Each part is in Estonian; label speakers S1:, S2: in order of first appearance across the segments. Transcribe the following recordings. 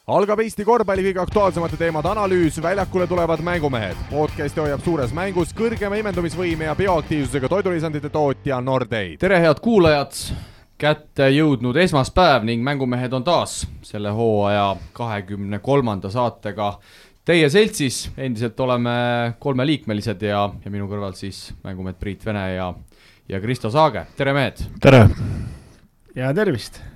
S1: Algab Eesti korvpalli kõige aktuaalsemate teemade analüüs, väljakule tulevad mängumehed. Podcasti hoiab suures mängus kõrgema imendumisvõime ja bioaktiivsusega toidulisandite tootja Nordate.
S2: Tere head kuulajad, kätte jõudnud esmaspäev ning mängumehed on taas selle hooaja 23. saatega teie seltsis. Endiselt oleme 3-liikmelised ja minu kõrval siis mängumehed Priit Vene ja Kristo Saage. Tere mehed!
S3: Tere!
S4: Ja tervist!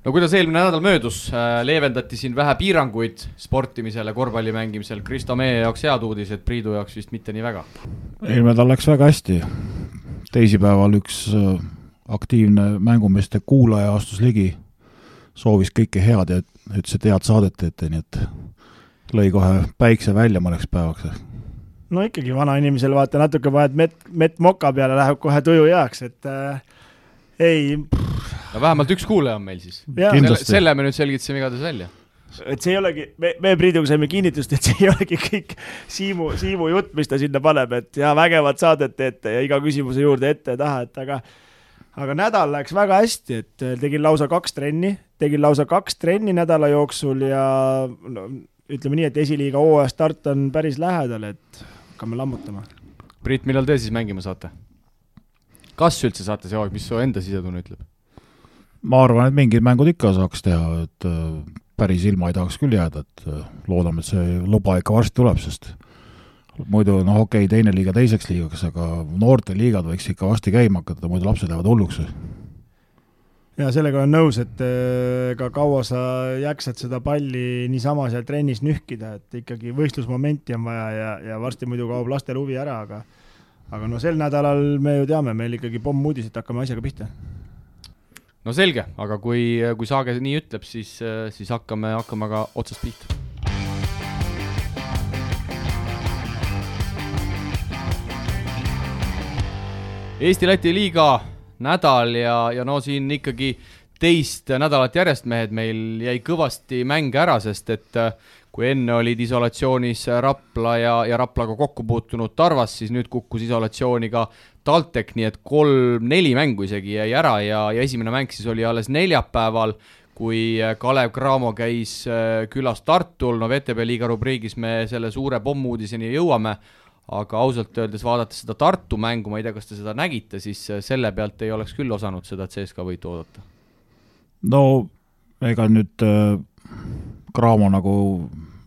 S2: No kuidas eelmine nädal möödus, leevendati siin vähe piiranguid sportimisele, korvpalli mängimisel. Kristo, meie jaoks head uudis, et Priidu jaoks vist mitte nii väga.
S3: Eelmine nädal läks väga hästi. Teisipäeval üks aktiivne mängumeeste kuulaja astus ligi, soovis kõike head ja ütles, et head saadet teete, nii et lõi kohe päikse välja mõneks päevaks.
S4: No ikkagi vana inimesel vaata natuke vahet mett moka peale läheb kohe tuju heaks, et ei...
S2: No vähemalt üks kuulaja on meil siis. Selle me nüüd selgitasime igatahes välja.
S4: Et see ei olegi, me Priiduga saime kinnitust, et see ei olegi kõik Siimu jutt, mis ta sinna paneb, et ja vägevad saadet teete ja iga küsimuse juurde ette ja taha, et aga nädal läks väga hästi, et tegin lausa 2 trenni nädala jooksul ja no, ütleme nii, et esiliiga hooaja start on päris lähedal, et hakkame lammutama.
S2: Priit, millal te siis mängima saate? Kas üldse saate see aeg, mis su enda sisetunne ütleb?
S3: Ma arvan, et mingid mängud ikka saaks teha, et päris ilma ei tahaks küll jääda, et loodame, et see luba ikka varsti tuleb, sest muidu okei, teine liiga teiseks liigaks, aga noorte liigad võiks ikka varsti käima hakata, muidu lapsed lähevad hulluks.
S4: Ja sellega on nõus, et ka kaua sa jäksad seda palli niisama seal trennis nühkida, et ikkagi võistlusmomenti on vaja ja varsti muidu kaob lastel huvi ära, aga no sel nädalal me ju teame, meil ikkagi pomm uudis, et hakkame asjaga pihta.
S2: No selge, aga kui Saage nii ütleb, siis hakkame ka otsast pihta. Eesti-Läti liiga nädal ja no siin ikkagi teist nädalat järjest mehed meil jäi kõvasti mänge ära, sest et kui enne olid isolatsioonis Rapla ja Raplaga kokku puutunud Tarvas, siis nüüd kukkus isolatsiooni ka TalTech, nii et 3-4 mängu isegi jäi ära ja esimene mäng siis oli alles neljapäeval, kui Kalev Cramo käis külas Tartul. No VTB liiga rubriigis me selle suure pommuudiseni jõuame, aga ausalt öeldes vaadates seda Tartu mängu, ma ei tea, kas te seda nägite, siis selle pealt ei oleks küll osanud seda CSKA võitu oodata.
S3: No ega nüüd Cramo nagu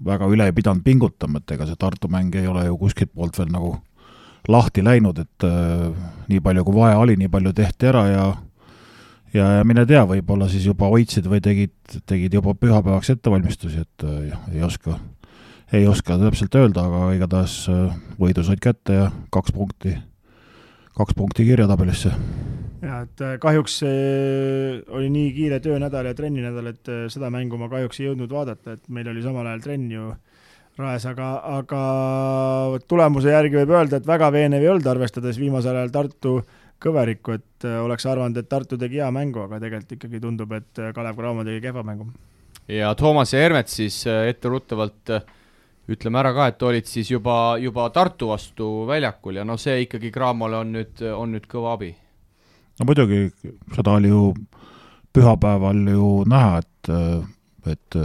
S3: väga üle ei pidanud pingutama, et ega see Tartu mäng ei ole ju kuskilt poolt veel nagu lahti läinud, et nii palju kui vaja oli, nii palju tehti ära ja mine tea, võib-olla siis juba hoidsid või tegid juba pühapäevaks ettevalmistusi, et ei oska täpselt öelda, aga igatahes võidu said kätte ja 2 punkti kirjatabelisse.
S4: Ja, et kahjuks oli nii kiire töönädal ja trenninädal, et seda mängu ma kahjuks ei jõudnud vaadata, et meil oli samal ajal trenn ju raes, aga tulemuse järgi võib öelda, et väga veenev ei olnud, arvestades viimasel ajal Tartu kõverikku, et oleks arvanud, et Tartu tegi hea mängu, aga tegelikult ikkagi tundub, et Kalev Cramo tegi kehva mängu. Ja
S2: Toomas ja Hermet siis etteruttavalt ütleme ära ka, et olid siis juba Tartu vastu väljakul ja no see ikkagi Cramole on nüüd kõva abi.
S3: No muidugi, seda oli ju pühapäeval ju näha, et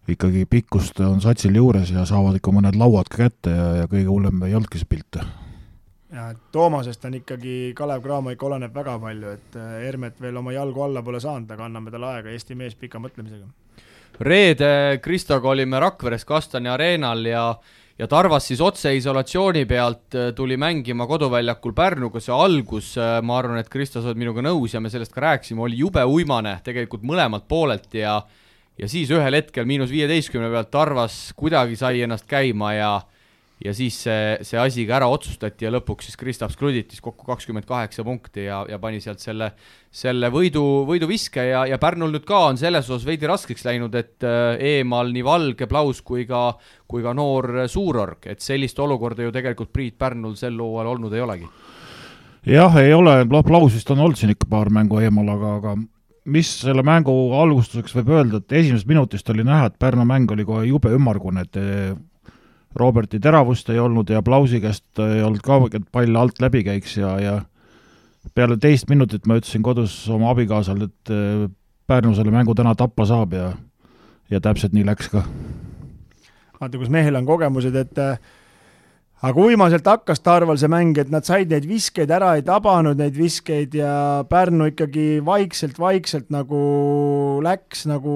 S3: ikkagi pikkust on satsil juures ja saavad ikka mõned lauad ka kätte ja kõige hullem ei olnudki see pilt. Ja
S4: Toomasest on ikkagi Kalev Cramo ikka oleneb väga palju, et Hermet veel oma jalgu alla pole saanud, aga anname talle aega Eesti mees pika mõtlemisega.
S2: Reede Kristoga olime Rakveres Kastani areenal ja Tarvas siis otse isolatsiooni pealt tuli mängima koduväljakul Pärnuga. See algus, ma arvan, et Kristo sa oled minuga nõus ja me sellest ka rääksime, oli jube uimane tegelikult mõlemalt poolelt ja siis ühel hetkel -15 pealt Tarvas kuidagi sai ennast käima ja siis see asi ka ära otsustati ja lõpuks siis Kristaps Kluditis kokku 28 punkti ja pani sealt selle võidu viske ja Pärnul nüüd ka on selles osas veidi raskeks läinud, et eemal nii Valge, Plaus kui ka noor Suurorg, et sellist olukorda ju tegelikult Priit Pärnul sel hooajal olnud ei olegi.
S3: Jah, ei ole, Plausist on olnud siin ikka paar mängu eemal, aga mis selle mängu algustuseks võib öelda, et esimesest minutist oli näha, et Pärnu mäng oli kohe jube ümmargune, et Roberti teravust ei olnud ja Plausi käest ei olnud ka, et pall alt läbi käiks ja peale 2 minutit ma ütlesin kodus oma abikaasal, et Pärnu selle mängu täna tappa saab ja ja täpselt nii läks ka.
S4: Vaata, kus mehel on kogemused, et aga uimaselt hakkas Tarval see mäng, et nad said neid viskeid ära, ei tabanud neid viskeid ja Pärnu ikkagi vaikselt nagu läks nagu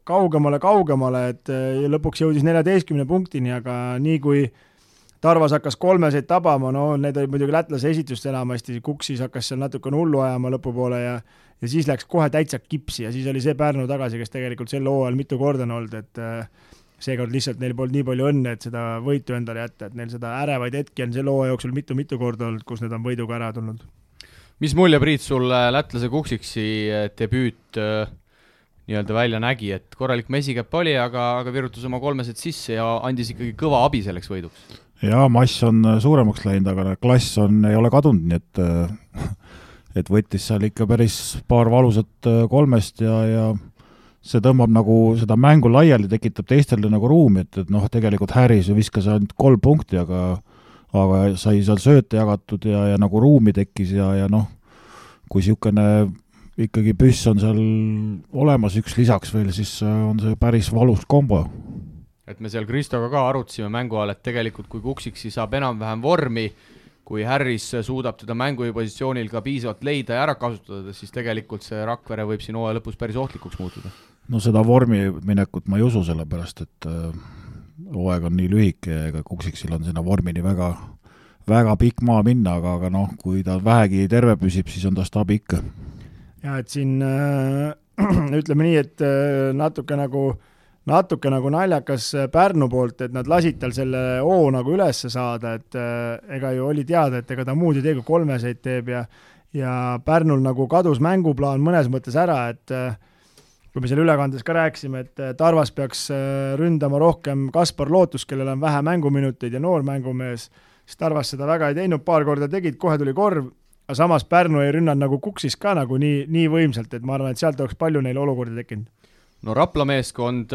S4: kaugemale, et lõpuks jõudis 14 punktini, aga nii kui Tarvas hakkas 3 tabama, no need olid muidugi lätlase esitust enamasti, Kuksis hakkas seal natuke hullu ajama lõpupoole ja siis läks kohe täitsa kipsi ja siis oli see Pärnu tagasi, kes tegelikult sel hooajal mitu korda on olnud, et seekord lihtsalt neil polnud nii palju õnne, et seda võitu endale jätta, et neil seda ärevaid hetki on selle hooaja jooksul mitu korda olnud, kus need on võiduga ära tulnud.
S2: Mis mulje, Priit, sul lätlase Kuksiksi debüüt nii-öelda välja nägi, et korralik mesikäpp oli, aga virutus oma 3 sisse ja andis ikkagi kõva abi selleks võiduks?
S3: Jaa, mass on suuremaks läinud, aga klass ei ole kadunud, nii et võttis seal ikka päris paar valusat 3 ja see tõmbab nagu seda mängu laiali, tekitab teistele nagu ruumi, et noh, tegelikult Harris viskas ainult 3 punkti, aga sai seal sööte jagatud ja nagu ruumi tekkis ja noh, kui niisugune ikkagi püss on seal olemas üks lisaks veel, siis on see päris valus kombo.
S2: Et me seal Kristoga ka arutasime mängu all, et tegelikult kui Kuksiksi saab enam-vähem vormi, kui Harris suudab teda mängupositsioonil ka piisavalt leida ja ära kasutada, siis tegelikult see Rakvere võib siin hooaja lõpus päris ohtlikuks muutuda.
S3: No seda vormi minekut ma ei usu, sellepärast, et hooaeg on nii lühike ja Kuksiksil on sinna vormini väga pikk maa minna, aga noh, kui ta vähegi terve püsib, siis on ta stabi ikka.
S4: Ja et siin ütleme nii, et natuke nagu naljakas Pärnu poolt, et nad lasid tal selle hoo nagu ülesse saada, et ega ju oli teada, et ega ta muud ei tee, kui 3 teeb ja Pärnul nagu kadus mänguplaan mõnes mõttes ära, et kui me selle ülekandes ka rääkisime, et Tarvas peaks ründama rohkem Kaspar Lootus, kellel on vähe mänguminuteid ja noor mängumees, siis Tarvas seda väga ei teinud, paar korda tegid, kohe tuli korv, aga samas Pärnu ei rünnanud nagu Kuksis ka nagu nii võimsalt, et ma arvan, et sealt oleks palju neil olukordi tekkinud.
S2: No Rapla meeskond,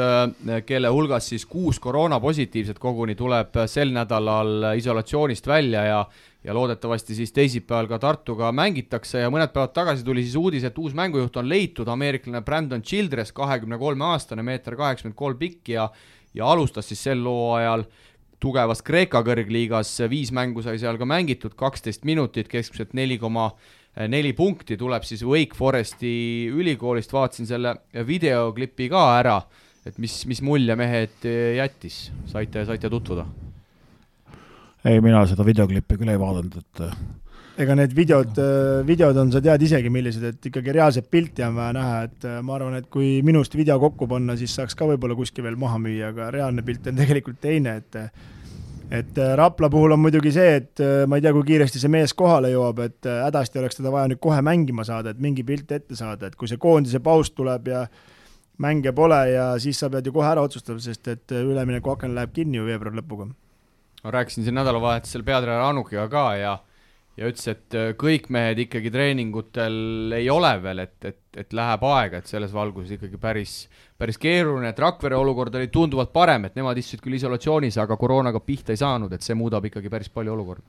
S2: kelle hulgas siis 6 koroonapositiivset koguni tuleb sel nädalal isolatsioonist välja ja loodetavasti siis teisipäeval ka Tartuga mängitakse ja mõned päevad tagasi tuli siis uudis, et uus mängujuht on leitud, ameeriklane Brandon Childress, 23-aastane, 1,83 m pikk ja alustas siis sel hooajal tugevas Kreeka kõrgliigas, 5 mängu sai seal ka mängitud, 12 minutit, keskmiselt 4,4 punkti, tuleb siis Wake Foresti ülikoolist, vaatasin selle videoklipi ka ära, et mis mulje mehed jättis, saite tutvuda?
S3: Ei, mina seda videoklippi küll ei vaadanud, et
S4: ega need videod on, sa tead isegi millised, et ikkagi reaalset pilti on vaja näha, et ma arvan, et kui minust video kokku panna, siis saaks ka võib-olla kuskil veel maha müüa, aga reaalne pilt on tegelikult teine, et Rapla puhul on muidugi see, et ma ei tea, kui kiiresti see mees kohale jõuab, et hädasti oleks teda vaja nüüd kohe mängima saada, et mingi pilt ette saada, et kui see koondise paus tuleb ja mänge pole ja siis sa pead ju kohe ära otsustada, sest et ülemineku aken läheb kinni ju veebruari lõpuga.
S2: Ma rääkisin siin nädalavahetusel peatreener Anukiga ka ja ütles, et kõik mehed ikkagi treeningutel ei ole veel, et läheb aega, et selles valguses ikkagi päris keeruline, et Rakvere olukord oli tunduvalt parem, et nemad istusid küll isolatsioonis, aga koroonaga pihta ei saanud, et see muudab ikkagi päris palju olukorda.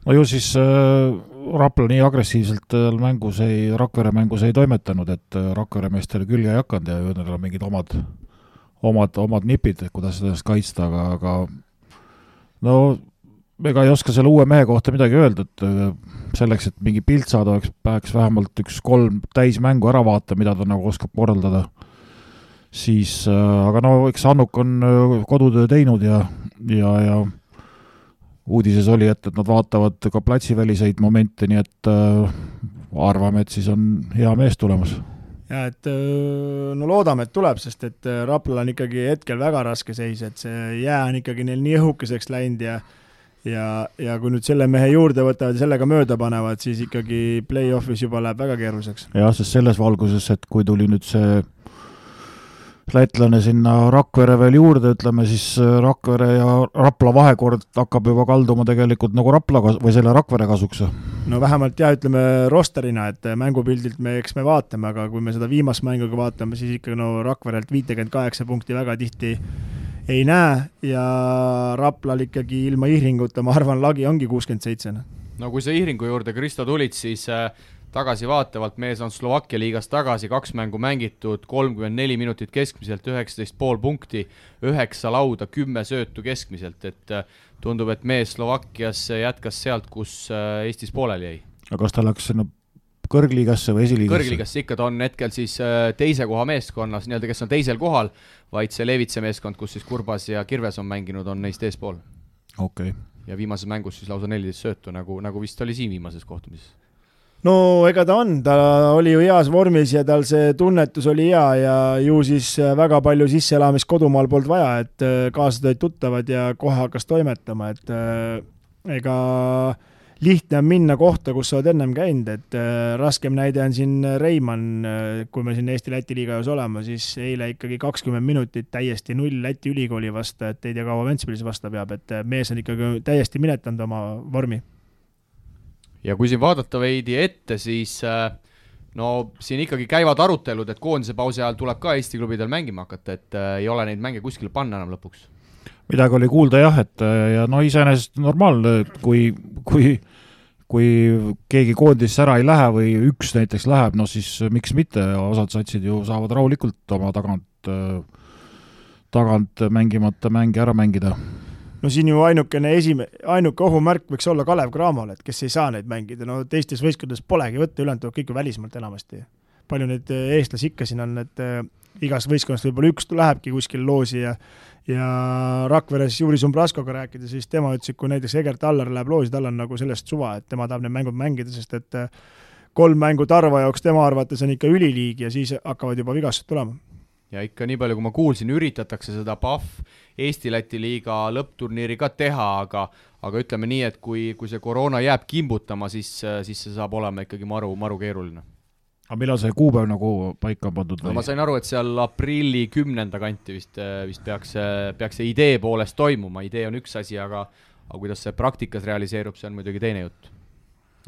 S3: No ju siis Rapla nii agressiivselt Rakvere mängus ei toimetanud, et Rakvere meestel külge ei hakanud ja neil on mingid omad nipid, kuidas seda kaitsta, aga no ega ei oska selle uue mehe kohta midagi öelda, et selleks, et mingi pilt saada, peaks vähemalt 1-3 täismängu ära vaata, mida ta nagu oskab korraldada. Siis, aga no eks Annuk on kodutöö teinud ja uudises oli, et nad vaatavad ka platsiväliseid momente, nii et arvame, et siis on hea mees tulemas.
S4: Ja et no loodame, et tuleb, sest et Raplal on ikkagi hetkel väga raske seis, et see jää on ikkagi neil nii õhukeseks läinud ja kui nüüd selle mehe juurde võtavad ja sellega mööda panevad, siis ikkagi play-offis juba läheb väga keeruliseks.
S3: Jah, sest selles valguses, et kui tuli nüüd see lätlane sinna Rakvere veel juurde, ütleme siis Rakvere ja Rapla vahekord hakkab juba kalduma tegelikult nagu või selle Rakvere kasuks.
S4: No vähemalt ütleme rosterina, et mängupildilt me vaatame, aga kui me seda viimast mänguga vaatame, siis ikka Rakverelt 58 punkti väga tihti ei näe ja Raplal ikkagi ilma Ihringuta, ma arvan, lagi ongi 67.
S2: No kui sa Ihringu juurde, Kristo, tulid, siis tagasivaatavalt, mees on Slovakkia liigas tagasi, 2 mängu mängitud, 34 minutit keskmiselt, 19,5 punkti, 9 lauda, 10 söötu keskmiselt, et tundub, et mees Slovakkias jätkas sealt, kus Eestis pooleli jäi.
S3: aga kas ta läks sinna kõrgliigasse või esiliigasse?
S2: Kõrgliigasse ikka, ta on hetkel siis teise koha meeskonnas, nii-öelda kes on teisel kohal, vaid see Levitse meeskond, kus siis Kurbas ja Kirves on mänginud, on neist eespool.
S3: Okay.
S2: Ja viimases mängus siis lausa 14 söötu, nagu vist oli siin viimases kohtumises.
S4: No ega ta oli ju heas vormis ja tal see tunnetus oli hea ja ju siis väga palju sisseelamist kodumaal polnud vaja, et kaasad olid tuttavad ja kohe hakkas toimetama, et ega lihtne on minna kohta, kus sa oled ennem käinud, et raskem näide on siin Reimann, kui me siin Eesti-Läti liigas olema, siis eile ikkagi 20 minutit täiesti 0 Läti ülikooli vastu, et ei tea kaua Ventspilis vastu peab, et mees on ikkagi täiesti minetanud oma vormi.
S2: Ja kui siin vaadata veidi ette, siis no siin ikkagi käivad arutelud, et koondise pausi ajal tuleb ka Eesti klubidel mängima hakata, et ei ole neid mänge kuskile panna enam lõpuks.
S3: Midagi oli kuulda jah, et ja no iseenesest normaalne, kui keegi koondisse ära ei lähe või üks näiteks läheb, no siis miks mitte, osad satsid ju saavad rahulikult oma tagant mängimata mänge ära mängida.
S4: No siin ju ainuke ohumärk võiks olla Kalev Cramo'l, et kes ei saa neid mängida, no teistes võistkondades polegi võtta, ülejäänud kõik ju välismaalt enamasti. Palju neid eestlasi ikka siin on, et igas võistkonnast võib-olla üks lähebki kuskil loosi ja Rakveres Juri Sumbraskoga rääkida, siis tema ütles, et kui näiteks Egert Allar läheb loosi, tal on nagu sellest suva, et tema tahab need mängud mängida, sest et 3 mängu Tarva jaoks tema arvates on ikka üliliig ja siis hakkavad juba vigastused tulema.
S2: Ja ikka nii palju, kui ma kuulsin, üritatakse seda PAF Eesti-Läti liiga lõppturniiri ka teha, aga ütleme nii, et kui see koroona jääb kimbutama, siis see saab olema ikkagi maru keeruline.
S3: Aga millal see kuupäev nagu paika pandud?
S2: No ma sain aru, et seal aprilli 10. kanti vist peaks see idee poolest toimuma, idee on üks asi, aga kuidas see praktikas realiseerub, see on muidugi teine jutt.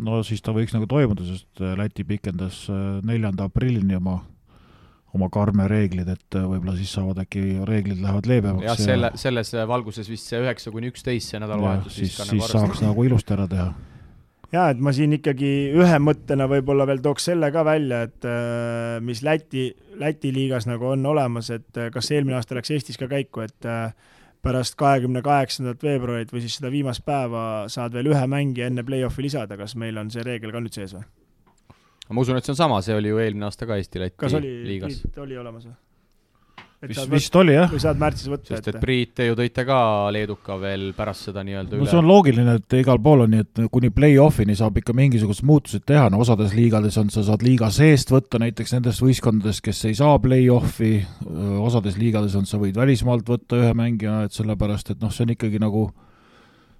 S3: No siis ta võiks nagu toimuda, sest Läti pikendas 4. aprillini oma karme reeglid, et võib-olla siis saavad äkki reeglid lähevad leebemaks.
S2: Ja selles valguses vist see 9-11 see nädalavahetus
S3: siis saaks nagu ilusti ära teha.
S4: Ja, et ma siin ikkagi ühe mõttena võib-olla veel tooks selle ka välja, et mis Läti liigas nagu on olemas, et kas eelmine aasta läks Eestis ka käiku, et pärast 28. veebruarit või siis seda viimast päeva saad veel ühe mängi enne play-offi lisada, kas meil on see reegel ka nüüd sees või?
S2: Ma usun, et see on sama, see oli ju eelmine aasta ka Eesti-Läti liigas.
S4: Kas oli olemas või?
S3: Vist oli jah.
S4: Või saad märtsis võtta.
S2: Sest et Priit, te ju tõite ka Leeduka veel pärast seda nii-öelda üle.
S3: No see on loogiline, et igal pool on nii, et kuni play-offini saab ikka mingisugused muutused teha, no osades liigades on, sa saad liiga seest võtta näiteks nendest võistkondadest, kes ei saa play-offi, osades liigades on, sa võid välismaalt võtta ühe mängija, et sellepärast, et noh, see on ikkagi nagu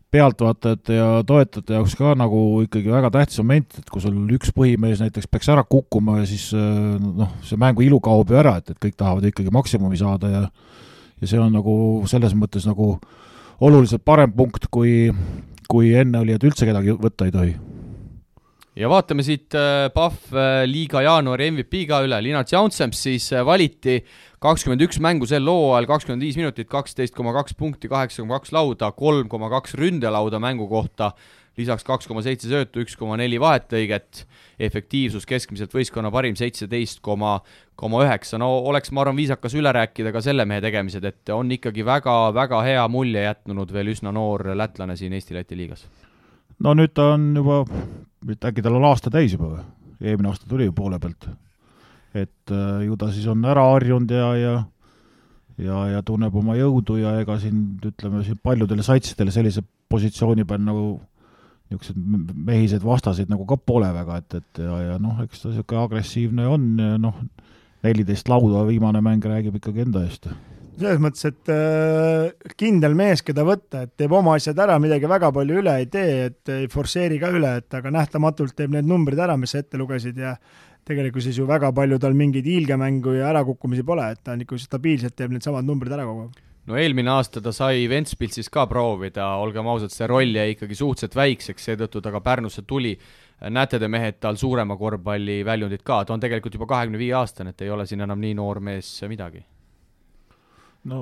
S3: pealtvaatajate ja toetajate jaoks ka nagu ikkagi väga tähtis moment, et kui sul üks põhimees näiteks peaks ära kukkuma ja siis noh, see mängu ilu kaob ju ära, et kõik tahavad ikkagi maksimumi saada ja see on nagu selles mõttes nagu oluliselt parem punkt, kui enne oli, et üldse kedagi võtta ei tohi.
S2: Ja vaatame siit PAF liiga jaanuari MVP ka üle. Linat Jaunsems siis valiti 21 mängu sel looajal, 25 minutit, 12,2 punkti, 8,2 lauda, 3,2 ründelauda mängu kohta, lisaks 2,7 söötu, 1,4 vahetlõiget, efektiivsus keskmiselt võistkonna parim 17,9. No oleks, ma arvan, viisakas üle rääkida ka selle mehe tegemised, et on ikkagi väga hea mulje jätnud veel üsna noor lätlane siin Eesti-Läti liigas.
S3: No nüüd ta on juba, äkki tal on aasta täis juba või? Eelmine aasta tuli ju poole pealt. Et ju ta siis on ära harjunud ja tunneb oma jõudu ja ega siin, ütleme, siin paljudele satsidele sellise positsiooni peal nagu niisugused mehised vastasid nagu ka pole väga, et ja noh, eks ta niisugune agressiivne on ja noh, 14 lauda viimane mäng räägib ikkagi enda eest.
S4: Selles mõttes, et kindel mees, keda võtta, et teeb oma asjad ära, midagi väga palju üle ei tee, et ei forseeri ka üle, et aga nähtamatult teeb need numbrid ära, mis sa ette lugesid ja tegelikult siis ju väga palju tal mingeid hiilgemängu ja ärakukkumisi pole, et ta on ikka stabiilselt teeb need samad numbrid ära kogu.
S2: No eelmine aasta ta sai Ventspilsis ka proovida, olgem ausad, see roll jäi ikkagi suhteliselt väikseks, seetõttu ta ka Pärnusse tuli. Näete te mehed tal suurema korvpalli väljundid ka, ta on tegelikult juba 25 aastane, et ei ole siin enam nii noor mees midagi.
S3: No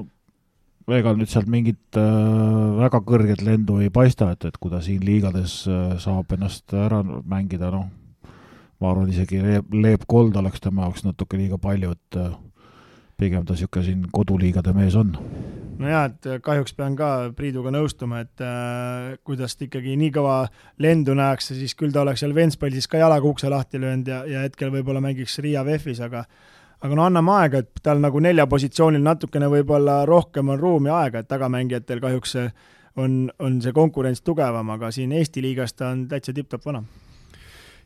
S3: ega nüüd sealt mingit väga kõrget lendu ei paista, et kui ta siin liigades saab ennast ära mängida, noh, ma arvan, isegi Leep Kold oleks tema jaoks natuke liiga palju, et pigem ta niisugune siin koduliigade mees on.
S4: No jaa, et kahjuks pean ka Priiduga nõustuma, et kuidas ta ikkagi nii kõva lendu näeks, siis küll ta oleks seal Ventspallis ka jalaga ukse lahti löönud ja hetkel võib-olla mängiks Riia VEF-is, aga no anname aega, et tal nagu 4 positsioonil natukene võib-olla rohkem on ruumi aega, et tagamängijatel kahjuks on see konkurents tugevam, aga siin Eesti liigas ta on täitsa tipp-top vana.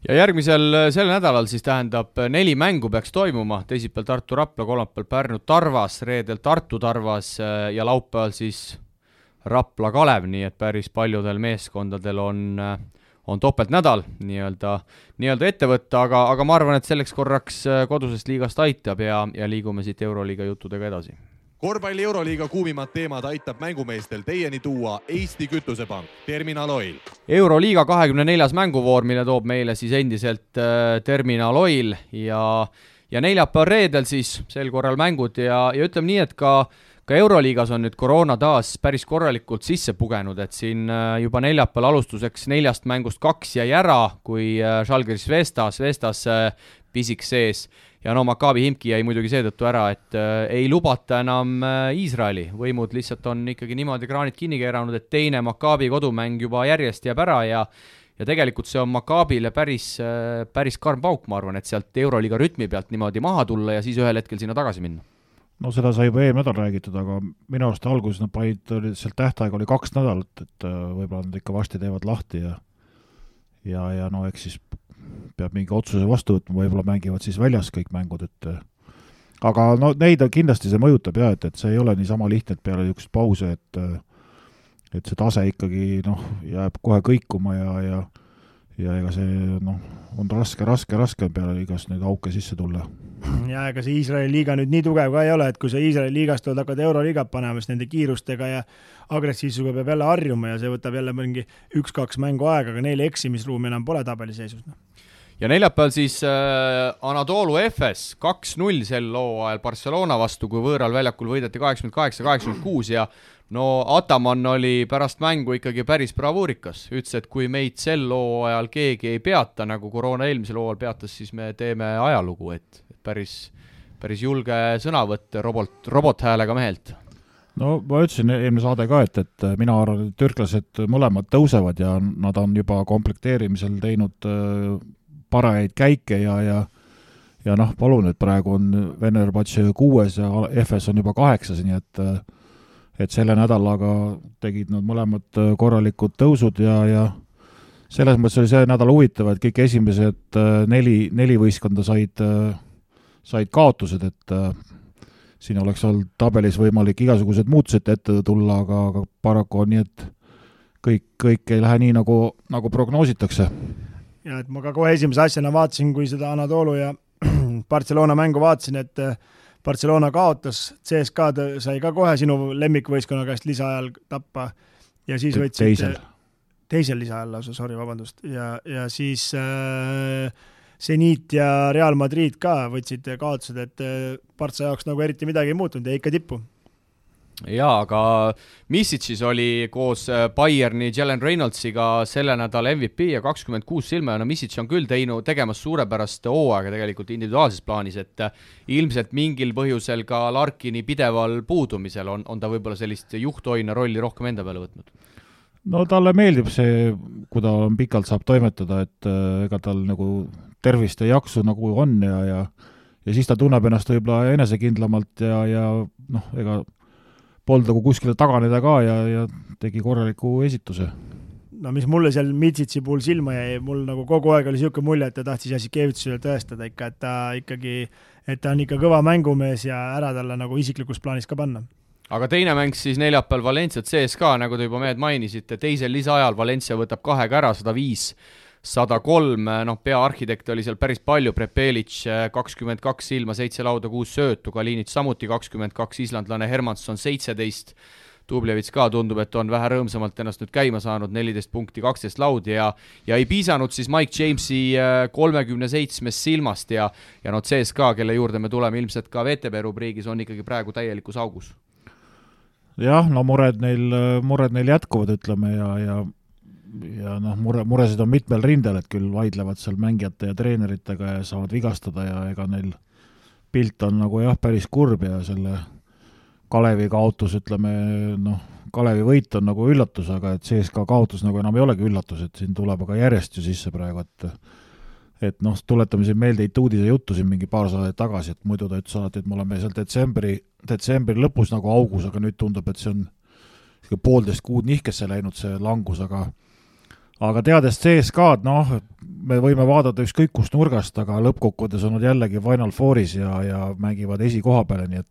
S2: Ja sel nädalal siis tähendab 4 mängu peaks toimuma, teisipäeval Tartu Rapla, kolmapäeval Pärnu Tarvas, reedel Tartu Tarvas ja laupäeval siis Rapla Kalev, nii et päris paljudel meeskondadel on topeltnädal nii-öelda ette võtta, aga ma arvan, et selleks korraks kodusest liigast aitab ja liigume siit Euroliiga juttudega edasi.
S1: Korvpalli Euroliiga kuumimad teemad aitab mängumeestel teieni tuua Eesti Kütusepank, Terminal Oil.
S2: Euroliiga 24. mänguvoor, mille toob meile siis endiselt Terminal Oil ja neljapäeval reedel siis sel korral mängud ja ütleme nii, et ka Euroliigas on nüüd koroona taas päris korralikult sisse pugenud, et siin juba neljapäeval alustuseks 4 mängust 2 jäi ära, kui Žalgiris Vestas pisik sees. Ja Maccabi Himki jäi muidugi seetõttu ära, et ei lubata enam Iisraeli. Võimud lihtsalt on ikkagi niimoodi kraanid kinni keeranud, et teine Maccabi kodumäng juba järjest jääb ära ja tegelikult see on Maccabile päris karm pauk, ma arvan, et sealt Euroliiga rütmi pealt niimoodi maha tulla ja siis ühel hetkel sinna tagasi minna.
S3: No seda sai juba nädal räägitud, aga minu arust alguses nad panid, sealt tähtaeg oli 2 nädalat, et võib-olla nad ikka varsti teevad lahti ja no eks siis peab mingi otsuse vastu võtma, võib-olla mängivad siis väljas kõik mängud, aga no neid kindlasti see mõjutab ja, et see ei ole niisama lihtne, et peale niisugust pause, et see tase ikkagi jääb kohe kõikuma ja ega see on raske peale igast neid auke sisse tulla.
S4: Ja ega see Iisraeli liiga nüüd nii tugev ka ei ole, et kui see Iisraeli liigast tuleb hakkad Euroliigat panema, siis nende kiirustega ja agressiivsusega peab jälle harjuma ja see võtab jälle mingi 1-2 mängu aega, aga neile eksimisruumi enam pole tabeliseisus.
S2: Ja neljapäeval siis Anadolu FS 2-0 sel hooajal Barcelona vastu, kui võõral väljakul võideti 88-86 ja Ataman oli pärast mängu ikkagi päris bravuurikas. Ütles, et kui meid sel hooajal keegi ei peata, nagu koroona eelmisel hooajal peatas, siis me teeme ajalugu, et päris julge sõnavõtt robothäälega mehelt.
S3: No ma ütlesin eelmine saade ka, et mina arvan, et türklased mõlemad tõusevad ja nad on juba komplekteerimisel teinud parajaid käike ja palun, et praegu on Venerbats 6 ja FS on juba 8, nii et selle nädalaga tegid nad mõlemad korralikud tõusud ja selles mõttes oli see nädal huvitav, et kõik esimesed 4 võistkonda said kaotused, et siin oleks olnud tabelis võimalik igasugused muutused ette tulla, aga paraku on nii, et kõik ei lähe nii, nagu prognoositakse.
S4: Ja et ma ka kohe esimese asjana vaatasin, kui seda Anadolu ja Barcelona mängu vaatasin, et Barcelona kaotas, CSKA sai ka kohe sinu lemmikvõistkonna käest lisaajal tappa ja siis võtsid teisel lisaajal lausa, vabandust, ja siis Zenit ja Real Madrid ka võtsid kaotused, et Barca jaoks nagu eriti midagi ei muutunud ja ikka tippu.
S2: Jaa, aga Misic'is oli koos Bayerni Jalen Reynoldsiga selle nädala MVP ja 26 silma ja Misic on küll tegemas suurepärast hooaega tegelikult individuaalses plaanis, et ilmselt mingil põhjusel ka Larkini pideval puudumisel on ta võib-olla sellist juhthoina rolli rohkem enda peale võtnud.
S3: No talle meeldib see, kui ta pikalt saab toimetada, et ega tal nagu tervist ja jaksu nagu on ja siis ta tunneb ennast võib-olla enesekindlamalt ja ega polnud nagu kuskile taganeda ka ja tegi korraliku esituse.
S4: No mis mulle seal Mitsitsi puhul silma jäi, mul nagu kogu aeg oli siuke mulje, et ta tahtis Jasikevitusele tõestada ikka, et ta on ikka kõva mängumees ja ära talle nagu isiklikus plaanis ka panna.
S2: Aga teine mäng siis neljapäeval Valencia CSKA, nagu te juba mehed mainisite, teisel lisaajal Valencia võtab 2 ära, 105-103, peaarhitekt oli seal päris palju, Prepelic 22 silma, 7 lauda, 6 söötu, Kalinic samuti 22, islandlane Hermansson 17, Dublevits ka tundub, et on vähe rõõmsamalt ennast nüüd käima saanud, 14 punkti, 12 laudi ja ei piisanud siis Mike Jamesi 37 silmast ja CSKA, kelle juurde me tuleme ilmselt ka VTB rubriigis, on ikkagi praegu täielikus augus.
S3: Jah, no mured neil jätkuvad, ütleme, ja ja noh, muresid on mitmel rindel, et küll vaidlevad seal mängijate ja treeneritega ja saavad vigastada ja ega neil pilt on nagu jah, päris kurb ja selle Kalevi kaotus, ütleme, noh, Kalevi võit on nagu üllatus, aga et CSKA kaotus nagu enam ei olegi üllatus, et siin tuleb aga järjest ju sisse praegu, et noh, tuletame siin meelde Ituudise juttu siin mingi paar saadet tagasi, et muidu ta ütles alati, et me oleme seal detsembri lõpus nagu augus, aga nüüd tundub, et see on 1,5 kuud nihkesse läinud see langus, aga teades CSKA-d, noh, me võime vaadata ükskõik kust nurgast, aga lõppkokkuvõttes on nad jällegi Final Fouris ja mängivad esikoha peale, nii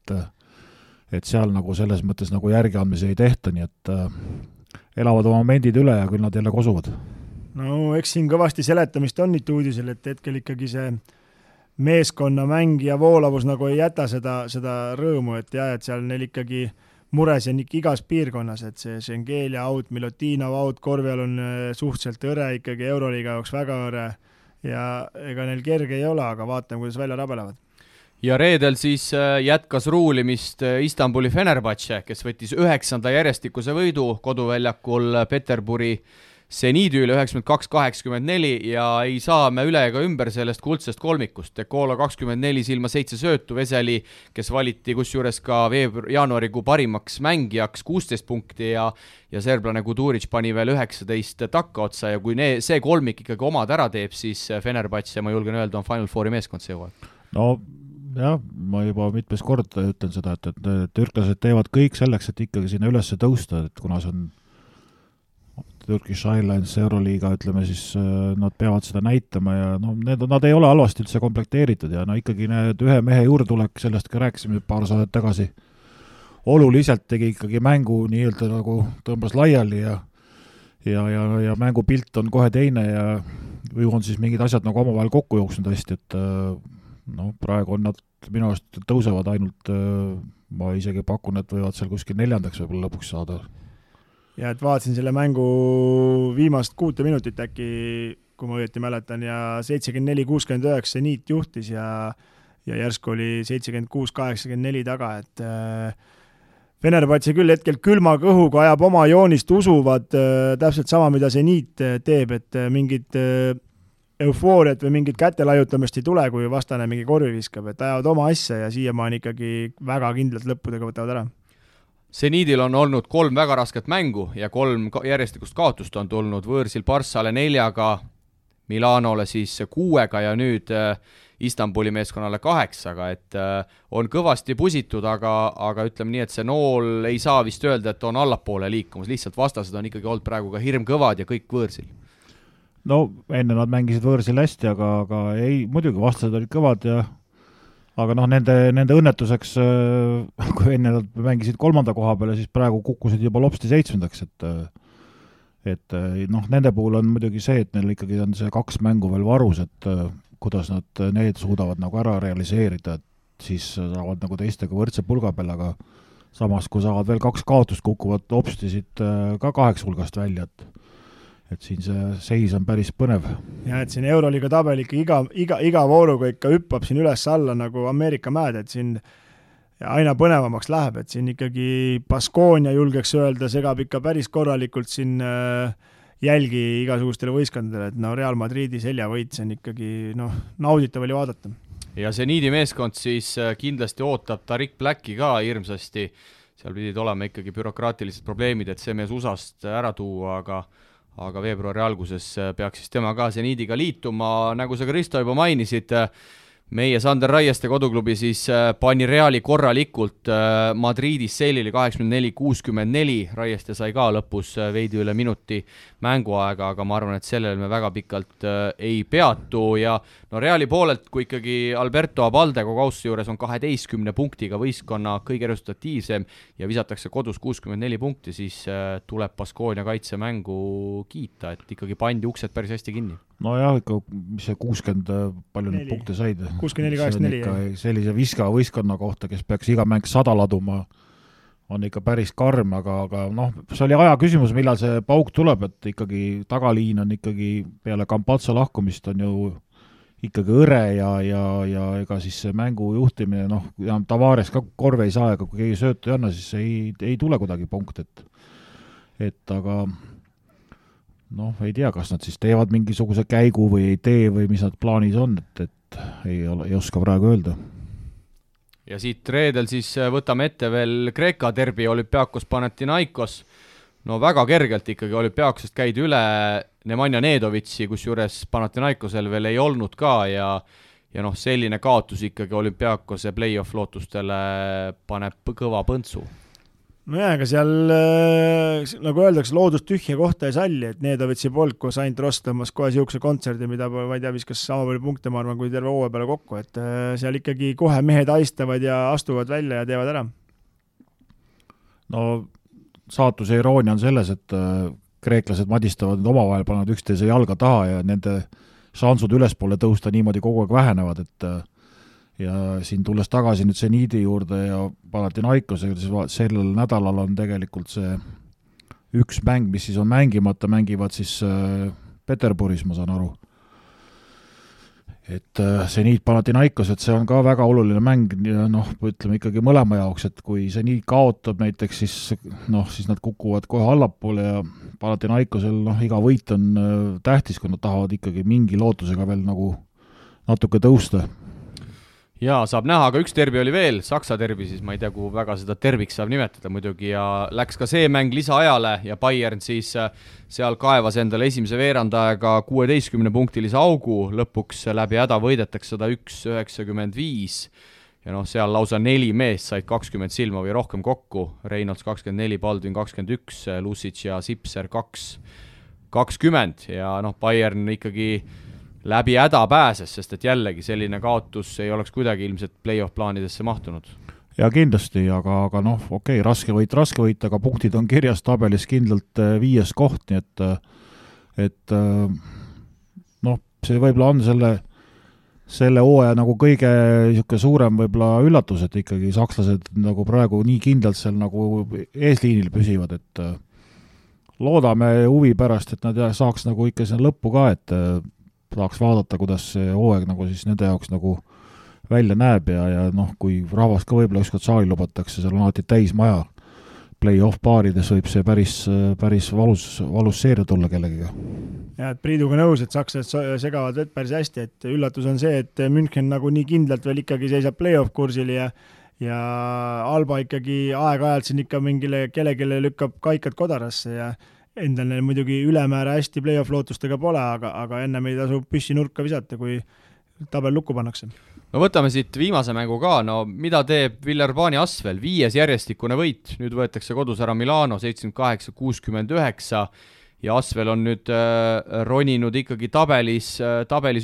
S3: et seal nagu selles mõttes nagu järgiandmisi ei tehta, nii et elavad oma momendid üle ja küll nad jälle kosuvad.
S4: No eks siin kõvasti seletamist on nüüd uudisel, et hetkel ikkagi see meeskonna mäng ja voolavus nagu ei jäta seda rõõmu, et jah, et seal neil ikkagi mures on ikka igas piirkonnas, et see Schengelia out, Milutinov out, Korvjal on suhteliselt õre, ikkagi Euroliiga jaoks väga õre ja ega neil kerge ei ole, aga vaatame, kuidas välja rabelevad.
S2: Ja reedel siis jätkas ruulimist Istanbuli Fenerbahce, kes võttis 9. järjestikuse võidu koduväljakul Peterburi Seniidi üle 92-84 ja ei saa me üle ega ümber sellest kuldsest kolmikust. Dekola 24 silma 7 söötu, Veseli, kes valiti kusjuures ka jaanuarikuu parimaks mängijaks 16 punkti ja serblane Kuduric pani veel 19 takkaotsa ja kui see kolmik ikkagi omad ära teeb, siis Fenerbahce, ma julgen öelda, on Final Fouri meeskond see hooaeg.
S3: No jah, ma juba mitmes kord ütlen seda, et türklased teevad kõik selleks, et ikkagi sinna üles tõusta, et kuna see on Turkish Airlines, Euroliiga, ütleme siis, nad peavad seda näitama ja no, nad ei ole halvasti üldse komplekteeritud ja no ikkagi need ühe mehe juurdulek, sellest ka rääkisime paar saadet tagasi, oluliselt tegi ikkagi mängu nii-öelda nagu tõmbas laiali ja mängupilt on kohe teine ja või on siis mingid asjad nagu omavahel kokku jooksnud hästi, et no praegu on nad minu arust tõusevad ainult, ma isegi pakun, et võivad seal kuskil 4. võib-olla lõpuks saada.
S4: Ja et vaatasin selle mängu viimast 6 minutit äkki, kui ma õieti mäletan, ja 74-69 Niit juhtis ja järsku oli 76-84 taga, et Fenerbahce küll hetkel külma kõhuga ajab oma joonist, usuvad täpselt sama, mida see Niit teeb, et mingid eufooriat või mingit kätelajutamist ei tule, kui vastane mingi korvi viskab, et ajavad oma asja ja siiamaani ikkagi väga kindlalt lõppudega võtavad ära.
S2: Seniidil on olnud 3 väga rasket mängu ja 3 järjestikust kaotust on tulnud võõrsil Barssale 4, Milanole siis 6 ja nüüd Istanbuli meeskonnale 8, et on kõvasti pusitud, aga ütleme nii, et see nool ei saa vist öelda, et on allapoole liikumas, lihtsalt vastased on ikkagi olnud praegu ka hirmkõvad ja kõik võõrsil.
S3: No enne nad mängisid võõrsil hästi, aga ei, muidugi vastased olid kõvad ja aga noh, nende õnnetuseks, kui enne nad mängisid 3. koha peale, siis praegu kukkusid juba lopsti 7. et noh, nende puhul on muidugi see, et neil ikkagi on see 2 mängu veel varus, et kuidas nad need suudavad nagu ära realiseerida, et siis saavad nagu teistega võrdse pulga peal, aga samas, kui saavad veel 2 kaotust, kukuvad lopsti siit ka 8 hulgast välja, et siin see seis on päris põnev.
S4: Ja et siin Euroliiga tabel ikka iga vooruga ikka hüppab siin üles alla nagu Ameerika mäed, et siin aina põnevamaks läheb, et siin ikkagi Baskonia julgeks öelda, segab ikka päris korralikult siin jälgi igasugustele võistkondadele, et no Real Madridi seljavõit, see on ikkagi nauditav oli vaadata.
S2: Ja see Niidi meeskond siis kindlasti ootab Tariq Blacki ka hirmsasti, seal pidid olema ikkagi bürokraatilised probleemid, et see mees USAst ära tuua, aga veebruari alguses peaks siis tema ka Seniidiga liituma, nagu sa Kristo juba mainisid, meie Sander Raieste koduklubi siis pani Reali korralikult Madridis seilili 84-64, Raieste sai ka lõpus veidi üle minuti mänguaega, aga ma arvan, et sellel me väga pikalt ei peatu ja no Reali poolelt, kui ikkagi Alberto Abalde Kogaussi juures on 12 punktiga võistkonna kõige resultatiivsem ja visatakse kodus 64 punkti, siis tuleb Baskonia kaitsemängu kiita, et ikkagi pandi uksed päris hästi kinni.
S3: No jah, ikka, mis see 60 palju nüüd punkte said?
S4: 64-84.
S3: Sellise viska võistkonna kohta, kes peaks iga mäng 100 laduma, on ikka päris karm, aga noh, see oli aja küsimus, millal see pauk tuleb, et ikkagi tagaliin on ikkagi peale Campazzo lahkumist on ju ikkagi õre ja ega siis see mängu juhtimine, noh, Tavares ka korve ei saa, aga kui keegi söötu ei anna, siis ei tule kuidagi punkt, et aga noh, ei tea, kas nad siis teevad mingisuguse käigu või ei tee või mis nad plaanis on, et ei oska praegu öelda.
S2: Ja siit reedel siis võtame ette veel Kreeka derbi Olümpiakos Panathinaikos. No väga kergelt ikkagi Olümpiakosest käidi üle Nemanja Nedovitsi, kus juures Panathinaikosel veel ei olnud ka ja noh, selline kaotus ikkagi Olümpiakose play-off lootustele paneb kõva põntsu.
S4: No jah, aga seal, nagu öeldakse, loodust tühja kohta ei salli, et Nedovitsi polk, kus ainult Ross tõmbas kohe siukse kontserdi, mida ma ei tea, viskas sama palju punkte, ma arvan, kui terve hooaja peale kokku, et seal ikkagi kohe mehed aistavad ja astuvad välja ja teevad ära.
S3: No saatuse iroonia on selles, et kreeklased madistavad omavahel, panevad üksteise jalga taha ja nende šansud ülespoole tõusta niimoodi kogu aeg vähenevad, et ja siin tulles tagasi nüüd Zeniidi juurde ja Panathinaikosega, siis sellel nädalal on tegelikult see üks mäng, mis siis on mängimata, mängivad siis Peterburis, ma saan aru. Et Zeniit Panathinaikos, et see on ka väga oluline mäng ja noh, ütleme ikkagi mõlema jaoks, et kui Zeniit kaotab näiteks, siis nad kukuvad kohe allapoole ja Panathinaikosel iga võit on tähtis, kui nad tahavad ikkagi mingi lootusega veel nagu natuke tõusta.
S2: Jaa, saab näha, aga üks derbi oli veel, Saksa derbi, siis ma ei tea, kuhu väga seda terviks saab nimetada muidugi ja läks ka see mäng lisaajale ja Bayern siis seal kaevas endale esimese veerandajaga 16-punktilise augu, lõpuks läbi häda võidetakse 101-95 ja noh, seal lausa 4 meest said 20 silma või rohkem kokku, Reynolds 24, Baldwin 21, Lucic ja Sipser 20 ja noh, Bayern ikkagi läbi häda pääses, sest et jällegi selline kaotus ei oleks kuidagi ilmselt play-off plaanidesse mahtunud.
S3: Ja kindlasti, aga noh, okei, raske võit, aga punktid on kirjas tabelis kindlalt 5. koht, nii et noh, see võib-olla on selle hooaja nagu kõige suurem võib-olla üllatus, et ikkagi sakslased nagu praegu nii kindlalt seal nagu eesliinil püsivad, et loodame huvi pärast, et nad saaks nagu ikka sinna lõppu ka, et tahaks vaadata, kuidas see hooaeg nagu siis nende jaoks nagu välja näeb ja noh, kui rahvast ka võib-olla ükskord saali lubatakse, seal on alati täis maja, play-off paarides võib see päris valus seeria tulla kellegiga.
S4: Ja, et Priiduga nõus, et sakslased segavad vett päris hästi, et üllatus on see, et München nagu nii kindlalt veel ikkagi seisab play-off kursil ja Alba ikkagi aeg-ajalt siin ikka mingile kellelegi lükkab kaikad kodarasse ja endal neil muidugi ülemäära hästi play-off lootustega pole, aga enne meid tasub püssi nurka visata, kui tabel lukku pannakse.
S2: No võtame siit viimase mängu ka, no mida teeb Villeurbanne Asvel, 5. järjestikune võit, nüüd võetakse kodus ära Milano 78-69 ja Asvel on nüüd roninud ikkagi tabelis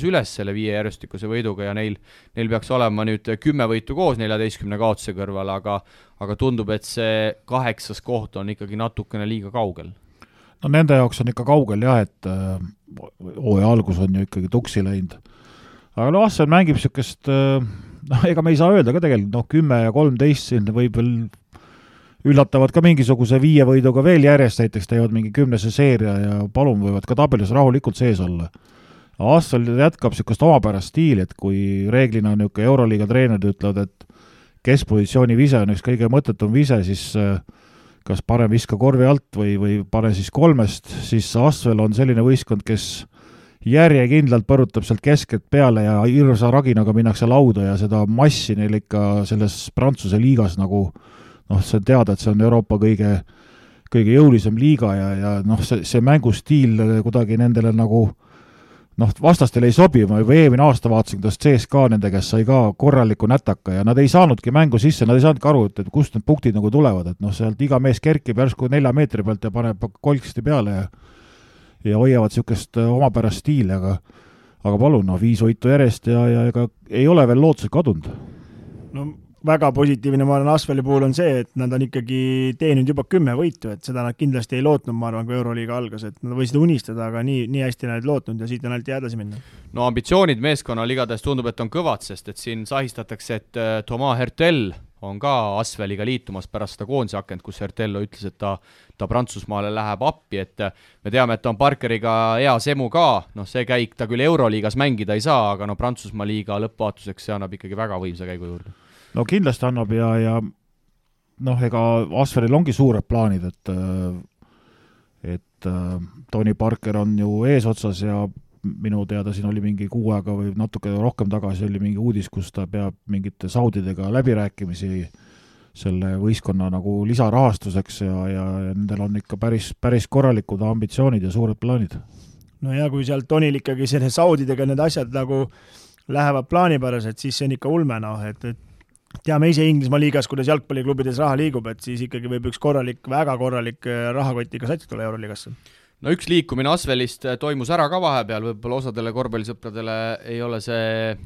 S2: üles selle 5 järjestikuse võiduga ja neil peaks olema nüüd 10 võitu koos 14 kaotuse kõrval, aga tundub, et see 8. koht on ikkagi natukene liiga kaugel.
S3: No nende jaoks on ikka kaugel jah, et hooaja algus on ju ikkagi tuksi läinud. Aga no Asvel mängib niisugust, ega me ei saa öelda ka tegelikult, 10 ja 13 siin võib veel üllatavad ka mingisuguse 5 võiduga veel järjest, näiteks teevad mingi 10. seeria ja palun võivad ka tabelis rahulikult sees olla. Asvel jätkab niisugust omapärast stiili, et kui reeglina on niisugune Euroliiga treenerid ütlevad, et keskpositsiooni vise on üks kõige mõttetum vise, siis kas parem viska korvi alt või pane siis 3, siis Asvel on selline võistkond, kes järjekindlalt põrutab sealt keskelt peale ja hirsa raginaga minnakse lauda ja seda massi neil ikka selles Prantsuse liigas nagu noh, see on teada, et see on Euroopa kõige jõulisem liiga ja noh, see mängustiil kuidagi nendele nagu noh, vastastel ei sobi, ma juba eelmine aasta vaatasin, kuidas CSKA nende käest sai ka korraliku nätaka ja nad ei saanudki mängu sisse, nad ei saanudki aru, et kust need punktid nagu tulevad, et noh, sealt iga mees kerkib järsku 4 meetri pealt ja paneb kolksti peale ja hoiavad niisugust omapärast stiili, aga palun, 5 võitu järjest ja ega ei ole veel lootused kadunud.
S4: No väga positiivne, ma arvan, Asveli puhul on see, et nad on ikkagi teeninud juba 10 võitu, et seda nad kindlasti ei lootnud, ma arvan, kui Euroliiga algas, et nad võisid unistada, aga nii hästi nad lootnud ja siit on ainult edasi minna.
S2: No ambitsioonid meeskonnal igatahes tundub, et on kõvad, sest et siin sahistatakse, et Thomas Hertel on ka Asveliga liitumas pärast seda koondise akent, kus Hertello ütles, et ta Prantsusmaale läheb appi, et me teame, et ta on Parkeriga hea semu ka, noh see käik ta küll Euroliigas mängida ei saa, aga no Prantsusmaa liiga lõppvaatuseks see annab ikkagi väga võimsa käigu juurde.
S3: No kindlasti annab ja noh, ega Asvelil ongi suured plaanid, et et Tony Parker on ju eesotsas ja minu teada siin oli mingi 6 aega või natuke rohkem tagasi oli mingi uudis, kus ta peab mingite saudidega läbirääkimisi selle võistkonna nagu lisarahastuseks ja nendel on ikka päris korralikud ambitsioonid ja suured plaanid.
S4: No ja kui sealt Tonil ikkagi selle saudidega need asjad nagu lähevad plaanipäraselt, siis see on ikka ulme, et teame ise Inglismaa liigas, kuidas jalgpalliklubides raha liigub, et siis ikkagi võib üks väga korralik rahakotiga sats tulla Euroliigasse.
S2: No üks liikumine Asvelist toimus ära ka vahepeal, võib-olla osadele korvpallisõpradele ei ole see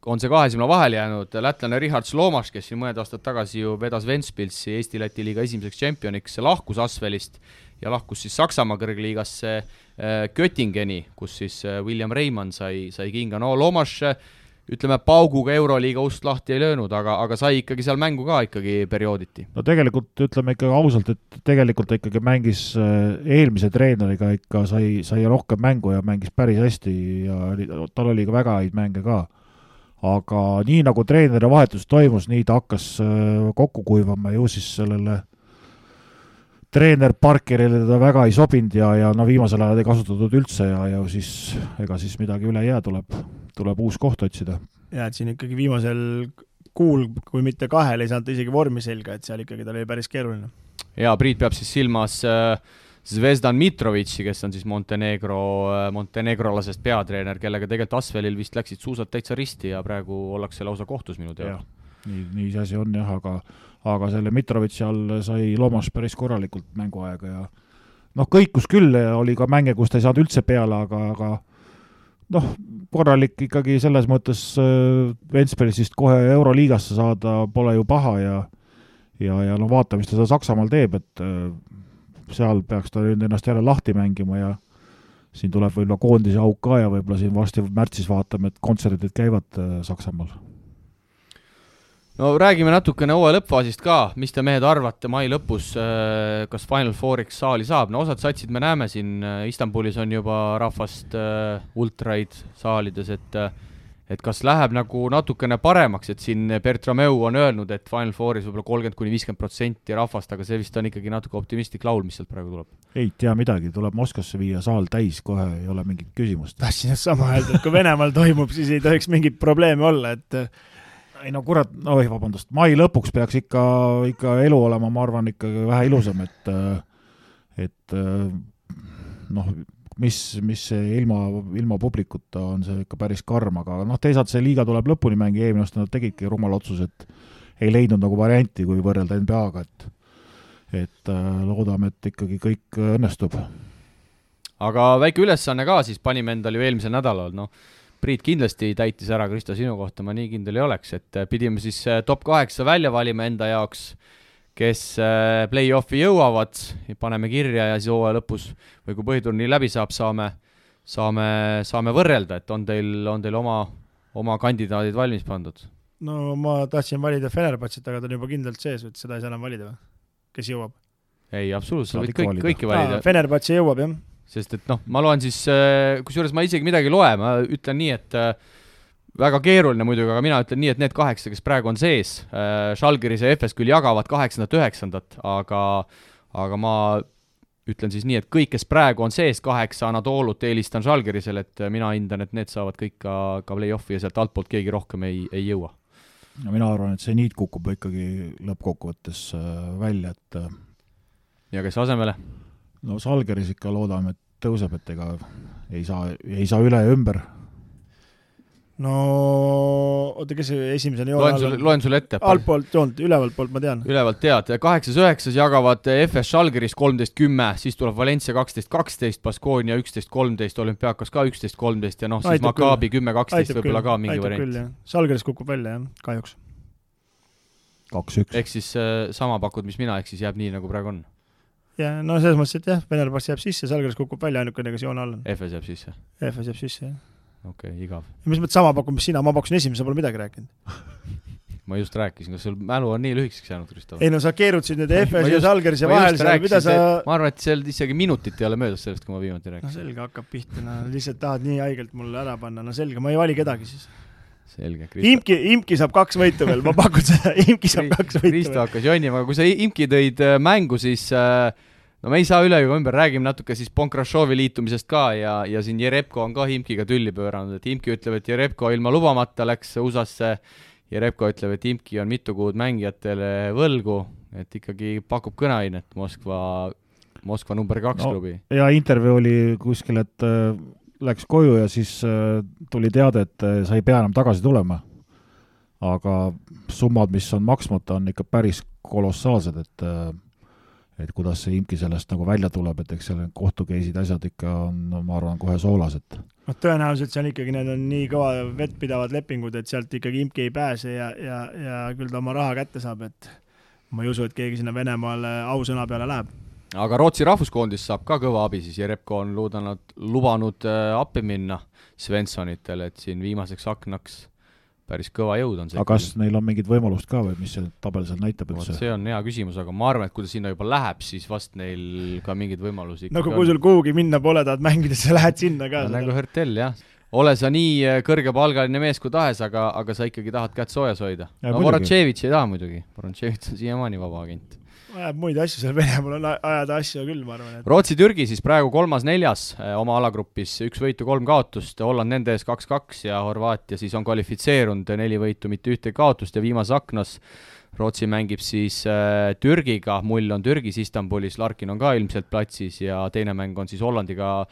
S2: on see 2 silma vahel jäänud. Lätlane Richard Slomas, kes siin mõned aastad tagasi ju vedas Ventspilsi Eesti-Läti liiga esimeseks tšempioniks, lahkus Asvelist ja lahkus siis Saksamaa kõrgliigasse Göttingeni, kus siis William Reimann sai kinga. No Lomas, ütleme, pauguga Euroliiga ust lahti ei löönud, aga sai ikkagi seal mängu ka ikkagi periooditi.
S3: No tegelikult ütleme ikkagi ausalt, et tegelikult ikkagi mängis eelmise treeneriga ikka sai rohkem mängu ja mängis päris hästi ja tal oli ka väga häid mänge ka. Aga nii nagu treeneri vahetus toimus, nii ta hakkas kokku kuivama ju siis sellele treener Parkerile teda väga ei sobinud ja no viimasel ajal ei kasutatud üldse ja siis ega siis midagi üle jää, tuleb uus koht otsida.
S4: Ja et siin ikkagi viimasel kuul, kui mitte 2, ei saanud isegi vormi selga, et seal ikkagi ta oli päris keeruline.
S2: Ja Priit peab siis silmas Zvezdan Mitrovitši, kes on siis montenegrolasest peatreener, kellega tegelikult Asvelil vist läksid suusad täitsa risti ja praegu ollakse lausa kohtus minu teada.
S3: Nii see asi on jah, aga selle Mitrovitši all sai Lomas päris korralikult mänguaega ja kõikus küll, oli ka mänge, kus ta ei saanud üldse peale, aga korralik ikkagi selles mõttes Ventspilsist kohe Euroliigasse saada pole ju paha ja vaata, mis ta Saksamaal teeb, et seal peaks ta nüüd ennast jälle lahti mängima ja siin tuleb võib-olla koondise auk ka ja võib-olla siin varsti märtsis vaatame, et kontserdid käivad Saksamaal.
S2: No räägime natukene hooaja lõppfaasist ka, mis te mehed arvate mai lõpus, kas Final Fouriks saali saab? No osad satsid me näeme siin, Istanbulis on juba rahvast ultraid saalides, et kas läheb nagu natukene paremaks, et siin Bertrameu on öelnud, et Final Fouris võib-olla 30-50% rahvast, aga see vist on ikkagi natuke optimistlik laul, mis sealt praegu tuleb.
S3: Ei tea midagi, tuleb Moskvasse viia saal täis, kohe ei ole mingit küsimust.
S4: Tahtsin sama öelda, et kui Venemaal toimub, siis ei tohiks mingit probleemi olla, et
S3: ei no kurat, vabandust, mai lõpuks peaks ikka elu olema, ma arvan, ikkagi vähe ilusam, et mis ilma publikuta on see ikka päris karm, aga teisalt see liiga tuleb lõpuni mängi, eelmine aasta nad tegidki rumal otsus, et ei leidnud nagu varianti, kui võrrelda NBA-ga, et loodame, et ikkagi kõik õnnestub.
S2: Aga väike ülesanne ka siis panime endal ju eelmisel nädalal, Priit kindlasti täitis ära, Kristo, sinu kohta ma nii kindel ei oleks, et pidime siis top 8 välja valima enda jaoks, kes play-offi jõuavad, paneme kirja ja siis hooaja lõpus või kui põhiturniir läbi saab, saame võrrelda, et on teil oma kandidaadid valmis pandud?
S4: No ma tahtsin valida Fenerbahčet, aga ta on juba kindlalt sees, et seda ei saa enam valida või? Kes jõuab?
S2: Ei, absoluutselt, võid kõiki valida.
S4: Fenerbahče jõuab, jah. Sest
S2: et ma loen siis, kusjuures ma isegi midagi loe, ma ütlen nii, et väga keeruline muidugi, aga mina ütlen nii, et need 8, kes praegu on sees, Žalgiris ja FS küll jagavad 8-9, aga ma ütlen siis nii, et kõik, kes praegu on sees 8 Anatoolut, eelistan Žalgirisel, et mina hindan, et need saavad kõik ka play-offi ja sealt altpoolt keegi rohkem ei jõua.
S3: No mina arvan, et see niit kukub ikkagi lõppkokkuvõttes välja, et
S2: ja kes asemele?
S3: No Žalgiris ikka loodame, et tõuseb, et ega ei saa üle ja ümber.
S4: No oota, kes esimesena joone
S2: loen sulle ette.
S4: Altpoolt joont, ülevalt poolt ma tean.
S2: Ülevalt tead. 8-9 jagavad FS Žalgiris 13-10, siis tuleb Valencia 12-12, Baskonia 11-13, Olümpiakos ka 11-13 ja siis Maccabi 10-12 võib-olla ka mingi variant.
S4: Žalgiris kukub välja, jah, kahjuks.
S3: 2-1.
S2: Ehk siis sama pakud, mis mina, ehk siis jääb nii, nagu praegu on.
S4: Ja, no selles mõttes, et jah, Fenerbahče jääb sisse, Žalgiris kukub välja ainukene, kes joone all on.
S2: FS jääb sisse?
S4: FS jääb sisse, jah.
S2: Okei, igav.
S4: Ja mis mõttes sama pakun, mis sina, ma pakkusin esimese, pole midagi rääkinud.
S2: Ma just rääkisin, kas sul mälu on nii lühikeseks jäänud, Kristo?
S4: Ei no sa keerutsid nüüd FS ja Žalgiris ja vahel seal, mida sa...
S2: Ma arvan, et seal isegi minutit ei ole möödas sellest, kui ma viimati rääkisin.
S4: No selge, hakkab pihta, lihtsalt tahad nii haigelt mulle ära panna, no selge, ma ei vali kedagi siis.
S2: Selge, Kristo.
S4: Imki saab 2 võitu veel, ma pakun seda, Imki saab 2 võitu veel.
S2: Kristo hakkas jonnima, aga kui sa Imki tõid mängu, siis no me ei saa üle ju ümber, räägime natuke siis Bonkrashovi liitumisest ka ja siin Jerebko on ka Imkiga tülli pööranud, et Imki ütleb, et Jerebko ilma lubamata läks USA-sse, Jerebko ütleb, et Imki on mitu kuud mängijatele võlgu, et ikkagi pakub kõneainet Moskva number 2 klubi.
S3: Ja intervjuu oli kuskil, et läks koju ja siis tuli teade, et sa ei pea enam tagasi tulema. Aga summad, mis on maksmata, on ikka päris kolossaalsed, et kuidas see Imki sellest nagu välja tuleb, et eks seal kohtukeisid asjad ikka on, ma arvan, kohe soolas, et
S4: tõenäoliselt seal ikkagi need on nii kõva vettpidavad lepingud, et sealt ikkagi Imki ei pääse ja küll ta oma raha kätte saab, et ma ei usu, et keegi sinna Venemaale ausõna peale läheb.
S2: Aga Rootsi rahvuskoondis saab ka kõva abi, siis Jerebko on lubanud appi minna Svenssonitele, et siin viimaseks aknaks päris kõva jõud on see.
S3: Aga kas neil on mingid võimalust ka või mis see tabel seal näitab üldse?
S2: See on hea küsimus, aga ma arvan, et kui ta sinna juba läheb, siis vast neil ka mingid võimalusi
S4: no kui sul kuhugi minna pole, tahad mängida, sa lähed sinna ka.
S2: Nagu Hertel, jah. Ole sa nii kõrgepalgaline mees kui tahes, aga sa ikkagi tahad kätt soojas hoida. No Vorotševitš ei taha muidugi. Vorotševitš on siiamaani vaba agent.
S4: Ajab muid asju seal Venemaal on ajada asju küll, ma arvan. Et...
S2: Rootsi-Türgi siis praegu 3-4 oma alagrupis, 1 võitu, 3 kaotust, Holland nende ees 2-2 ja Horvaatia siis on kvalifitseerunud 4 võitu, mitte 1 kaotust ja viimase aknas Rootsi mängib siis Türgiga, mull on Türgis Istanbulis, Larkin on ka ilmselt platsis ja teine mäng on siis Hollandiga,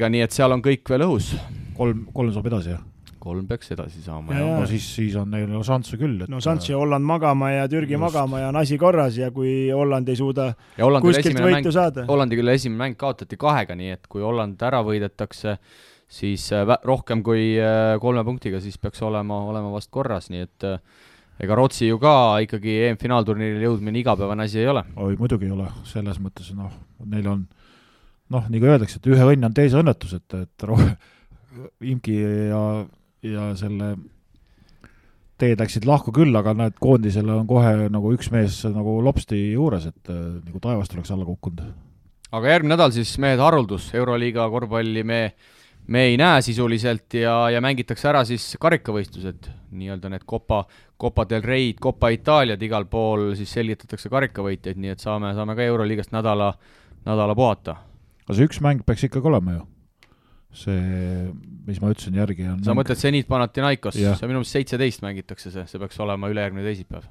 S2: nii et seal on kõik veel õhus.
S3: 3 saab edasi, jah?
S2: 3 peaks edasi saama.
S3: No siis on neil šansse küll.
S4: No šansse Holland magama ja Türgi magama ja on asi korras ja kui Holland ei suuda kuskilt võitu saada.
S2: Hollandi küll esimene mäng kaotati 2, nii et kui Holland ära võidetakse, siis rohkem kui 3 punktiga, siis peaks olema vast korras, nii et ega Rootsi ju ka ikkagi EM-finaalturniiril jõudmine igapäevane asi ei ole.
S3: Oi, muidugi ei ole, selles mõttes, neil on nii kui öeldakse, et ühe õnn on teise õnnetus, et Imki ja selle teed läksid lahku küll, aga näed, koondisele on kohe nagu üks mees nagu lopsti juures, et nagu taevast oleks alla kukkunud. Aga
S2: järgmine nädal siis mehed haruldus, Euroliiga korvpalli me ei näe sisuliselt ja mängitakse ära siis karikavõistlused, nii-öelda need Copa del Reid, Copa Itaaliad, igal pool siis selgitatakse karikavõitjaid, nii et saame ka Euroliigast nädala puhata.
S3: Aga see üks mäng peaks ikkagi olema ju. See, mis ma ütlesin järgi on...
S2: Sa mõtled Zenit Panathinaikos, see minu meelest 17 mängitakse see peaks olema ülejärgmine teisipäev.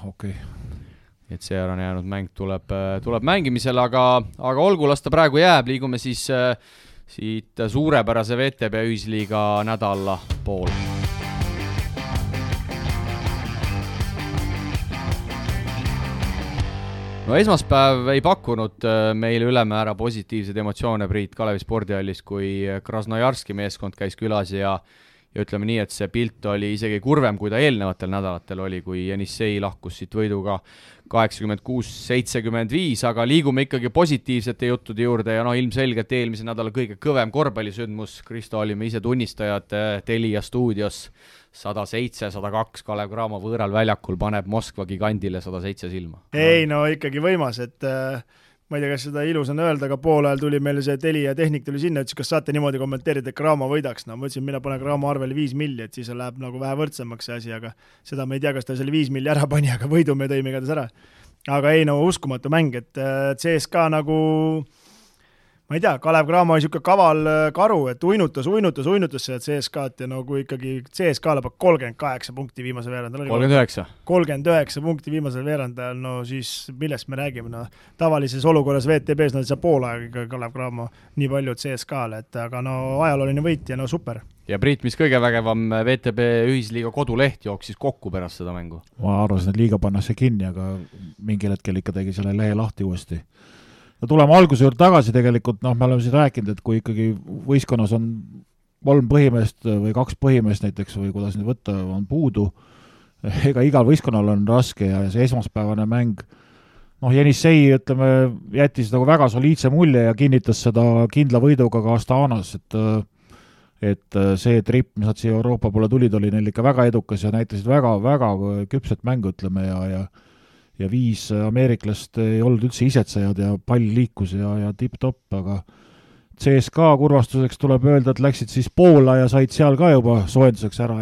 S3: Okei.
S2: Et see ära jäänud mäng tuleb mängimisele, aga olgu, las ta praegu jääb, liigume siis siit suurepärase VTB ühisliiga nädala pool. No esmaspäev ei pakkunud meile ülemäära positiivsed emotsioone Priit Kalevi spordihallis, kui Krasnojarski meeskond käis külas ja ütleme nii, et see pilt oli isegi kurvem, kui ta eelnevatel nädalatel oli, kui Jenissei lahkus siit võiduga 86-75, aga liigume ikkagi positiivsete juttude juurde ja ilmselgelt eelmise nädala kõige kõvem korvpallisündmus, Kristo olime ise tunnistajad Telia stuudios, 107-102 Kalev Cramo võõral väljakul paneb Moskva gigandile 107 silma.
S4: Ei, no ikkagi võimas, et ma ei tea, kas seda ilus on öelda, aga pool ajal tuli meil see Telia tehnik tuli sinna, ütles, kas saate niimoodi kommenteerida, et Cramo võidaks. No ma ütlesin, mina panen Cramo arvele 5 milli, et siis läheb nagu vähe võrdsemaks see asi, aga seda me ei tea, kas ta selle 5 milli ära pani, aga võidu me tõime igatahes ära. Aga ei, no uskumatu mäng, et CSKA nagu... Ma ei tea, Kalev Cramo oli siuke kaval karu, et uinutas seda CSKA-t ja kui ikkagi CSKA lõpeb 38 punkti viimase veerandal. 39 punkti viimasel veerandal, no siis millest me räägime? No, tavalises olukorras VTB-s nad ei saa pool aega Kalev Cramo nii palju CSKA-le, aga ajalooline võit ja super.
S2: Ja Priit, mis kõige vägevam VTB ühisliiga koduleht jooksis kokku pärast seda mängu?
S3: Ma arvasin, et liiga pannakse kinni, aga mingil hetkel ikka tegi selle lehe lahti uuesti. No tuleme alguse juurde tagasi tegelikult, me oleme siin rääkinud, et kui ikkagi võistkonnas on 3 põhimeest või 2 põhimeest näiteks või kuidas nüüd võtta on puudu, ega igal võistkonnal on raske ja see esmaspäevane mäng, Jenissei, ütleme, jättis nagu väga soliidse mulje ja kinnitas seda kindla võiduga ka Astanas, et see trip, mis nad siia Euroopa poole tulid, oli neil ikka väga edukas ja näitasid väga küpset mängu, ütleme, ja 5 ameeriklast ei olnud üldse isetsejad ja pall liikus ja tipp-topp, aga CSKA kurvastuseks tuleb öelda, et läksid siis Poola ja said seal ka juba soojenduseks ära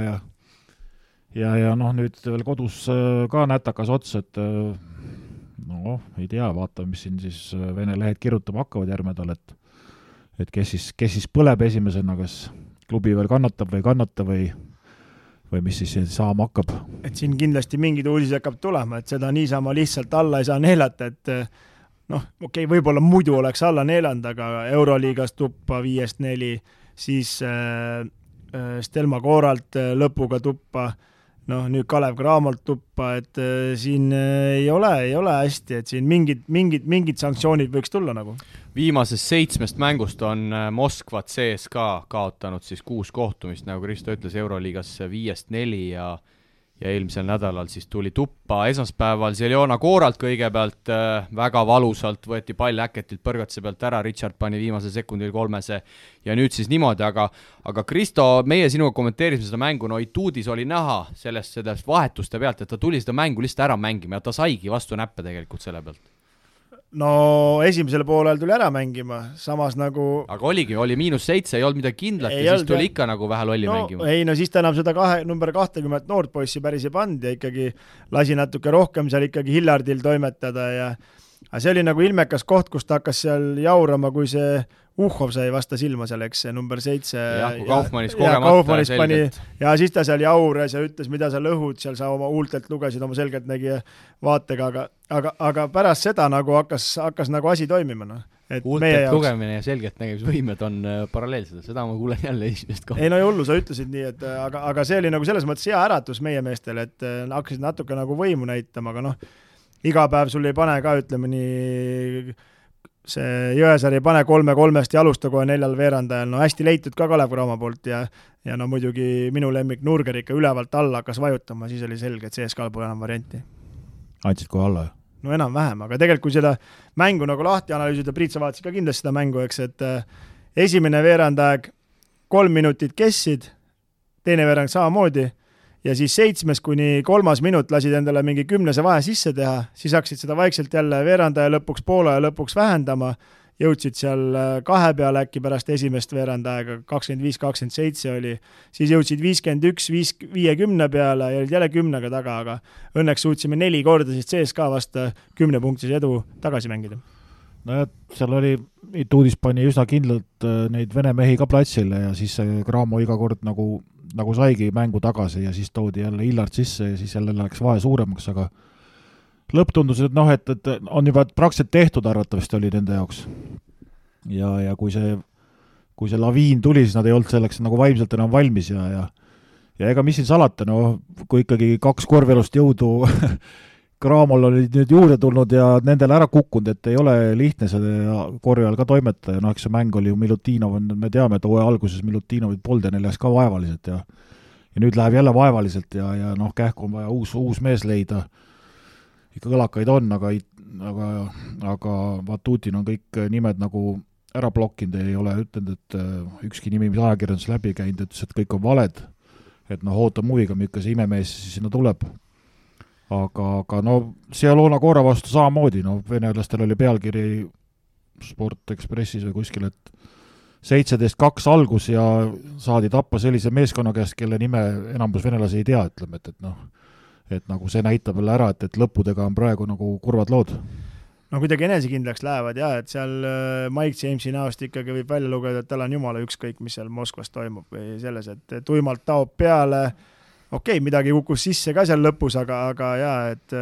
S3: ja nüüd veel kodus ka nätakas ots, et No, ei tea, vaatame, mis siin siis Vene lehed kirjutama hakkavad järgmine nädal, et kes siis põleb esimesena, kas klubi veel kannatab või ei kannata või mis siis saama hakkab.
S4: Et siin kindlasti mingid uudis hakkab tulema, et seda niisama lihtsalt alla ei saa neelata, et okei, võib-olla muidu oleks alla neelanud, aga Euroliigas tuppa 5-4, siis Stelma Kooralt lõpuga tuppa, nüüd Kalev Cramolt tuppa, et siin ei ole hästi, et siin mingid sanktsioonid võiks tulla nagu.
S2: Viimasest 7 mängust on Moskva CSKA kaotanud siis 6 kohtumist, nagu Kristo ütles, Euroliigas 5-4 ja eelmisel nädalal siis tuli tuppa esmaspäeval Zeljona Kooralt kõigepealt väga valusalt, võeti pall äketilt põrgatuse pealt ära, Richard pani viimase sekundil 3 ja nüüd siis niimoodi, aga Kristo, meie sinuga kommenteerisime seda mängu, Ituudis oli näha sellest vahetuste pealt, et ta tuli seda mängu lihtsalt ära mängima ja ta saigi vastu näppe tegelikult selle pealt.
S4: No esimesel poolel tuli ära mängima, samas nagu...
S2: Aga oli -7, ei olnud midagi kindlat ja siis tuli ikka nagu vähe lolli mängima.
S4: Ei, siis ta enam seda number 20 noort poissi päris ei pand ja ikkagi lasi natuke rohkem seal ikkagi Hillardil toimetada aga see oli nagu ilmekas koht, kus ta hakkas seal jaurama, kui see Uhhov sai vasta silma seal, eks see number 7.
S2: Jah, kui Kaufmannis kogemata selgelt.
S4: Ja siis ta seal jaures ja ütles, mida sa lõhud, seal sa oma huultelt lugesid oma selgelt nägi vaatega, aga pärast seda nagu hakkas nagu asi toimima.
S2: Huultelt lugemine ja selgelt nägemisvõimed on paralleelsed, seda ma kuulen jälle esimest kohta.
S4: Ei no hullu, sa ütlesid nii, et aga see oli nagu selles mõttes hea äratus meie meestel, et hakkasid natuke nagu võimu näitama, aga iga päev sul ei pane ka, ütleme nii, see Jõesaar ei pane 3-3 ja alusta kohe 4 veerandajal, hästi leitud ka Kalev Cramo poolt ja muidugi minu lemmik Nurger ikka ülevalt alla hakkas vajutama, siis oli selge, et CSKA pole enam varianti.
S3: Andsid kohe alla?
S4: No enam-vähem, aga tegelikult kui seda mängu nagu lahti analüüsida, Priit, sa vaatasid ka kindlasti seda mängu, eks, et esimene veerandaeg 3 minutit kessid, teine veerand samamoodi ja siis 7 kuni 3 minut lasid endale mingi 10 vahe sisse teha, siis hakkasid seda vaikselt jälle veerandaja lõpuks poole ja lõpuks vähendama, jõudsid seal 2 peale äkki pärast esimest veerandaega, 25-27 oli, siis jõudsid 51-50 peale ja olid jälle 10 taga, aga õnneks suutsime 4 korda siis CSKA vasta 10 punktis edu tagasi mängida.
S3: No seal oli, Ituudis pani üsna kindlalt neid vene mehi ka platsile ja siis see Cramo iga kord nagu saigi mängu tagasi ja siis toodi jälle Hillard sisse ja siis jälle läks vahe suuremaks, aga lõpp tundus, et et on juba praktiliselt tehtud arvatavasti oli nende jaoks. Ja kui see laviin tuli, siis nad ei olnud selleks nagu vaimselt enam valmis ja ega mis siin salata, kui ikkagi 2 korvelust jõudu Cramol olid nüüd juurde tulnud ja nendele ära kukkunud, et ei ole lihtne selle korja all ka toimetada ja eks see mäng oli ju Milutinov, me teame, et hooaja alguses Milutinovit polnud ja neil läks ka vaevaliselt ja nüüd läheb jälle vaevaliselt ja kähku on vaja uus mees leida. Ikka kõlakaid on, aga Vatutin on kõik nimed nagu ära blokkinud, ei ole ütelnud, et ükski nimi, mis ajakirjandus läbi käinud, ütles, et kõik on valed, et ootam huviga, milline see imemees siis sinna tuleb. Aga Zeljona Koora vastu samamoodi, venelastel oli pealkiri Sport Expressis või kuskil, et 17-2 algus ja saadi tappa sellise meeskonna käest, kelle nime enamus venelasi ei tea, ütleme, et nagu see näitab jälle ära, et lõppudega on praegu nagu kurvad lood.
S4: Kuidagi enesekindlaks lähevad et seal Mike Jamesi näost ikkagi võib välja lugeda, et tal on jumala ükskõik, mis seal Moskvas toimub või selles, et tuimalt taob peale. Okei, midagi kukkus sisse ka seal lõpus, aga et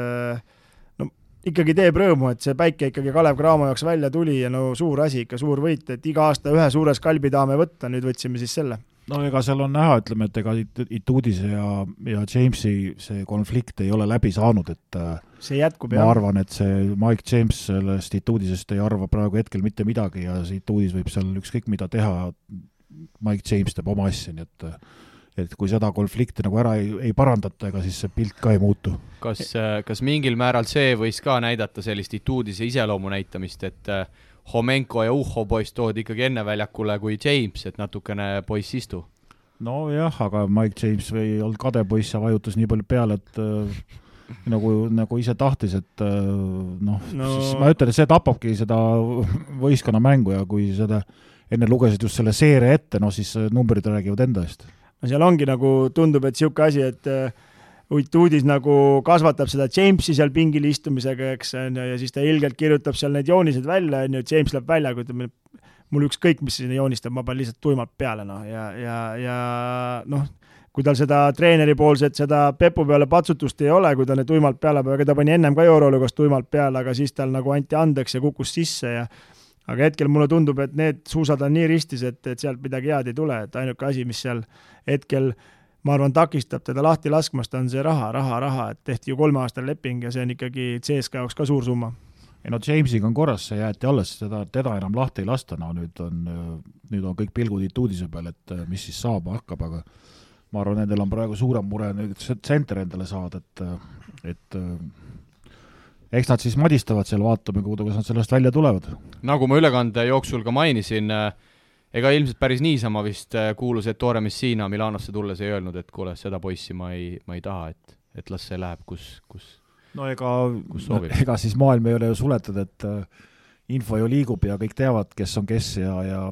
S4: ikkagi teeb rõõmu, et see päike ikkagi Kalev Cramo jaoks välja tuli ja suur asi, ikka suur võit, et iga aasta ühe suure skalbi tahame võtta, nüüd võtsime siis selle.
S3: Ega seal on näha, ütleme, et ega Ituudise ja Jamesi see konflikt ei ole läbi saanud, et
S4: see jätkub,
S3: ma arvan, et see Mike James sellest Ituudisest ei arva praegu hetkel mitte midagi ja see Ituudis võib seal ükskõik mida teha, Mike James teeb oma asja, nii et kui seda konflikti nagu ära ei parandata, ega siis see pilt ka ei muutu.
S2: Kas mingil määral see võis ka näidata sellist Ituudise iseloomu näitamist, et Homenko ja Uhho poiss toodi ikkagi enne väljakule kui James, et natukene poiss istu?
S3: Jah, aga Mike James ei olnud kade poiss ja vajutas nii palju peale, et nagu ise tahtis, et siis ma ütlen, et see tapabki seda võistkonna mängu ja kui seda enne lugesid just selle seeria ette, siis numbrid räägivad enda eest.
S4: Seal ongi nagu tundub, et siuke asi, et Uitudis nagu kasvatab seda Jamesi seal pingil istumisega, eks, ja siis ta ilgelt kirjutab seal need joonised välja, James läheb välja, kui ütleme, mul ükskõik, mis sinna joonistab, ma panen lihtsalt tuimalt peale, ja kui tal seda treeneri poolset, seda Pepu peale patsutust ei ole, kui ta need tuimalt peale, aga ta pani ennem ka Euroliigas tuimalt peale, aga siis tal nagu anti andeks ja kukkus sisse aga hetkel mulle tundub, et need suusad on nii ristis, et sealt midagi head ei tule, et ainuke asi, mis seal hetkel, ma arvan, takistab teda lahti laskmast, on see raha, et tehti ju 3-aastane leping ja see on ikkagi CSKA jaoks ka suur summa.
S3: Ei Jamesiga on korras, see jäeti alles, teda enam lahti ei lasta, nüüd on kõik pilgud Ituudise peal, et mis siis saama hakkab, aga ma arvan, nendel on praegu suurem mure nüüd tsenter endale saada, et eks nad siis madistavad seal, vaatame, kuidas nad sellest välja tulevad.
S2: Nagu ma ülekande jooksul ka mainisin, ega ilmselt päris niisama vist kuulus, et Tore Messina Milanosse tulles ei öelnud, et kuule, seda poissi ma ei taha, et las see läheb, kus
S3: ega siis maailm ei ole ju suletud, et info ju liigub ja kõik teavad, kes on kes ja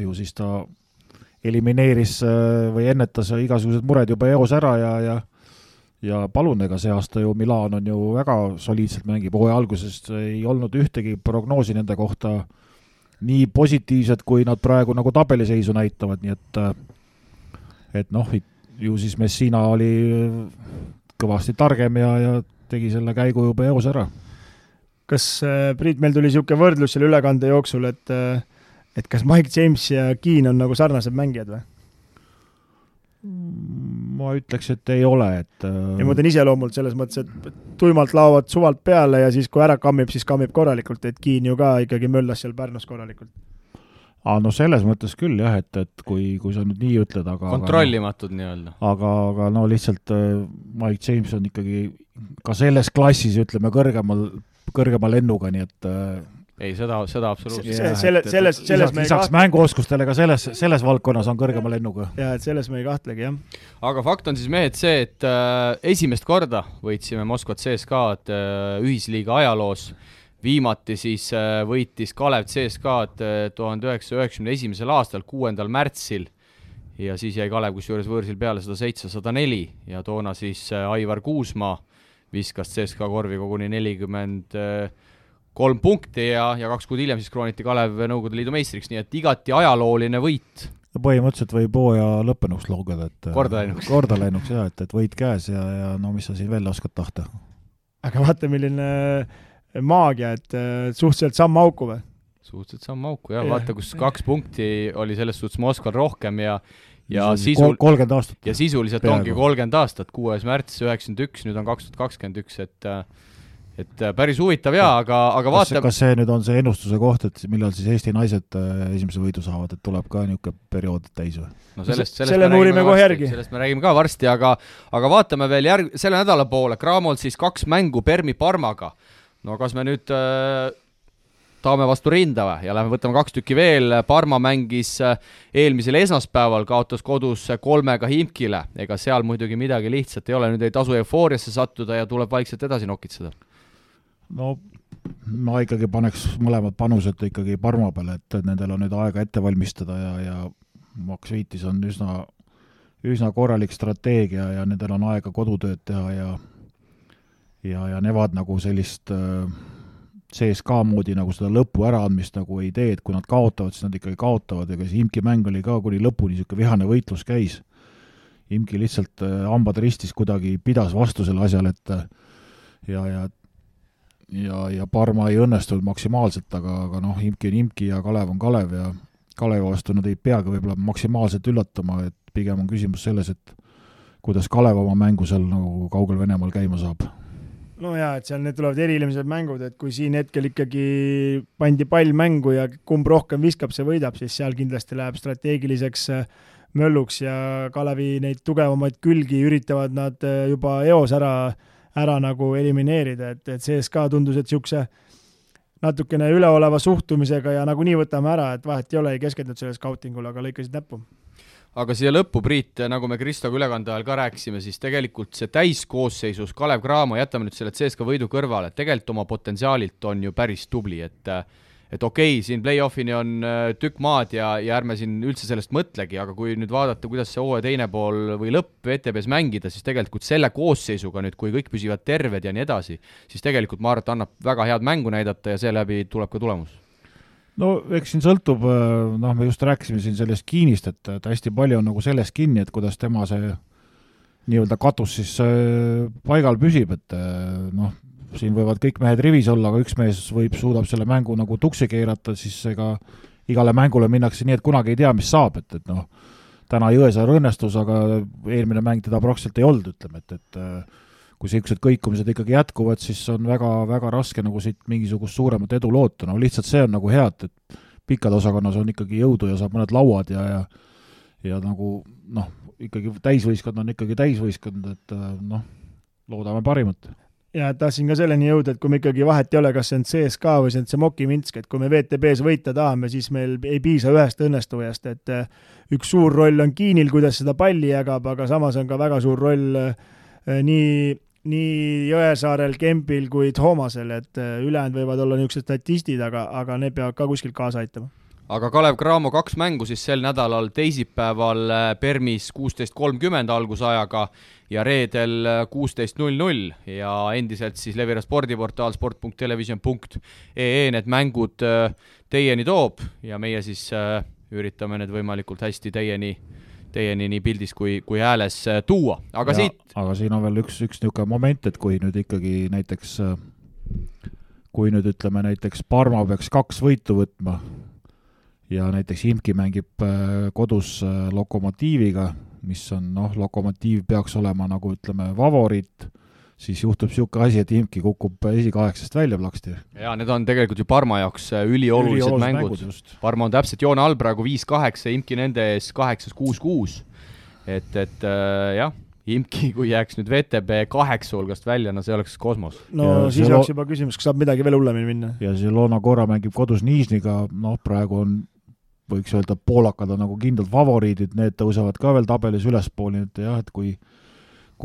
S3: ju siis ta elimineeris või ennetas igasugused mured juba eos ära ja palun, ega see aasta ju Milan on ju väga soliidselt mängib, hooaja algusest ei olnud ühtegi prognoosi nende kohta nii positiivset, kui nad praegu nagu tabeliseisu näitavad, nii et ju siis Messina oli kõvasti targem ja tegi selle käigu juba eos ära.
S4: Kas, Priit, meil tuli niisugune võrdlus selle ülekande jooksul, et kas Mike James ja Keane on nagu sarnased mängijad või?
S3: Ma ütleks, et ei ole, et
S4: ja ma mõtlen iseloomult selles mõttes, et tuimalt laovad suvalt peale ja siis kui ära kammib, siis kammib korralikult, et Keane ju ka ikkagi möllas seal Pärnus korralikult.
S3: Selles mõttes küll jah, et kui sa nüüd nii ütled, aga
S2: kontrollimatud nii-öelda.
S3: Aga lihtsalt Mike James on ikkagi ka selles klassis, ütleme, kõrgema lennuga, nii et
S2: ei, seda absoluutselt.
S3: Lisaks mänguoskustele ka selles valdkonnas on kõrgema lennuga.
S4: Ja, et selles me ei kahtlegi, jah.
S2: Aga fakt on siis mehed see, et esimest korda võitsime Moskvat CSKA-d ühisliiga ajaloos. Viimati siis võitis Kalev CSKA-d 1991. aastal 6. märtsil ja siis jäi Kalev kusjuures võõrsil peale 107-104 ja toona siis Aivar Kuusmaa viskas CSKA korvi koguni 43 punkti ja 2 kuud hiljem siis krooniti Kalev Nõukogude Liidu meistriks, nii et igati ajalooline võit.
S3: Põhimõtteliselt võib hooaja lõppenuks loogada, et
S2: korda
S3: läinuks jah, et võit käes ja mis sa siin veel oskad tahta.
S4: Aga vaata, milline maagia, et suhteliselt samm auku või?
S2: Suhteliselt samm auku, jah. Vaata, kus 2 punkti oli selles suhtes Moskval rohkem ja
S3: 30 aastat.
S2: Ja sisuliselt ongi 30 aastat, 6. märts 91, nüüd on 2021, et päris huvitav aga vaata...
S3: Kas see nüüd on see ennustuse koht, et millal siis Eesti naised esimese võidu saavad, et tuleb ka niisugune periood täis või?
S2: No sellest
S4: uurime kohe järgi.
S2: Sellest me räägime ka varsti, aga vaatame veel selle nädala poole. Kraamol siis 2 mängu Permi Parmaga. No kas me nüüd taame vastu rinda või? Ja lähme võtame 2 tükki veel. Parma mängis eelmisel esmaspäeval, kaotas kodus 3 Himkile. Ega seal muidugi midagi lihtsalt ei ole. Nüüd ei tasu eufooriasse sattuda ja tuleb vaikselt edasi nokitseda.
S3: No ma ikkagi paneks mõlemad panused ikkagi Parma peale, et nendel on nüüd aega ette valmistada ja Max Viitis on üsna korralik strateegia ja nendel on aega kodutööd teha ja nevad nagu sellist CSKA moodi nagu seda lõpu äraandmist nagu ei tee, et kui nad kaotavad, siis nad ikkagi kaotavad, ega see Imki mäng oli ka kuni lõpuni niisugune vihane võitlus käis. Imki lihtsalt hambad ristis kuidagi pidas vastu selle asjal, et ja Parma ei õnnestunud maksimaalselt, aga Imki on Imki ja Kalev on Kalev ja Kalevi vastu nad ei peagi võib-olla maksimaalselt üllatama, et pigem on küsimus selles, et kuidas Kalev oma mängu seal nagu kaugel Venemaal käima saab.
S4: No jaa, et seal need tulevad erilised mängud, et kui siin hetkel ikkagi pandi pall mängu ja kumb rohkem viskab, see võidab, siis seal kindlasti läheb strateegiliseks mölluks ja Kalevi neid tugevamaid külgi üritavad nad juba eos ära nagu elimineerida, et CSKA tundus, et niisuguse natukene üleoleva suhtumisega ja nagu nii võtame ära, et vahet ei ole, ei keskendunud selle scoutingul, aga lõikasid näppu.
S2: Aga siia lõppu, Priit, nagu me Kristoga ülekande ajal ka rääkisime, siis tegelikult see täiskoosseisus Kalev Cramo, jätame nüüd selle CSKA võidu kõrvale, tegelikult oma potentsiaalilt on ju päris tubli, et et okei, siin play-offini on tükk maad ja ärme siin üldse sellest mõtlegi, aga kui nüüd vaadata, kuidas see hooaja teine pool või lõpp VTB-s mängida, siis tegelikult selle koosseisuga nüüd, kui kõik püsivad terved ja nii edasi, siis tegelikult ma arvan, et annab väga head mängu näidata ja seeläbi tuleb ka tulemus.
S3: No eks siin sõltub, me just rääkisime siin sellest Kiinist, et hästi palju on nagu sellest kinni, et kuidas tema see nii-öelda katus siis paigal püsib, et siin võivad kõik mehed rivis olla, aga üks mees suudab selle mängu nagu tuksi keerata, siis ega igale mängule minnakse nii, et kunagi ei tea, mis saab, et täna Jõesaar õnnestus, aga eelmine mäng teda praktiliselt ei olnud, ütleme, et kui sellised kõikumised ikkagi jätkuvad, siis on väga, väga raske nagu siit mingisugust suuremat edu loota, lihtsalt see on nagu hea, et pikad osakonnas on ikkagi jõudu ja saab mõned lauad ja nagu ikkagi täisvõistkond on ikkagi täisvõistkond, et loodame parimat.
S4: Ja tahtsin ka selleni jõuda, et kui me ikkagi vahet ei ole, kas see on CSKA või see on see Moki Minsk, et kui me VTB-s võita tahame, siis meil ei piisa ühest õnnestujast, et üks suur roll on Kiinil, kuidas seda palli jagab, aga samas on ka väga suur roll nii Jõesaarel, Kempil kui Toomasel, et ülejäänud võivad olla niisugused statistid, aga need peavad ka kuskilt kaasa aitama.
S2: Aga Kalev Cramo 2 mängu siis sel nädalal teisipäeval Permis 16.30 algusajaga ja reedel 16.00 ja endiselt siis Levira spordiportaal sport.television.ee need mängud teieni toob ja meie siis üritame need võimalikult hästi teieni nii pildis kui hääles tuua. Aga
S3: siin on veel üks niisugune moment, et kui nüüd ikkagi näiteks ütleme näiteks Parma peaks 2 võitu võtma ja näiteks Imki mängib kodus Lokomotiiviga, mis on, Lokomotiiv peaks olema nagu ütleme favoriit, siis juhtub niisugune asi, et Imki kukub esikaheksast välja plaksti.
S2: Ja need on tegelikult ju Parma jaoks üliolulised mängud. Parma on täpselt joone all praegu 5-8, Imki nende ees 8-6-6. Et jah, Imki, kui jääks nüüd VTB 8 hulgast välja, see oleks kosmos.
S4: Siis oleks juba küsimus, kas saab midagi veel hullemini minna.
S3: Ja see Loona Korra mängib kodus Niisniga, praegu on võiks öelda, et poolakad on nagu kindlad favoriidid, need tõusevad ka veel tabelis ülespooli, et jah, et kui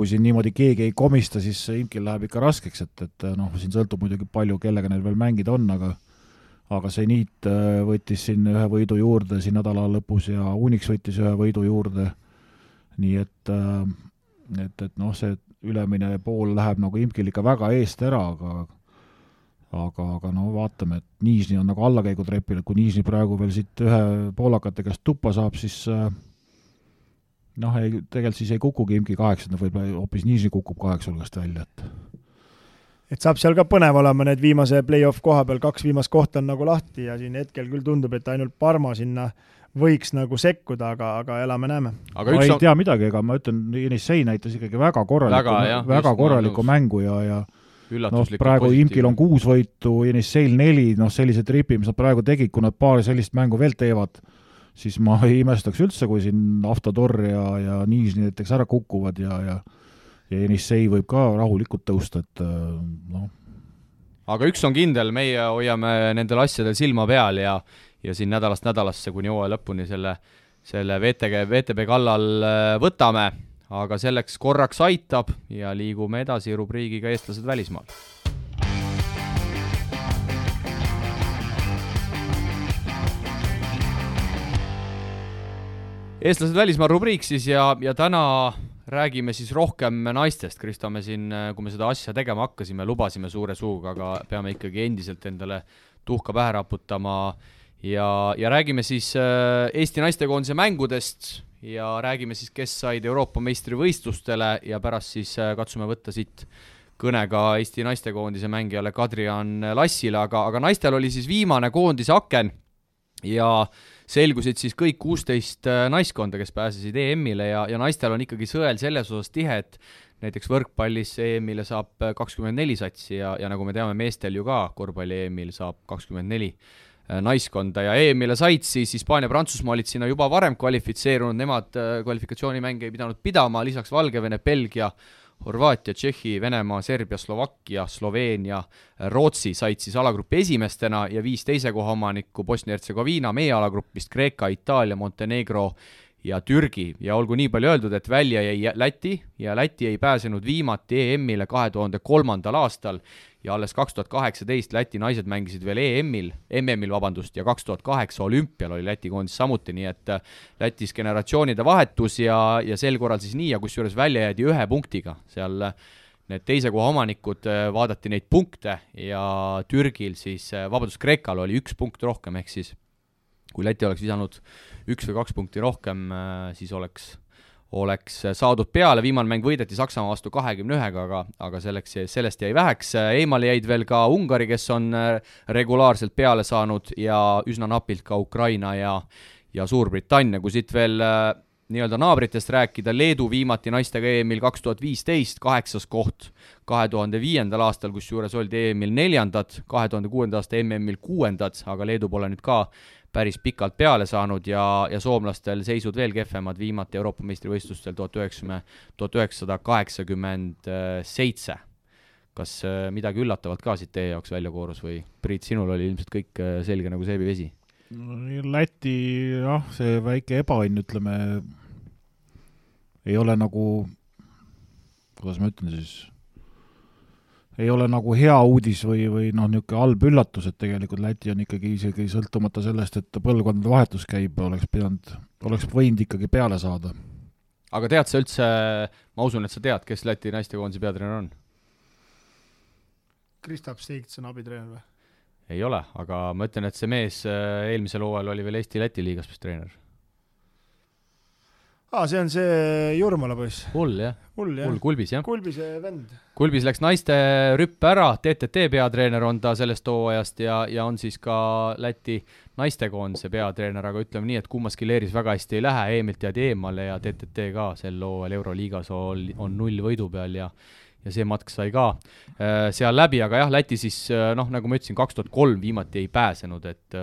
S3: siin niimoodi keegi ei komista, siis Imkil läheb ikka raskeks, et siin sõltub muidugi palju, kellega neil veel mängida on, aga see Niit võttis siin ühe võidu juurde siin nädala lõpus ja Unix võttis ühe võidu juurde, nii et see ülemine pool läheb nagu Imkil ikka väga eest ära, aga vaatame, et Niisni on nagu allakäigutrepil, et kui Niisni praegu veel siit ühe poolakate käest tuppa saab, siis tegelikult siis ei kukugi Imki 8, võib-olla hoopis Niisni kukub 8 hulgast välja.
S4: Et saab seal ka põnev olema, need viimase play-off koha peal 2 viimast kohta on nagu lahti ja siin hetkel küll tundub, et ainult Parma sinna võiks nagu sekkuda, aga elame-näeme.
S3: Ma ei tea midagi, ega ma ütlen, Jenissei näitas ikkagi väga korralikku mängu ja praegu Imkil on 6 võitu, Jenisseil 4, sellise tripi, mis nad praegu tegid, kui nad paar sellist mängu veel teevad, siis ma ei imestaks üldse, kui siin Avtodor ja Niisni näiteks ära kukuvad ja Jenissei võib ka rahulikult tõusta, et
S2: Aga üks on kindel, meie hoiame nendel asjadel silma peal ja siin nädalast nädalasse kuni hooaja lõpuni selle VTB kallal võtame. Aga selleks korraks aitab ja liigume edasi rubriigiga Eestlased välismaal. Eestlased välismaal rubriik siis ja täna räägime siis rohkem naistest. Kristo, me siin, kui me seda asja tegema hakkasime, lubasime suure suuga, aga peame ikkagi endiselt endale tuhka pähe raputama ja räägime siis Eesti naistekoondise mängudest ja räägime siis, kes said Euroopa meistrivõistlustele ja pärast siis katsume võtta siit kõnega Eesti naistekoondise mängijale Kadrian Lassile, aga naistel oli siis viimane koondise aken ja selgusid siis kõik 16 naiskonda, kes pääsesid EM-ile ja naistel on ikkagi sõel selles osas tihe, et näiteks võrkpallis EM-ile saab 24 satsi ja nagu me teame, meestel ju ka korvpalli EM-il saab 24 naiskonda ja EM-ile said siis Hispaania, Prantsusmaa olid sinna juba varem kvalifitseerunud, nemad kvalifikatsioonimänge ei pidanud pidama, lisaks Valgevene, Belgia, Horvaatia, Tšehhi, Venemaa, Serbia, Slovakkia, Sloveenia, Rootsi said siis alagrupi esimestena ja 5 teise koha omanikku Bosnia-Hertsegoviina, meie alagrupist Kreeka, Itaalia, Montenegro ja Türgi ja olgu nii palju öeldud, et välja jäi Läti ja Läti ei pääsenud viimati EM-ile 2003. aastal ja alles 2018 Läti naised mängisid veel MM-il ja 2008 olümpial oli Läti koondis samuti, nii et Lätis generatsioonide vahetus ja sel korral siis nii ja kusjuures välja jäädi 1 punktiga. Seal need teise koha omanikud vaadati neid punkte ja Türgil siis, Kreekal oli 1 punkt rohkem, ehk siis kui Läti oleks visanud 1 või 2 punkti rohkem, siis oleks saadud peale, viimane mäng võideti Saksamaa vastu 21-ga, aga sellest jäi väheks. Eemale jäid veel ka Ungari, kes on regulaarselt peale saanud ja üsna napilt ka Ukraina ja Suurbritannia, kui siit veel nii-öelda naabritest rääkida, Leedu viimati naistega EM-il 2015, 8. koht 2005. aastal, kus juures oldi EM-il 4., 2006. aasta MM-il 6., aga Leedu pole nüüd ka päris pikalt peale saanud ja soomlastel seisud veel kehvemad viimati Euroopa meistrivõistlustel 1987. Kas midagi üllatavat ka siit teie jaoks välja koorus või Priit, sinul oli ilmselt kõik selge nagu seebivesi?
S3: Läti, see väike ebaõnn, ütleme, ei ole nagu, kuidas ma ütlen siis, ei ole nagu hea uudis või niisugune halb üllatus, et tegelikult Läti on ikkagi isegi sõltumata sellest, et põlvkondade vahetus käib, oleks võinud ikkagi peale saada.
S2: Aga tead sa üldse, ma usun, et sa tead, kes Läti naistekoondise peatreener on?
S4: Kristaps Seigts on abitreener või?
S2: Ei ole, aga ma ütlen, et see mees eelmisel hooajal oli veel Eesti-Läti liigas treener.
S4: See on see Jurmala poiss.
S2: Hull, Kulbis, jah.
S4: Kulbise vend.
S2: Kulbis läks naiste rüppe ära, TTT peatreener on ta sellest hooajast ja on siis ka Läti naistekoondise peatreener, aga ütleme nii, et kummaski leeris väga hästi ei lähe, EM-ilt jäädi eemale ja TTT ka sel hooajal Euroliigas on 0 võidu peal ja see matk sai ka seal läbi, aga jah, Läti siis, nagu ma ütlesin, 2003 viimati ei pääsenud, et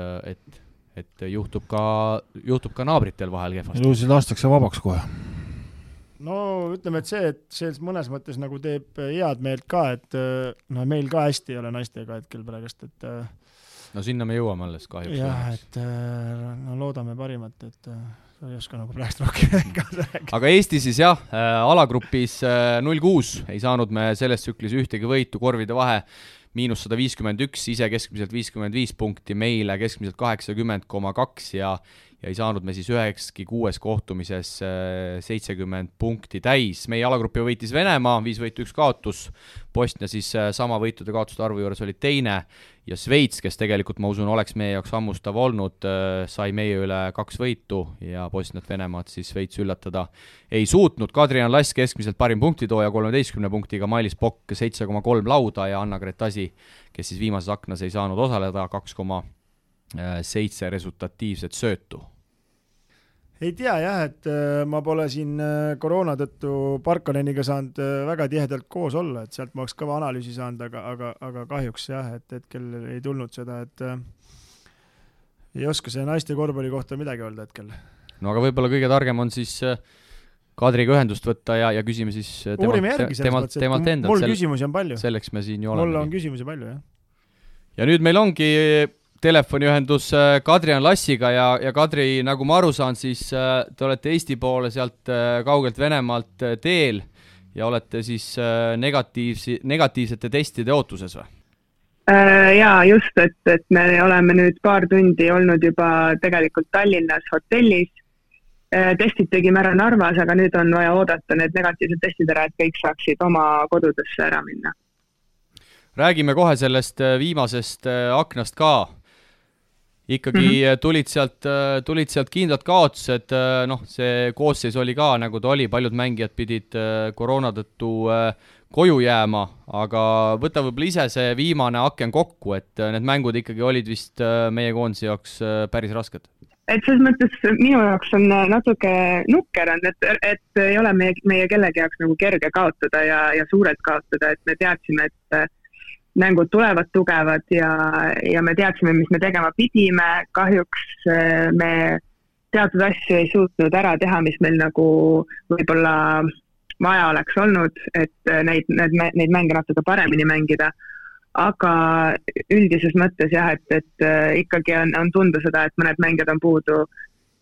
S2: juhtub ka naabritel vahel kehvasti.
S3: Ilusid lastakse vabaks kohe.
S4: No ütleme, et see mõnes mõttes nagu teeb head meelt ka, et meil ka hästi ei ole naistega hetkel praegust, et
S2: no sinna me jõuame alles kahjuks.
S4: Jah, et loodame parimat, et ei oska nagu praegust rohkem kaasa rääkida.
S2: Aga Eesti siis jah, alagrupis 0-6 ei saanud me selles tsüklis ühtegi võitu, korvide vahe -151, ise keskmiselt 55 punkti, meile keskmiselt 80,2 ja ei saanud me siis 9-6 kohtumises 70 punkti täis. Meie alagrupi võitis Venemaa, 5 võitu 1 kaotus, Bosnia siis sama võitude kaotuste arvu juures oli teine ja Sveits, kes tegelikult ma usun oleks meie jaoks hammustav olnud, sai meie üle 2 võitu ja Bosniat Venemaad siis Sveits üllatada ei suutnud. Kadrian Lass keskmiselt parim punktitooja 13 punktiga, Mailis Pokk 7,3 lauda ja Anna Gretasi, kes siis viimases aknas ei saanud osaleda, 2,7 resultatiivset söötu.
S4: Ei tea jah, et ma pole siin koroona tõttu Parkaneniga saanud väga tihedalt koos olla, et sealt ma oleks kõva analüüsi saanud, aga kahjuks jah, et hetkel ei tulnud seda, et ei oska see naiste korvpalli kohta midagi öelda hetkel.
S2: No aga võib-olla kõige targem on siis Kadriga ühendust võtta ja küsime siis temalt endalt.
S4: Mul küsimusi on palju.
S2: Selleks me siin ju oleme.
S4: Mul on küsimusi palju, jah.
S2: Ja nüüd meil ongi telefoniühendus Kadrian Lassiga ja Kadri, nagu ma aru saan, siis te olete Eesti poole sealt kaugelt Venemaalt teel ja olete siis negatiivsete testide ootuses või?
S5: Jaa, just, et me oleme nüüd paar tundi olnud juba tegelikult Tallinnas hotellis. Testid tegime ära Narvas, aga nüüd on vaja oodata need negatiivsed testid ära, et kõik saaksid oma kodudesse ära minna.
S2: Räägime kohe sellest viimasest aknast ka. Ikkagi tulid sealt kindlad kaotused, see koosseis oli ka, nagu ta oli, paljud mängijad pidid koroona tõttu koju jääma, aga võta võib-olla ise see viimane aken kokku, et need mängud ikkagi olid vist meie koondise jaoks päris rasked.
S5: Et selles mõttes minu jaoks on natuke nukker on, et ei ole meie kellegi jaoks nagu kerge kaotada ja suurelt kaotada, et me teadsime, et mängud tulevad tugevad ja me teadsime, mis me tegema pidime. Kahjuks me teatud asju ei suutnud ära teha, mis meil nagu võib-olla vaja oleks olnud, et neid mänge natuke paremini mängida. Aga üldises mõttes jah, et ikkagi on tunda seda, et mõned mängijad on puudu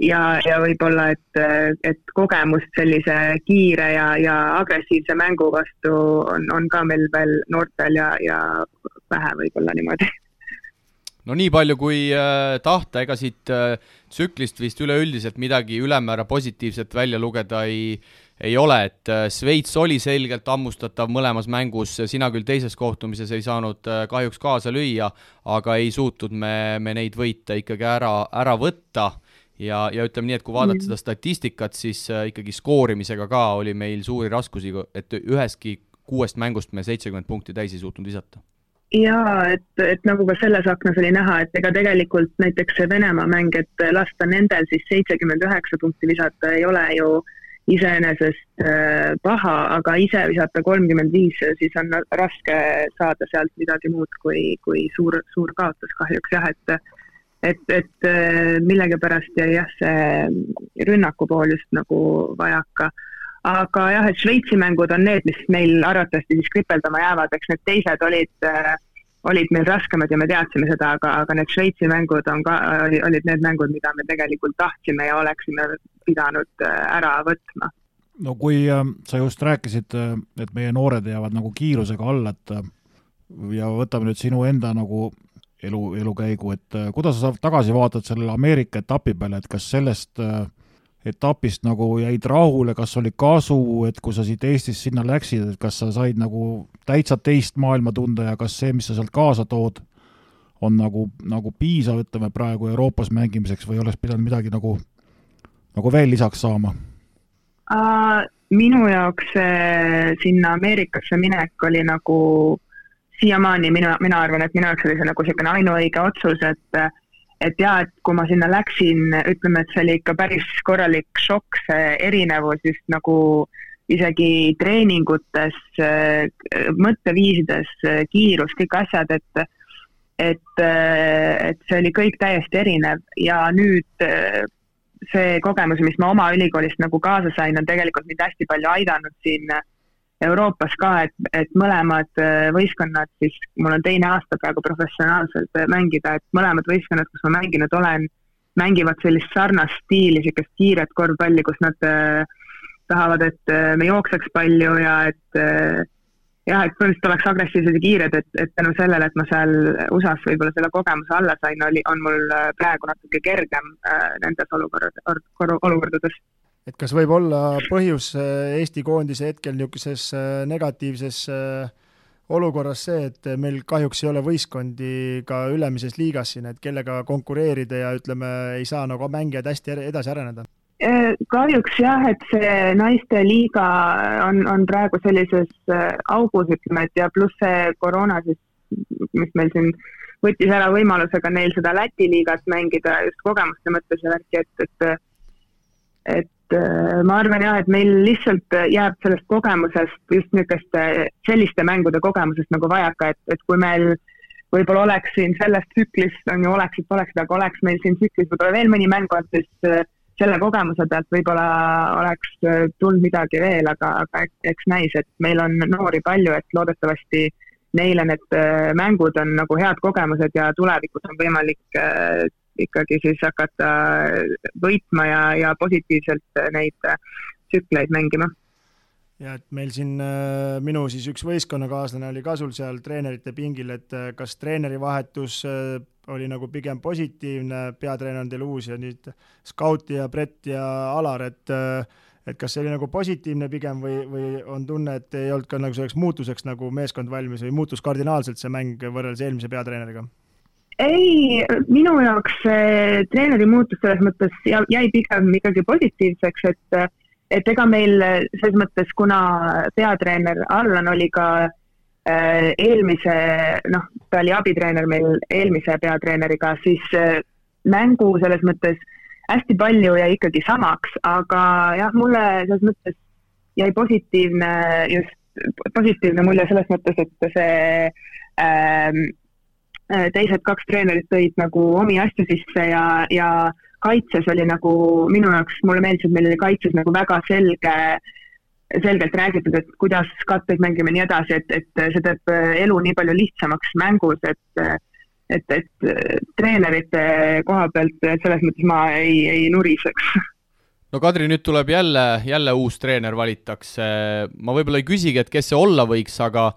S5: ja võib-olla, et kogemust sellise kiire ja agressiivse mängu vastu on ka meil veel noortel ja vähe võib-olla niimoodi.
S2: No nii palju kui tahta, ega siit tsüklist vist üleüldiselt midagi ülemäära positiivset välja lugeda ei ole, et Šveits oli selgelt ammustatav mõlemas mängus, sina küll teises kohtumises ei saanud kahjuks kaasa lüüa, aga ei suutnud me neid võita ikkagi ära võtta ja ütleme nii, et kui vaadata seda statistikat, siis ikkagi skoorimisega ka oli meil suuri raskusi, et üheski 6 mängust me 70 punkti täis ei suutnud visata.
S5: Jaa, et nagu ka selles aknas oli näha, et ega tegelikult näiteks see Venemaa mäng, et lasta nendel siis 79 punkti visata ei ole ju iseenesest paha, aga ise visata 35, siis on raske saada sealt midagi muud kui suur kaotus kahjuks jah, et millegipärast jäi jah see rünnaku pool just nagu vajaka. Aga jah, et Šveitsi mängud on need, mis meil arvatavasti siis kripeldama jäävad, eks need teised olid meil raskemad ja me teadsime seda, aga need Šveitsi mängud olid need mängud, mida me tegelikult tahtsime ja oleksime pidanud ära võtma.
S3: No kui sa just rääkisid, et meie noored jäävad nagu kiirusega alla, ja võtame nüüd sinu enda nagu elukäigu, et kuidas sa tagasi vaatad sellele Ameerika etapi peale, et kas sellest etapist nagu jäid rahule, kas oli kasu, et kui sa siit Eestist sinna läksid, et kas sa said nagu täitsa teist maailma tunda ja kas see, mis sa sealt kaasa tood, on nagu piisav, ütleme praegu Euroopas mängimiseks või oleks pidanud midagi nagu veel lisaks saama?
S5: Minu jaoks sinna Ameerikasse minek oli nagu siiamaani, mina arvan, et minu jaoks oli see nagu selline ainuõige otsus, et jah, et kui ma sinna läksin, ütleme, et see oli ikka päris korralik šokk, see erinevus just nagu isegi treeningutes, mõtteviisides, kiirus, kõik asjad, et see oli kõik täiesti erinev ja nüüd see kogemus, mis ma oma ülikoolist nagu kaasa sain, on tegelikult mind hästi palju aidanud siin Euroopas ka, et mõlemad võistkonnad, siis mul on 2 aasta praegu professionaalselt mängida, et mõlemad võistkonnad, kus ma mänginud olen, mängivad sellist sarnast stiili, sellist kiiret korvpalli, kus nad tahavad, et me jookseks palju ja et põhimõtteliselt oleks agressiivsed ja kiired, et tänu sellele, et ma seal USAs võib-olla selle kogemuse alla sain, on mul praegu natuke kergem nendes olukordades.
S4: Et kas võib olla põhjus Eesti koondise hetkel niisuguses negatiivses olukorras see, et meil kahjuks ei ole võistkondi ka ülemises liigas siin, et kellega konkureerida ja ütleme, ei saa nagu mängijad hästi edasi areneda?
S5: Kahjuks jah, et see naiste liiga on praegu sellises augus, ütleme, et ja pluss see koroona, siis, mis meil siin võttis ära võimalusega neil seda Läti liigat mängida just kogemuste mõttes ja värki, et ma arvan jah, et meil lihtsalt jääb sellest kogemusest just niisuguste selliste mängude kogemusest nagu vajaka, et kui meil võib-olla oleks siin sellest tsüklist, on ju oleksid, aga oleks meil siin tsüklis võib-olla veel mõni mäng, siis selle kogemuse pealt võib-olla oleks tulnud midagi veel, aga eks näis, et meil on noori palju, et loodetavasti neile need mängud on nagu head kogemused ja tulevikus on võimalik ikkagi siis hakata võitma ja positiivselt neid tsükleid mängima.
S4: Ja et meil siin minu siis üks võistkonnakaaslane oli ka sul seal treenerite pingil, et kas treeneri vahetus oli nagu pigem positiivne, peatreener on teil uus ja nüüd Scout ja Brett ja Alar, et kas see oli nagu positiivne pigem või on tunne, et ei olnud ka nagu selleks muutuseks nagu meeskond valmis või muutus kardinaalselt see mäng võrreldes eelmise peatreeneriga?
S5: Ei, minu jaoks treeneri muutus selles mõttes jäi pigem ikkagi positiivseks, et ega meil selles mõttes, kuna peatreener Allan oli ka eelmise, ta oli abitreener meil eelmise peatreeneriga, siis mängu selles mõttes hästi palju jäi ikkagi samaks, aga jah, mulle selles mõttes jäi positiivne mulje selles mõttes, et see teised 2 treenerit tõid nagu omi asju sisse ja kaitses oli nagu minu jaoks, mulle meeldis, et meil oli kaitses nagu väga selgelt räägitud, et kuidas katteid mängime nii edasi, et see teeb elu nii palju lihtsamaks mängus, treenerite koha pealt selles mõttes ma ei nuriseks.
S2: No Kadri, nüüd tuleb jälle uus treener valitakse. Ma võib-olla ei küsigi, et kes see olla võiks, aga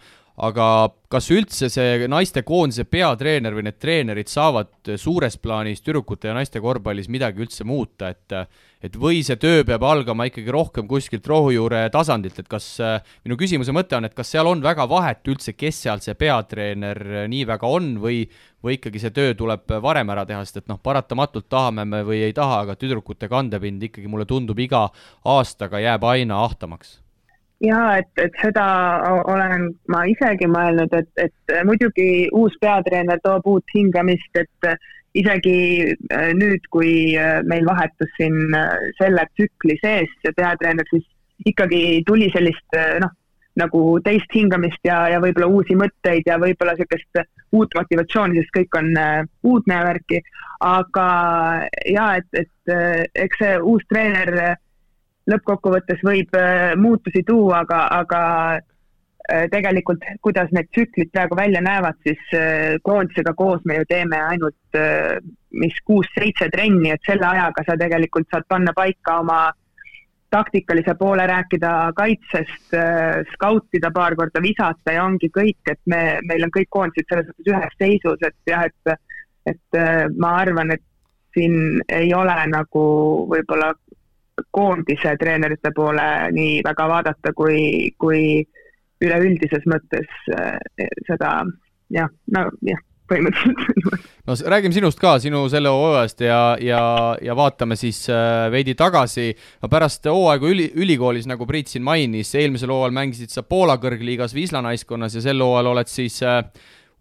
S2: kas üldse see naiste koondise peatreener või need treenerid saavad suures plaanis tüdrukute ja naiste korvpallis midagi üldse muuta, et või see töö peab algama ikkagi rohkem kuskilt rohujuure tasandilt, et kas, minu küsimuse mõte on, et kas seal on väga vahet üldse, kes seal see peatreener nii väga on või ikkagi see töö tuleb varem ära teha, sest et paratamatult tahame me või ei taha, aga tüdrukute kandepind ikkagi mulle tundub iga aastaga jääb aina ahtamaks.
S5: Ja, et seda olen ma isegi mõelnud, et muidugi uus peatreener toob uut hingamist, et isegi nüüd, kui meil vahetus siin selle tsükli sees peatreener, siis ikkagi tuli sellist nagu teist hingamist ja võib-olla uusi mõtteid ja võib-olla sellist uut motivatsiooni, sest kõik on uudne värki, aga ja, et eks see uus treener lõppkokkuvõttes võib muutusi tuua, aga tegelikult, kuidas need tsüklid praegu välja näevad, siis koondisega koos me ju teeme ainult 6-7 trenni, et selle ajaga sa tegelikult saad panna paika oma taktikalise poole, rääkida kaitsest, skautida paar korda, visata ja ongi kõik, et meil on kõik koondised selles mõttes ühes seisus, et jah, et ma arvan, et siin ei ole nagu võib-olla koondise treenerite poole nii väga vaadata, kui üleüldises mõttes seda, põhimõtteliselt.
S2: No räägime sinust ka, sinu selle hooajast ja vaatame siis veidi tagasi. Pärast hooaegu ülikoolis, nagu Priit siin mainis, eelmisel hooajal mängisid sa Poola kõrgliigas Wisla naiskonnas ja sel hooajal oled siis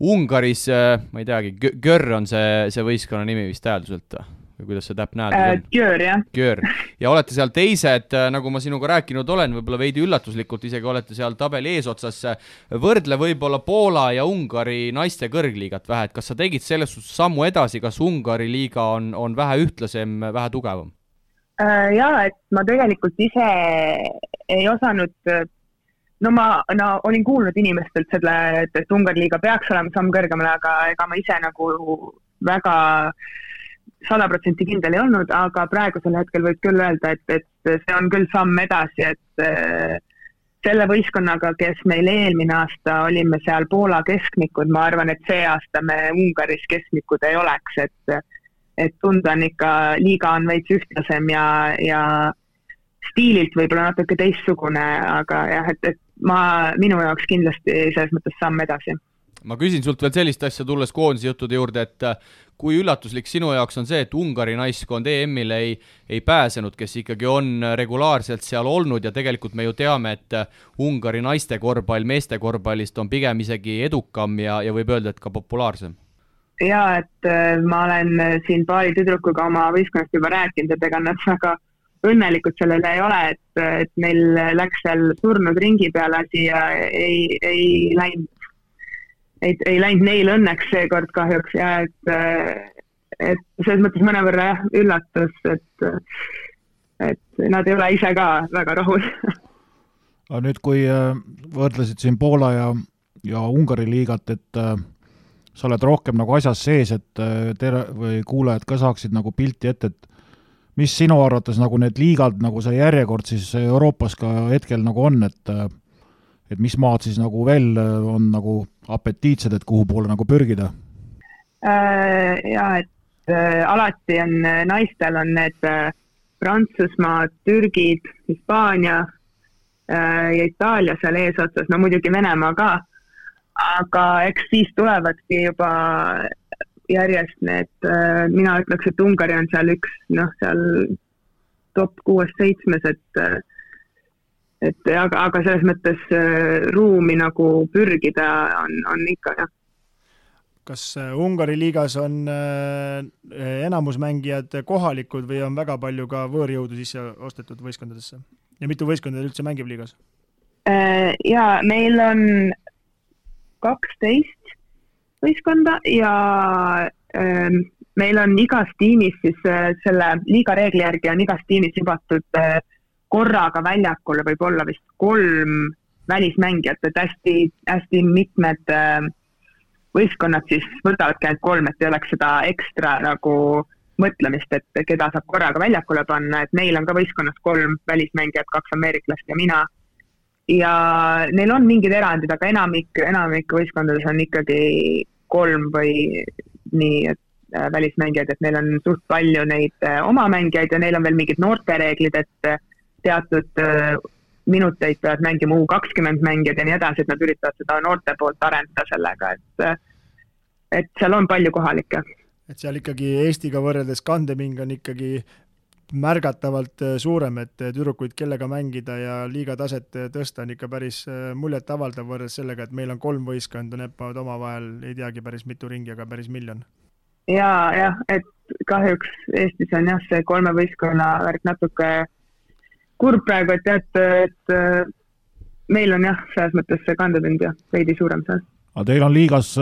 S2: Ungaris, ma ei teagi, Gör on see võistkonna nimi vist tähelduselt või kuidas see täpne hääldus on?
S5: Gör, jah.
S2: Gör. Ja olete seal teised, nagu ma sinuga rääkinud olen, võib-olla veidi üllatuslikult isegi olete seal tabeli eesotsas. Võrdle võib-olla Poola ja Ungari naiste kõrgliigat vähe, et kas sa tegid selles sammu edasi, kas Ungari liiga on vähe ühtlasem, vähe tugevam?
S5: Ja, et ma tegelikult ise ei osanud, ma olin kuulnud inimestelt selle, et Ungari liiga peaks olema samm kõrgemale, aga ega ma ise nagu väga 100% kindel ei olnud, aga praegusel hetkel võib küll öelda, et see on küll samm edasi, et selle võistkonnaga, kes meil eelmine aasta olime seal Poola keskmikud, ma arvan, et see aasta me Ungaris keskmikud ei oleks, et tunda on ikka, liiga on veits ühtlasem ja stiililt võib-olla natuke teistsugune, aga jah, et minu jaoks kindlasti selles mõttes samm edasi.
S2: Ma küsin sult veel sellist asja tulles koondise juttude juurde, et kui üllatuslik sinu jaoks on see, et Ungari naiskond EM-ile ei pääsenud, kes ikkagi on regulaarselt seal olnud ja tegelikult me ju teame, et Ungari naiste korvpall meeste korvpallist on pigem isegi edukam ja võib öelda, et ka populaarsem.
S5: Ja, et ma olen siin paari tüdrukuga oma võistkonnast juba rääkinud, et ega nad väga õnnelikud sellele ei ole, et meil läks seal surnud ringi peale asi ja ei läinud neil õnneks seekord kahjuks ja et selles mõttes mõnevõrra üllatus, et nad ei ole ise ka väga rahul.
S3: Aga nüüd, kui võrdlesid siin Poola ja Ungari liigat, et sa oled rohkem nagu asjas sees, et või kuulajad ka saaksid nagu pilti ette, et mis sinu arvates nagu need liigad, nagu see järjekord siis Euroopas ka hetkel nagu on, et mis maad siis nagu veel on nagu apetiitsed, et kuhu poole nagu pürgida?
S5: Ja, et alati on naistel on need Prantsusmaa, Türgid, Hispaania ja Itaalia seal eesotsas, no muidugi Venemaa ka, aga eks siis tulevadki juba järjest need, mina ütleks, et Ungari on seal üks, seal top 6-7, aga selles mõttes ruumi nagu pürgida on ikka, jah.
S4: Kas Ungari liigas on enamusmängijad kohalikud või on väga palju ka võõrjõudu sisse ostetud võistkondadesse? Ja mitu võistkondade üldse mängib liigas?
S5: Ja meil on 12 võistkonda ja meil on igas tiimis siis selle liiga reegli järgi on igas tiimis jubatud korraga väljakule võib olla vist 3 välismängijat, et hästi mitmed võistkonnad siis võtavadki ainult 3, et ei oleks seda ekstra nagu mõtlemist, et keda saab korraga väljakule panna, et neil on ka võistkonnas 3 välismängijat, 2 ameeriklast ja mina. Ja neil on mingid erandid, aga enamik võistkondades on ikkagi 3 või nii välismängijad, et neil on suht palju neid oma mängijaid ja neil on veel mingid noortereeglid, et teatud minuteid peavad mängima U20 mängijad ja nii edasi, et nad üritavad seda noorte poolt arendada sellega, et seal on palju kohalikke.
S4: Et seal ikkagi Eestiga võrreldes kandeming on ikkagi märgatavalt suurem, et tüdrukuid kellega mängida ja liiga taset tõsta on ikka päris muljet avaldav võrreldes sellega, et meil on 3 võistkonda, neppavad omavahel, ei teagi päris mitu ringi, aga päris miljon.
S5: Ja, et kahjuks Eestis on jah see 3 võistkonna värk natuke kurb praegu, et meil on jah, selles mõttes see kandeming ja veidi suurem seal.
S3: Aga teil on liigas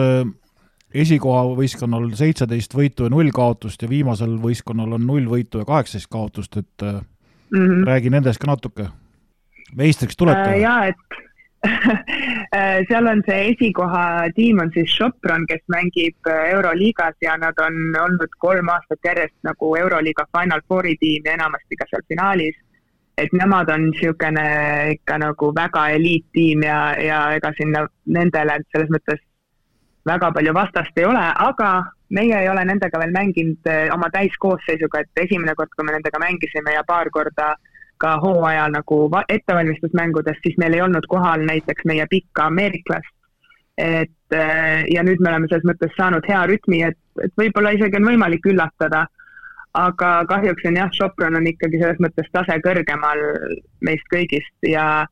S3: esikoha võistkonnal 17 võitu ja 0 kaotust ja viimasel võistkonnal on 0 võitu ja 18 kaotust, et räägi nendest ka natuke. Meistriks tulete?
S5: Jaa, et seal on see esikoha tiim on siis Sopron, kes mängib Euroliigas ja nad on olnud 3 aastat järjest nagu Euroliiga Final Fouri tiim ja enamasti ka seal finaalis. Et nemad on niisugune ikka nagu väga eliittiim ja ega sinna nendele selles mõttes väga palju vastast ei ole, aga meie ei ole nendega veel mänginud oma täiskoosseisuga, et esimene kord, kui me nendega mängisime ja paar korda ka hooajal nagu ettevalmistusmängudest, siis meil ei olnud kohal näiteks meie pikka ameeriklast. Ja nüüd me oleme selles mõttes saanud hea rütmi, et võib-olla isegi on võimalik üllatada, aga kahjuks on jah, Sopron on ikkagi selles mõttes tase kõrgemal meist kõigist ja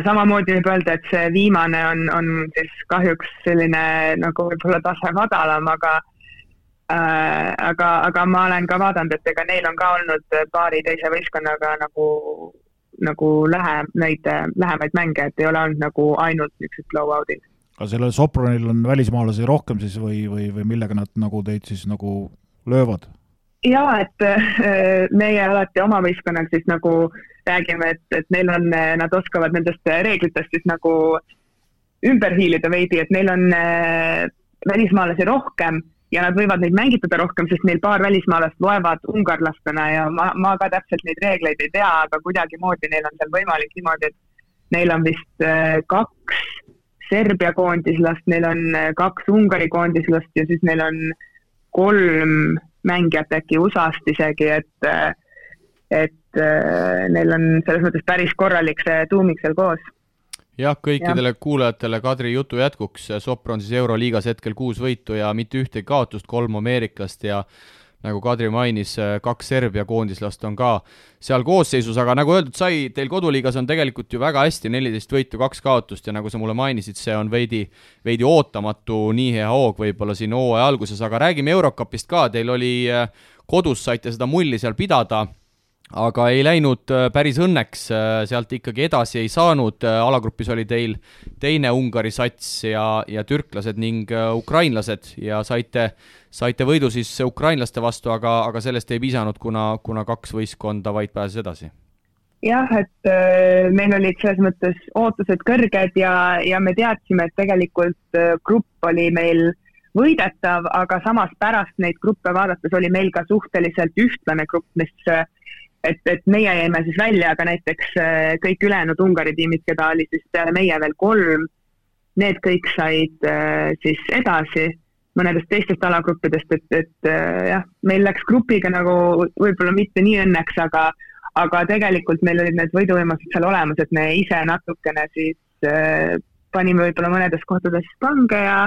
S5: samamoodi võib öelda, et see viimane on siis kahjuks selline nagu võib-olla tase madalam, aga ma olen ka vaadanud, et ega neil on ka olnud paari teise võistkonnaga nagu lähemaid mänge, et ei ole olnud nagu ainult niisugused blowoutid.
S3: Aga sellel Sopronil on välismaalasi rohkem siis või millega nad nagu teid siis nagu löövad?
S5: Jaa, et meie alati oma võistkonnal siis nagu räägime, et neil on, nad oskavad nendest reeglitest siis nagu ümber hiilida veidi, et neil on välismaalasi rohkem ja nad võivad neid mängitada rohkem, sest neil paar välismaalast loevad ungarlastena ja ma ka täpselt neid reegleid ei tea, aga kuidagi moodi neil on seal võimalik niimoodi, et neil on vist 2 Serbia koondislast, neil on 2 Ungari koondislast ja siis neil on 3 mängijat äkki USA-st isegi, et neil on selles mõttes päris korralik see tuumik seal koos.
S2: Jah, kõikidele kuulajatele Kadri jutu jätkuks, Sopron siis Euroliigas hetkel 6 võitu ja mitte ühtegi kaotust, 3 ameeriklast ja nagu Kadri mainis, 2 Serbia koondislast on ka seal koosseisus, aga nagu öeldud sai, teil koduliigas on tegelikult ju väga hästi 14 võitu, 2 kaotust ja nagu sa mulle mainisid, see on veidi ootamatu nii hea hoog võib-olla siin hooaja alguses, aga räägime Eurocupist ka, teil oli kodus, saite seda mulli seal pidada, aga ei läinud päris õnneks, sealt ikkagi edasi ei saanud, alagrupis oli teil teine Ungari sats ja türklased ning ukrainlased ja saite võidu siis ukrainlaste vastu, aga sellest ei piisanud, kuna 2 võistkonda vaid pääses edasi.
S5: Jah, et meil olid selles mõttes ootused kõrged ja me teadsime, et tegelikult grupp oli meil võidetav, aga samas pärast neid gruppe vaadates oli meil ka suhteliselt ühtlane grupp, mis et meie jäime siis välja, aga näiteks kõik ülejäänud Ungari tiimid, keda oli siis peale meie veel 3, need kõik said siis edasi mõnedest teistest alagruppidest, et jah, meil läks grupiga nagu võib-olla mitte nii õnneks, aga tegelikult meil olid need võiduvõimased seal olemas, et me ise natukene siis panime võib-olla mõnedes kohtades pange ja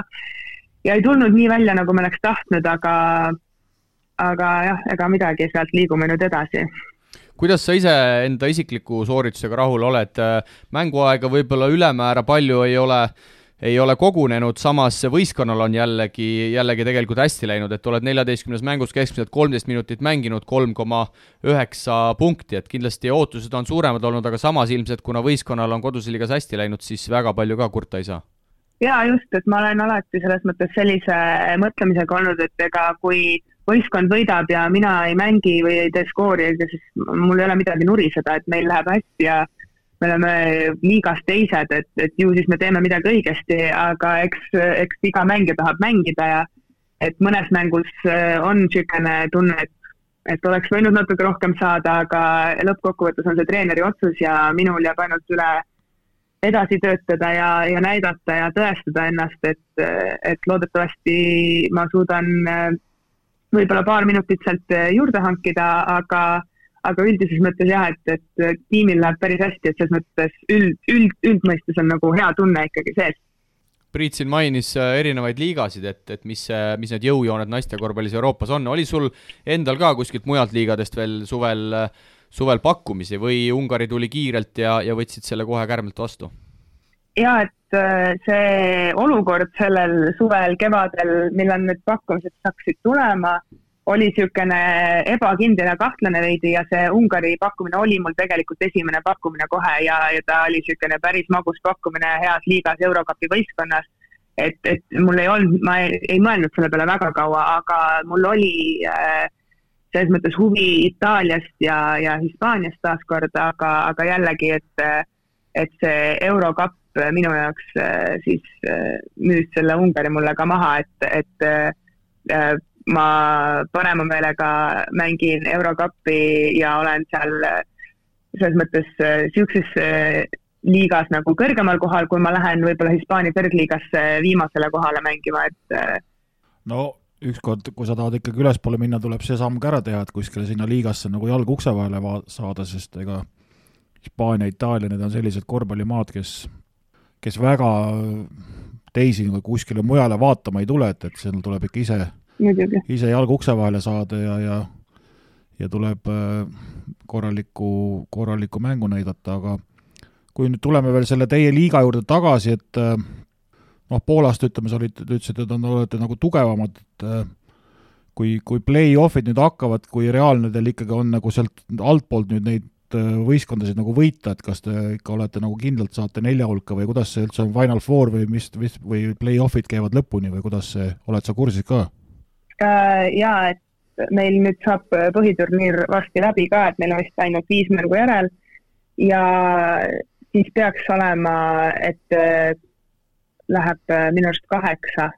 S5: ei tulnud nii välja, nagu me oleks tahtnud, aga jah, ega midagi, sealt liigume nüüd edasi.
S2: Kuidas sa ise enda isikliku sooritusega rahul oled? Mänguaega võib-olla ülemäära palju ei ole kogunenud, samas võistkonnal on jällegi tegelikult hästi läinud, et oled 14 mängus keskmiselt 13 minutit mänginud, 3,9 punkti, et kindlasti ootused on suuremad olnud, aga samas ilmselt, kuna võistkonnal on kodusliigas hästi läinud, siis väga palju ka kurta ei saa.
S5: Jaa, just, et ma olen alati selles mõttes sellise mõtlemisega olnud, et ega kui võistkond võidab ja mina ei mängi või ei tee skoori, siis mul ei ole midagi nuriseda, et meil läheb hästi ja me oleme liigas teised, et ju siis me teeme midagi õigesti, aga eks iga mängija tahab mängida ja et mõnes mängus on niisugune tunne, et oleks võinud natuke rohkem saada, aga lõppkokkuvõttes on see treeneri otsus ja minul jääb ainult üle edasi töötada ja näidata ja tõestada ennast, et loodetavasti ma suudan võib-olla paar minutit sealt juurde hankida, aga üldises mõttes jah, et tiimil läheb päris hästi, et selles mõttes üldmõistes on nagu hea tunne ikkagi sees.
S2: Priit siin mainis erinevaid liigasid, et mis need jõujooned naiste korvpallis Euroopas on. Oli sul endal ka kuskilt mujalt liigadest veel suvel pakkumisi või Ungari tuli kiirelt ja võtsid selle kohe kärmelt vastu?
S5: Ja, et see olukord sellel suvel, kevadel, millal need pakkumised saaksid tulema, oli niisugune ebakindel ja kahtlane veidi ja see Ungari pakkumine oli mul tegelikult esimene pakkumine kohe ja ta oli niisugune päris magus pakkumine heas liigas Eurocupi võistkonnas. Et mul ei olnud, ma ei mõelnud selle peale väga kaua, aga mul oli selles mõttes huvi Itaaliast ja Hispaaniast taaskord, aga jällegi, et see Eurocup minu jaoks siis müüs selle Ungari mulle ka maha, et ma parema meelega mängin Eurocupi ja olen seal selles mõttes siukses liigas nagu kõrgemal kohal, kui ma lähen võib-olla Hispaania kõrgliigasse viimasele kohale mängima, et
S3: no ükskord, kui sa tahad ikkagi ülespoole minna, tuleb see samm ka ära teha, et kuskile sinna liigasse nagu jalg ukse vahele saada, sest ega Hispaania, Itaalia, need on sellised korvpallimaad, kes väga teisi kuskile mujale vaatama ei tule, et seal tuleb ikka ise jalg ukse vahele saada ja tuleb korralikku mängu näidata, aga kui nüüd tuleme veel selle teie liiga juurde tagasi, et Poolast ütleme, sa ütlesid, et olete nagu tugevamad, et kui play-offid nüüd hakkavad, kui reaalne teil ikkagi on nagu sealt altpoolt nüüd neid võistkondasid nagu võita, et kas te ikka olete nagu kindlalt saate 4 hulka või kuidas see üldse on Final Four või play-offid käivad lõpuni või kuidas see, oled sa kursis ka?
S5: Jaa, et meil nüüd saab põhiturniir varsti läbi ka, et meil on vist ainult 5 mängu järel ja siis peaks olema, et läheb minu arust 8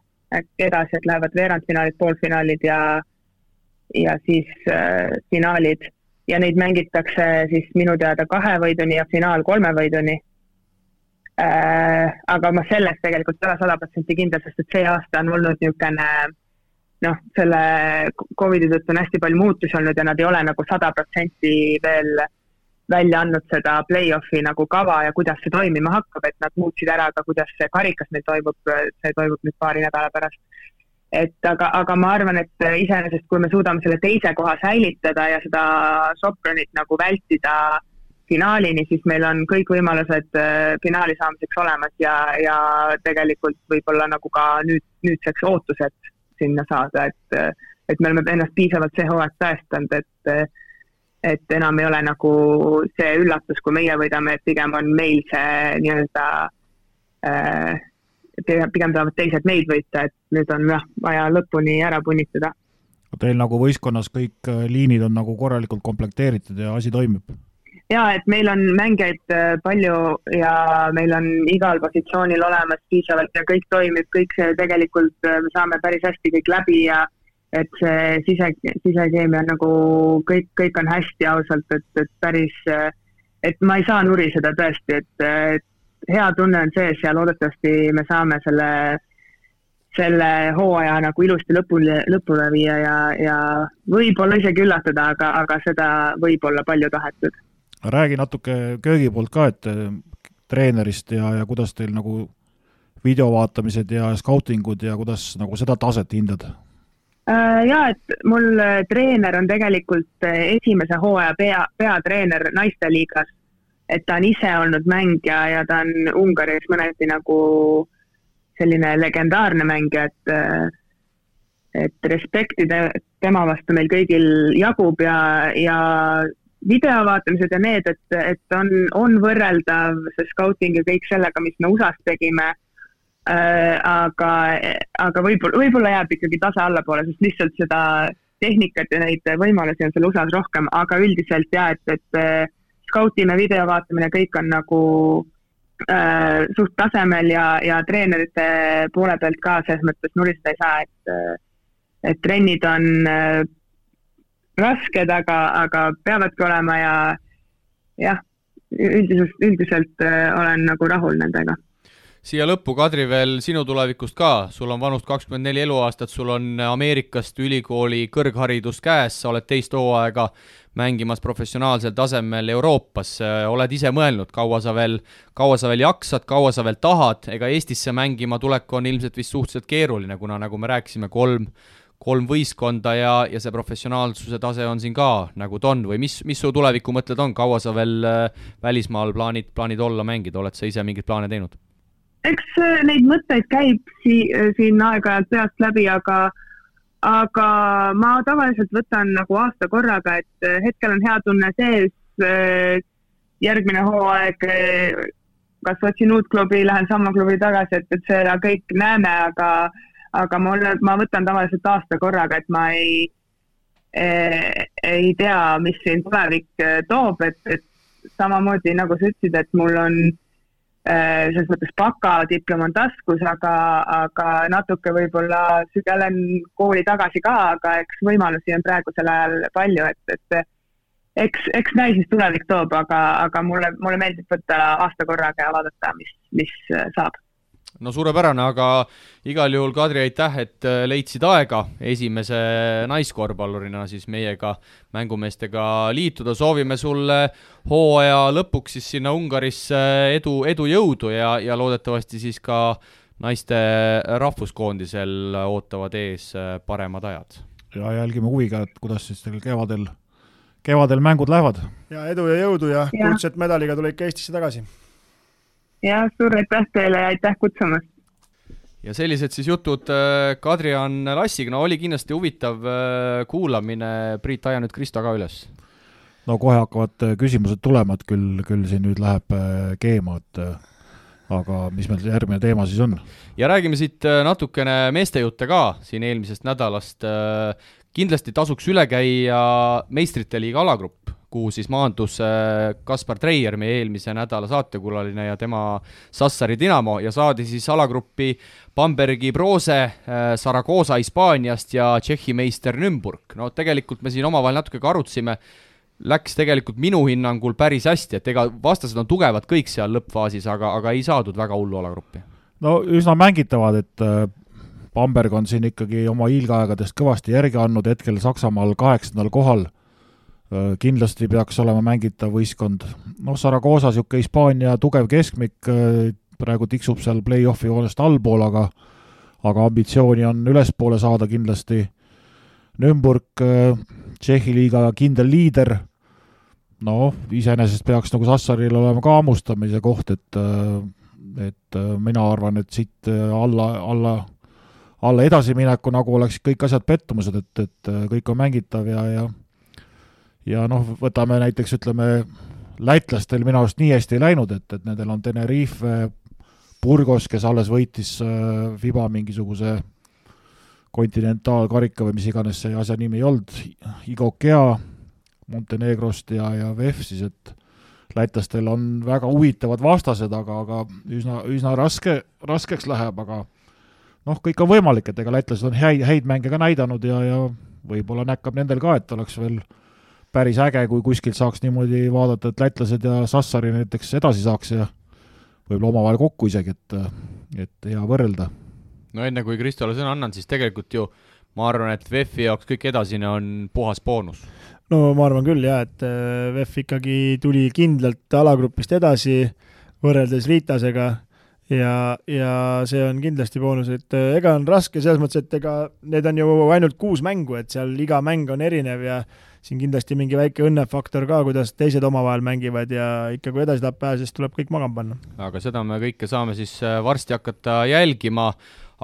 S5: edasi, et lähevad veerandfinaalid, poolfinaalid ja siis finaalid ja neid mängitakse siis minu teada 2 võiduni ja finaal 3 võiduni. Aga ma sellest tegelikult ei ole 100% kindel, sest et see aasta on olnud niisugune selle COVID-i tõttu on hästi palju muutusi olnud ja nad ei ole nagu 100% veel välja andnud seda play-offi nagu kava ja kuidas see toimima hakkab, et nad muutsid ära ka, kuidas see karikas meil toimub, see toimub nüüd paari nädala pärast. Aga ma arvan, et iseenesest, kui me suudame selle teise koha säilitada ja seda Sopronit nagu vältida finaalini, siis meil on kõik võimalused finaali saamiseks olemas ja tegelikult võib-olla nagu ka nüüdseks ootused sinna saada, et me oleme ennast piisavalt see hooaeg tõestanud, et enam ei ole nagu see üllatus, kui meie võidame, et pigem on meil see nii-öelda, pigem tahavad teised meid võita, et nüüd on vaja lõpuni ära punnitada.
S3: Teil nagu võistkonnas kõik liinid on nagu korralikult komplekteeritud ja asi toimib?
S5: Jaa, et meil on mängijaid palju ja meil on igal positsioonil olemas piisavalt ja kõik toimib, kõik see tegelikult me saame päris hästi kõik läbi ja et see sisekeemia nagu kõik on hästi ausalt, et päris, et ma ei saa nuriseda tõesti, et hea tunne on sees ja loodetavasti me saame selle hooaja nagu ilusti lõpule viia ja võib-olla isegi üllatada, aga seda võib olla palju tahetud.
S3: Räägi natuke köögi poolt ka, et treenerist ja kuidas teil nagu videovaatamised ja skautingud ja kuidas nagu seda taset hindad?
S5: Jaa, et mul treener on tegelikult esimese hooaja peatreener naisteliigas, et ta on ise olnud mängija ja ta on Ungaris mõneti nagu selline legendaarne mängija, et respekti tema vastu meil kõigil jagub ja videovaatamised ja need, et on võrreldav see scouting ja kõik sellega, mis me USA-s tegime, aga võib-olla jääb ikkagi tase allapoole, sest lihtsalt seda tehnikat ja neid võimalusi on seal USA-s rohkem, aga üldiselt jah, et skautime, video vaatamine, kõik on nagu suht tasemel ja treenerite poole pealt ka selles mõttes nuristada ei saa, et trennid on rasked, aga peavadki olema ja jah, üldiselt olen nagu rahul nendega.
S2: Siia lõppu, Kadri, veel sinu tulevikust ka, sul on vanust 24 eluaastat, sul on Ameerikast ülikooli kõrgharidus käes, sa oled teist hooaega mängimas professionaalsel tasemel Euroopas, oled ise mõelnud, kaua sa veel jaksad, kaua sa veel tahad, ega Eestisse mängima tulek on ilmselt vist suhteliselt keeruline, kuna nagu me rääkisime, kolm võistkonda ja see professionaalsuse tase on siin ka nagu ta on või mis su tuleviku mõtted on, kaua sa veel välismaal plaanid olla mängida, oled sa ise mingeid plaane teinud?
S5: Eks neid mõtteid käib siin aeg-ajalt peast läbi, aga ma tavaliselt võtan nagu aasta korraga, et hetkel on hea tunne sees, järgmine hooaeg, kas otsin uut klubi, lähen sama klubi tagasi, et seda kõik näeme, aga ma võtan tavaliselt aasta korraga, et ma ei tea, mis siin tulevik toob, et samamoodi nagu sa ütlesid, et mul on selles mõttes bakadiplom on taskus, aga natuke võib-olla sügelen kooli tagasi ka, aga eks võimalusi on praegusel ajal palju, et eks näis, mis tulevik toob, aga mulle meeldib võtta aasta korraga ja vaadata, mis saab.
S2: No suurepärane, aga igal juhul, Kadri, aitäh, et leidsid aega esimese naiskorvpallurina siis meiega mängumeestega liituda. Soovime sulle hooaja lõpuks siis sinna Ungarisse edu jõudu ja loodetavasti siis ka naiste rahvuskoondisel ootavad ees paremad ajad.
S3: Ja jälgime huviga, et kuidas siis teil kevadel mängud lähevad.
S4: Ja edu ja jõudu ja kuldset medaliga tule ikka Eestisse tagasi.
S5: Ja suur aitäh teile ja aitäh kutsumast.
S2: Ja sellised siis jutud Kadri-Ann Lassiga, no oli kindlasti huvitav kuulamine, Priit, aja nüüd Kristo ka üles.
S3: No kohe hakkavad küsimused tulema, et küll siin nüüd läheb keema, aga mis meil järgmine teema siis on?
S2: Ja räägime siit natukene meestejutte ka siin eelmisest nädalast. Kindlasti tasuks üle käia Meistrite liiga alagrupp, kuhu siis maandus Kaspar Treier, meie eelmise nädala saatekulaline ja tema Sassari Dinamo ja saadi siis alagruppi Bambergi Brose, Saragoza Hispaaniast ja Tšehhi meister Nürnberg. No tegelikult me siin omavahel natuke ka arutsime, läks tegelikult minu hinnangul päris hästi, et ega vastased on tugevad kõik seal lõppfaasis, aga ei saadud väga hullu alagruppi.
S3: No üsna mängitavad, et Bamberg on siin ikkagi oma hiilgeaegadest kõvasti järgi andnud, hetkel Saksamaal 8. kohal, kindlasti peaks olema mängitav võistkond. No Saragoza siuke Hispaania tugev keskmik, praegu tiksub seal play-offi joonest allpool, aga ambitsiooni on ülespoole saada kindlasti. Nürnberg, Tšehhi liiga kindel liider, no iseenesest peaks nagu Sassaril olema ka ammustamise koht, et mina arvan, et siit alla edasimineku nagu oleks kõik asjad pettumused, et kõik on mängitav ja noh, võtame näiteks, ütleme, lätlastel minu arust nii hästi ei läinud, et nendel on Tenerife, Burgos, kes alles võitis FIBA mingisuguse kontinentaalkarika või mis iganes see asja nimi ei olnud, Igokea Montenegrost ja VEF siis, et lätlastel on väga huvitavad vastased, aga üsna raskeks läheb, aga noh, kõik on võimalik, et ega lätlased on häid mänge ka näidanud ja võib-olla näkkab nendel ka, et oleks veel päris äge, kui kuskilt saaks niimoodi vaadata, et lätlased ja Sassari näiteks edasi saaks ja võib-olla omavahel kokku isegi, et hea võrrelda.
S2: No enne kui Kristole sõna annan, siis tegelikult ju ma arvan, et VEF-i jaoks kõik edasine on puhas boonus.
S4: No ma arvan küll jah, et VEF ikkagi tuli kindlalt alagrupist edasi võrreldes Riitasega ja see on kindlasti boonus, et ega on raske selles mõttes, et ega need on ju ainult 6 mängu, et seal iga mäng on erinev ja siin kindlasti mingi väike õnnefaktor ka, kuidas teised omavahel mängivad ja ikka kui edasi tahab pääsest, tuleb kõik magama panna.
S2: Aga seda me kõike saame siis varsti hakata jälgima,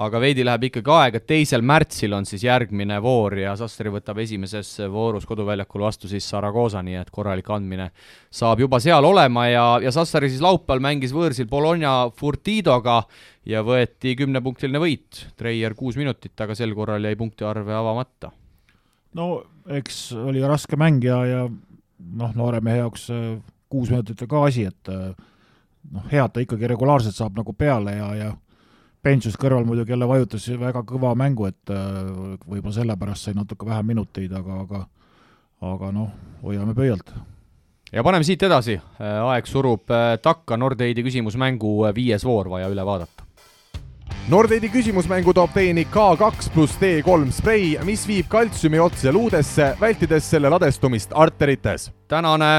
S2: aga veidi läheb ikkagi aega, 2. märtsil on siis järgmine voor ja Sassari võtab esimeses voorus koduväljakul vastu siis Saragoza, nii et korralik andmine saab juba seal olema ja Sassari siis laupäeval mängis võõrsil Bologna Furtidoga ja võeti 10-punktiline võit, Treier 6 minutit, aga sel korral jäi punktiarve avamata.
S3: No eks oli raske mäng ja noh, noore mehe jaoks 6 minutit ka asi, et head ta ikkagi regulaarselt saab nagu peale ja Pensus kõrval muidugi jälle vajutas väga kõva mängu, et võib-olla sellepärast sai natuke vähem minuteid, aga hoiame pöialt.
S2: Ja paneme siit edasi, aeg surub takka, Nordeidi küsimusmängu 5. voor vaja üle vaadata.
S1: Nordeidi küsimusmängu toob teieni K2+D3 sprei, mis viib kaltsiumi otse luudesse, vältides selle ladestumist arterites.
S2: Tänane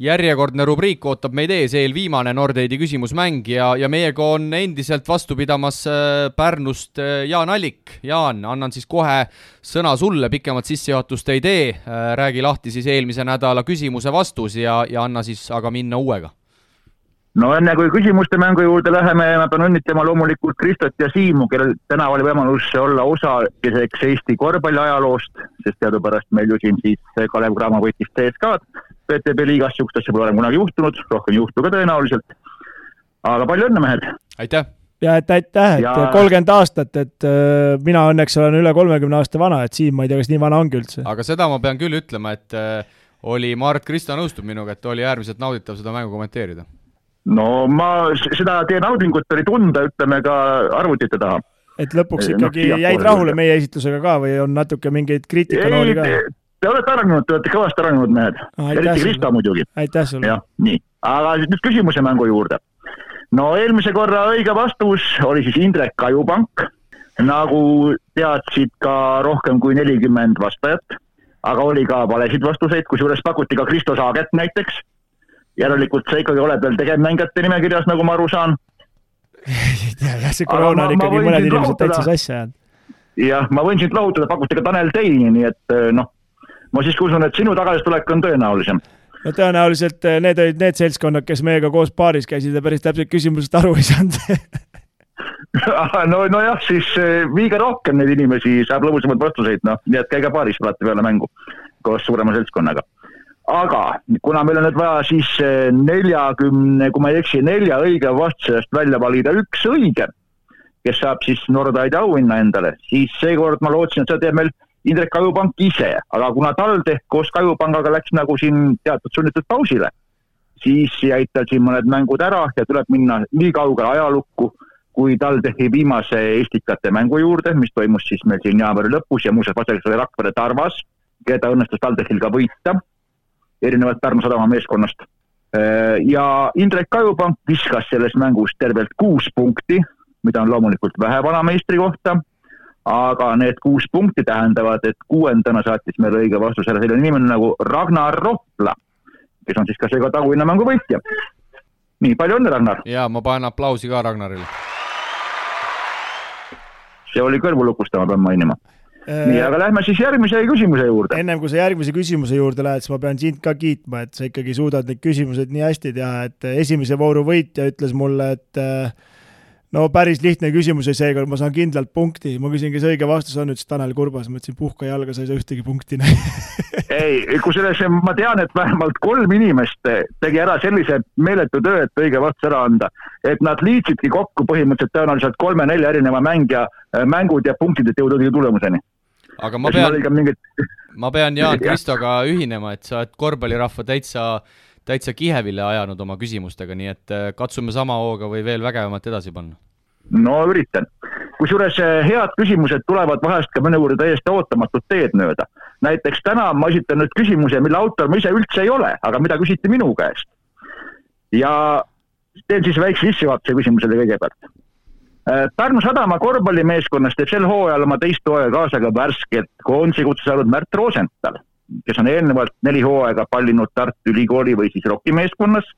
S2: järjekordne rubriik ootab meid ees, eelviimane Nordeidi küsimusmäng ja meiega on endiselt vastu pidamas Pärnust Jaan Allik. Jaan, annan siis kohe sõna sulle, pikemat sissejuhatust ei tee, räägi lahti siis eelmise nädala küsimuse vastus ja anna siis aga minna uuega.
S6: No enne kui küsimuste mängu juurde läheme, ma pean õnnitlema loomulikult Kristot ja Siimu, kellel täna oli võimalus olla osaliseks Eesti korvpalli ajaloost, sest teadupärast meil ju siin siis Kalev Cramo võitis CSKA'd. PTB liigas siukest asja pole kunagi juhtunud, rohkem juhtu ka tõenäoliselt. Aga palju õnne, mehed!
S2: Aitäh!
S4: Ja aitäh, et 30 aastat, et mina õnneks olen üle 30 aasta vana, et Siim, ma ei tea, kas nii vana ongi üldse.
S2: Aga seda ma pean küll ütlema, et oli Mart Krista nõustub minuga, et oli äärmiselt nauditav seda mängu kommenteerida.
S6: No ma seda teie naudingut oli tunda, ütleme ka arvutite taha.
S4: Et lõpuks ikkagi jäid rahule meie esitlusega ka või on natuke mingeid kriitikanooli ka?
S6: Te olete kõvasti arenenud mehed. Eriti Krista muidugi.
S4: Aitäh sulle.
S6: Ja, nii. Aga nüüd küsimuse mängu juurde. No eelmise korra õige vastus oli siis Indrek Kajupank. Nagu teadsid ka rohkem kui 40 vastajat. Aga oli ka valesid vastuseid, kusjuures pakuti ka Kristo Saaget näiteks. Järelikult see ikkagi oleb veel tegevmängijate nimekirjas, nagu ma aru saan.
S4: Ja see koroona on ikkagi mõned inimesed täitsa sassi jäänud.
S6: Jah, ma võin sind lahutada, pakuti ka Tanel Teini, nii et ma siis usun, et sinu tagasitulek on tõenäolisem.
S4: No tõenäoliselt need olid need seltskonnad, kes meiega koos paaris käisid ja päris täpselt küsimusest aru ei saanud.
S6: no jah, siis viige rohkem neid inimesi, saab lõbusamad vastuseid, nii et käige paaris alati peale mängu koos suurema seltskonnaga. Aga kuna meil on nüüd vaja siis 40, kui ma ei eksi, 4 õige vastusest välja valida 1 õige, kes saab siis Nordeidi auhinna endale, siis seekord ma lootsin, et seda teeb meil Indrek Kajupank ise, aga kuna TalTech koos Kajupangaga läks nagu siin teatud sunnitud pausile, siis jäid tal siin mõned mängud ära ja tuleb minna nii kaugele ajalukku, kui TalTechi viimase Estikate mängu juurde, mis toimus siis meil siin jaanuari lõpus ja muuseas vastaseks oli Rakvere Tarvas, keda õnnestus TalTechil ka võita, erinevalt Pärnu Sadama meeskonnast. Ja Indrek Kajupank viskas selles mängus tervelt 6 punkti, mida on loomulikult vähe vanameistri kohta, aga need 6 punkti tähendavad, et 6. saatis meil õige vastus ära selline inimene nagu Ragnar Rohpla, kes on siis ka seega taguinna mängu võitja. Nii, palju õnne, Ragnar!
S2: Ja ma panen aplausi ka Ragnarile.
S6: See oli kõrvulukustama, pean mainima. Nii, aga lähme siis järgmise küsimuse juurde.
S4: Ennem kui sa järgmise küsimuse juurde lähed, siis ma pean sind ka kiitma, et sa ikkagi suudad neid küsimused nii hästi teha, et esimese vooru võitja ütles mulle, et no päris lihtne küsimus ja seekord ma saan kindlalt punkti. Ma küsin, kes õige vastus on, ütles Tanel Kurbas. Ma ütlesin, puhka jalga, sa ei saa ühtegi punkti.
S6: Ei, kui selles ma tean, et vähemalt 3 inimest tegi ära sellise meeletu töö, et õige vastus ära anda. Et nad liitsidki kokku põhimõtteliselt tõenäoliselt 3-4 erineva mängud ja punktid, et jõudagi tulemuseni.
S2: Aga ma pean Jaan Kristoga ühinema, et sa oled korvpallirahva täitsa kihevile ajanud oma küsimustega, nii et katsume sama hooga või veel vägevamat edasi panna.
S6: No üritan. Kusjuures head küsimused tulevad vahest ka mõne juurde täiesti ootamatut teed mööda. Näiteks täna ma esitan nüüd küsimuse, mille autor ma ise üldse ei ole, aga mida küsiti minu käest. Ja teen siis väikse sissejuhatuse küsimusele kõigepealt. Pärnu Sadama korvpallimeeskonnast teeb sel hooajal oma 2. hooaega kaasa ka värskelt koondise kutse saanud Märt Rosenthal, kes on eelnevalt 4 hooaega pallinud Tartu Ülikooli või siis Rocki meeskonnas.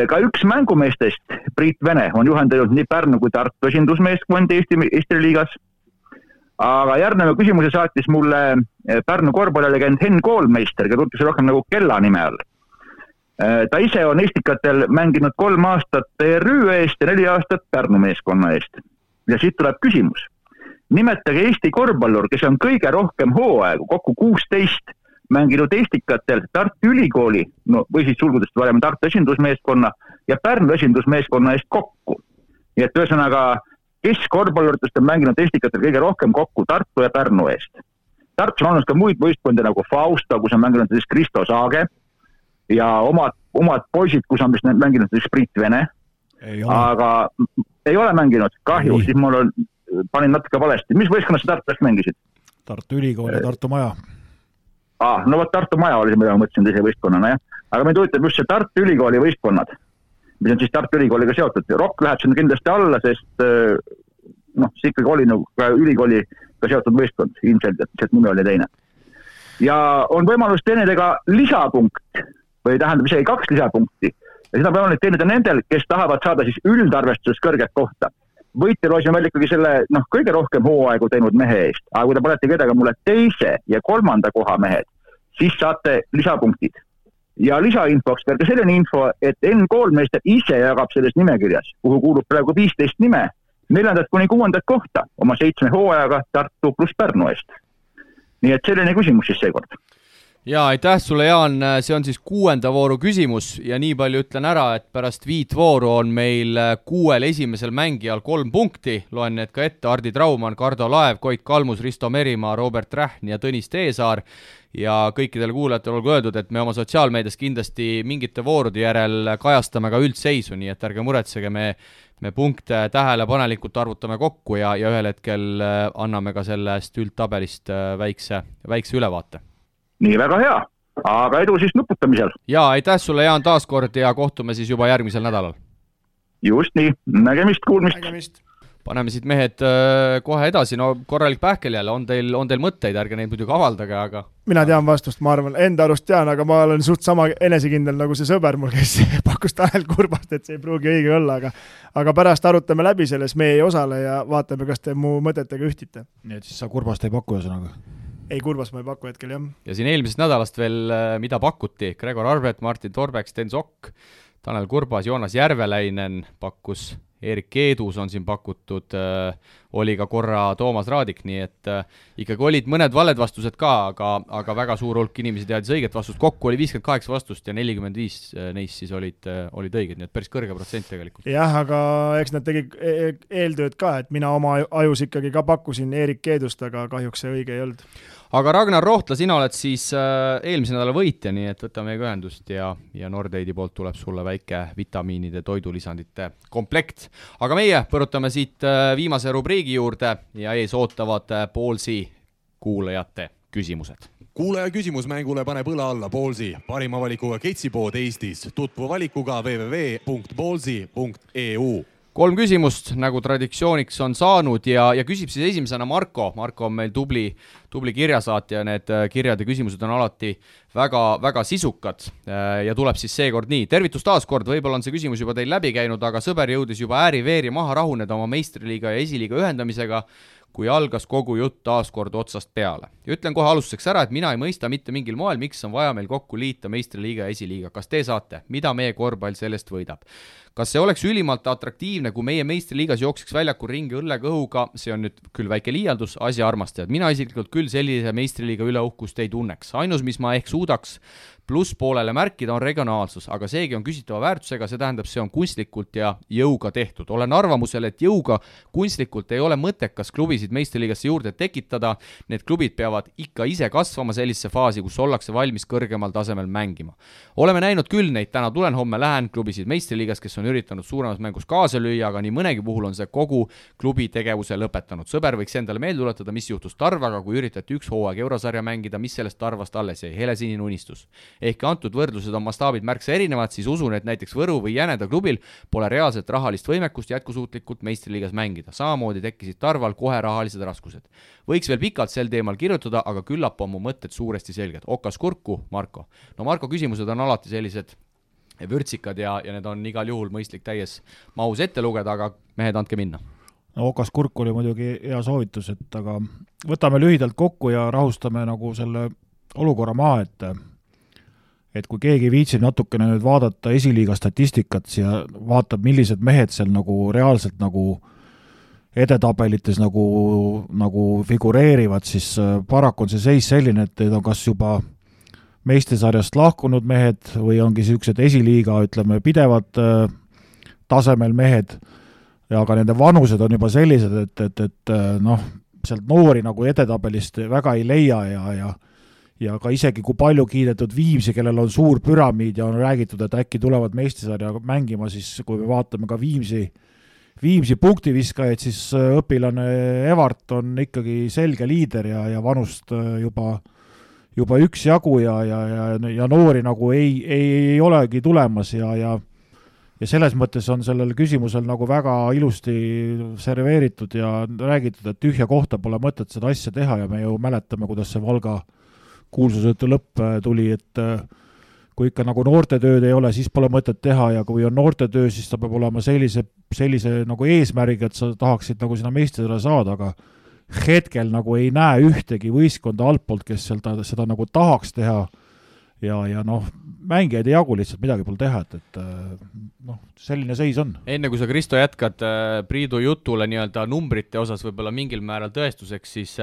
S6: Ka üks mängumeestest, Priit Vene, on juhendanud nii Pärnu kui Tartu esindusmeeskond Eesti liigas. Aga järgneva küsimuse saatis mulle Pärnu korvpallilegend Henn Koolmeister, keda tuntakse rohkem nagu Kella nime all. Ta ise on Estikatel mänginud 3 aastat TRÜ eest ja 4 aastat Pärnu meeskonna eest. Ja siit tuleb küsimus. Nimetage Eesti korvpallur, kes on kõige rohkem hooaegu, kokku 16, mänginud Estikatel Tartu Ülikooli, või siis sulgudest varem Tartu esindusmeeskonna ja Pärnu esindusmeeskonna eest kokku. Nii et ühesõnaga, kes korvpalluritest on mänginud Estikatel kõige rohkem kokku Tartu ja Pärnu eest. Tartus on olnud ka muid võistkondi nagu Fausta, kus on mänginud siis Kristo Saage, ja omad poisid, kus on vist mänginud Sprit Vene, aga ei ole mänginud, kahju, siis mul panin natuke valesti. Mis võistkonnas sa Tartus mängisid?
S3: Tartu Ülikool ja Tartu Maja.
S6: No võt Tartu Maja oli see, mida ma mõtlesin teise võistkonnana, jah. Aga meid huvitab just see Tartu Ülikooli võistkonnad, mis on siis Tartu Ülikooliga seotud. Rock läheb sinna kindlasti alla, sest see ikkagi oli nagu ka ülikooliga seotud võistkond, ilmselt, et nimi oli teine. Ja on võimalus teenida ka lisapunkt, või tähendab isegi 2 lisapunkti. Ja seda võimalik teenida nendel, kes tahavad saada siis üldarvestuses kõrget kohta. Võite loosime välja ikkagi selle kõige rohkem hooaegu teinud mehe eest, aga kui te panete kedagi mulle 2. ja 3. koha mehed, siis saate lisapunktid. Ja lisainfoks veel ka selline info, et N-koolmeister ise jagab selles nimekirjas, kuhu kuulub praegu 15 nime, 4. kuni 6. kohta oma 7 hooajaga Tartu plus Pärnu eest. Nii et selline küsimus siis seekord.
S2: Jaa, aitäh sulle, Jaan, see on siis 6. vooru küsimus ja nii palju ütlen ära, et pärast 5 vooru on meil 6 esimesel mängijal 3 punkti, loen need ka ette, Hardi Traumann, Kardo Laev, Koit Kalmus, Risto Merimaa, Robert Rähn ja Tõnis Teesaar ja kõikidele kuulajatele olgu öeldud, et me oma sotsiaalmeedias kindlasti mingite voorude järel kajastame ka üldseisu, nii et ärge muretsege, me punkte tähelepanelikult arvutame kokku ja ühel hetkel anname ka sellest üldtabelist väikse ülevaate.
S6: Nii väga hea, aga edu siis nuputamisel.
S2: Jaa, aitäh sulle, Jaan, taaskord ja kohtume siis juba järgmisel nädalal.
S6: Just nii, nägemist, kuulmist.
S2: Paneme siit mehed kohe edasi, no korralik pähkel jälle, on teil mõtteid, ärge neid muidugi avaldage, aga...
S4: Mina tean vastust, ma arvan, enda arust tean, aga ma olen suht sama enesekindel nagu see sõber mul, kes pakkus Tanel Kurbast, et see ei pruugi õige olla, aga pärast arutame läbi selles, me ei osale ja vaatame, kas te mu mõtetega ühtite.
S3: Nii et siis sa Kurbast ei paku ühesõnaga?
S4: Ei, Kurbas ma ei paku hetkel, jah.
S2: Ja siin eelmisest nädalast veel, mida pakuti, Gregor Arbet, Martin Torbek, Sten Sokk, Tanel Kurbas, Joonas Järveläinen pakkus, Erik Keedus on siin pakutud, oli ka korra Toomas Raadik, nii et ikkagi olid mõned valed vastused ka, aga väga suur hulk inimesi teadis õiget vastust. Kokku oli 58 vastust ja 45 neist siis olid õiged, nii et päris kõrge protsent tegelikult.
S4: Jah, aga eks nad tegid eeltööd ka, et mina oma ajus ikkagi ka pakkusin Erik Keedust, aga kahjuks see õige ei olnud.
S2: Aga Ragnar Rohtla, sina oled siis eelmise nädala võitja, nii et võtame ühendust ja Nordeidi poolt tuleb sulle väike vitamiinide toidulisandite komplekt. Aga meie põrutame siit viimase rubriigi juurde ja ees ootavad Ballsi kuulajate küsimused.
S1: Kuulaja küsimus mängule paneb õla alla Ballsi, parima valikuga ketsipood Eestis, tutvu valikuga www.ballsi.eu. 3 küsimust, nagu traditsiooniks on saanud ja küsib siis esimesena Marko. Marko on meil tubli kirjasaatja, need kirjad ja küsimused on alati väga sisukad ja tuleb siis seekord nii. Tervitus taas kord, võib-olla on see küsimus juba teil läbi käinud, aga sõber jõudis juba ääri-veeri maha rahuneda oma meistriliiga ja esiliiga ühendamisega, kui algas kogu jutt taas kord otsast peale. Ja ütlen kohe alustuseks ära, et mina ei mõista mitte mingil moel, miks on vaja meil kokku liita meistriliiga ja esiliiga. Kas te saate? Mida meie korvpall sellest võidab? Kas see oleks ülimalt atraktiivne, kui meie meistriliigas jookseks väljakul ringi õllekõhuga, see on nüüd küll väike liialdus, asja armastajad. Mina isiklikult küll sellise meistriliiga üle uhkust ei tunneks. Ainus, mis ma ehk suudaks plusspoolele märkida, on regionaalsus, aga seegi on küsitava väärtusega, see tähendab, see on kunstlikult ja jõuga tehtud. Olen arvamusel, et jõuga kunstlikult ei ole mõttekas klubisid meistriliigasse juurde tekitada, need klubid peavad ikka ise kasvama sellisesse faasi, kus ollakse valmis kõrgemal tasemel mängima. Oleme näinud küll neid, täna tulen, homme lähen klubisid meistriliigas, kes on üritanud suuremas mängus kaasa lüüa, aga nii mõnegi puhul on see kogu klubi tegevuse lõpetanud. Sõber võiks endale meelde tuletada, mis juhtus Tarvaga, kui üritati 1 hooaeg eurosarja mängida, mis sellest Tarvast alles jäi, helesinine unistus. Ehk antud võrdlused on mastaabid märksa erinevad, siis usun, et näiteks Võru või Jäneda klubil pole reaalset rahalist võimekust jätkusuutlikult meistriliigas mängida. Samamoodi tekkisid Tarval kohe rahalised raskused. Võiks veel pikalt sel teemal kirjutada, aga küllap on mu mõtted suuresti selged. Okas kurku, Marko. No Marko küsimused on alati sellised vürtsikad ja need on igal juhul mõistlik täies mahus ette lugeda, aga mehed, andke minna.
S3: No Okas kurk oli muidugi hea soovitus, aga võtame lühidalt kokku ja rahustame nagu selle olukorra maha, et kui keegi viitsib natukene nüüd vaadata esiliiga statistikat ja vaatab, millised mehed seal nagu reaalselt nagu edetabelites nagu figureerivad, siis paraku on see seis selline, et need on kas juba meistesarjast lahkunud mehed või ongi sellised esiliiga, ütleme, pidevad tasemel mehed, aga nende vanused on juba sellised, et sealt noori nagu edetabelist väga ei leia ja ka isegi kui palju kiidetud Viimsi, kellel on suur püramiid ja on räägitud, et äkki tulevad meistrisarja mängima, siis kui me vaatame ka Viimsi punktiviskajaid, siis õpilane Evart on ikkagi selge liider ja vanust juba üksjagu ja noori nagu ei olegi tulemas ja selles mõttes on sellel küsimusel nagu väga ilusti serveeritud ja räägitud, et tühja kohta pole mõtet seda asja teha ja me ju mäletame, kuidas see Valga kuulsusõitu lõpp tuli, et kui ikka nagu noortetööd ei ole, siis pole mõtet teha ja kui on noortetöö, siis ta peab olema sellise nagu eesmärgiga, et sa tahaksid nagu sinna meistrile saada, aga hetkel nagu ei näe ühtegi võistkonda altpoolt, kes seda nagu tahaks teha ja noh, mängijaid ei jagu, lihtsalt midagi pole teha, et noh, selline seis on.
S1: Enne kui sa, Kristo, jätkad Priidu jutule nii-öelda numbrite osas võib-olla mingil määral tõestuseks, siis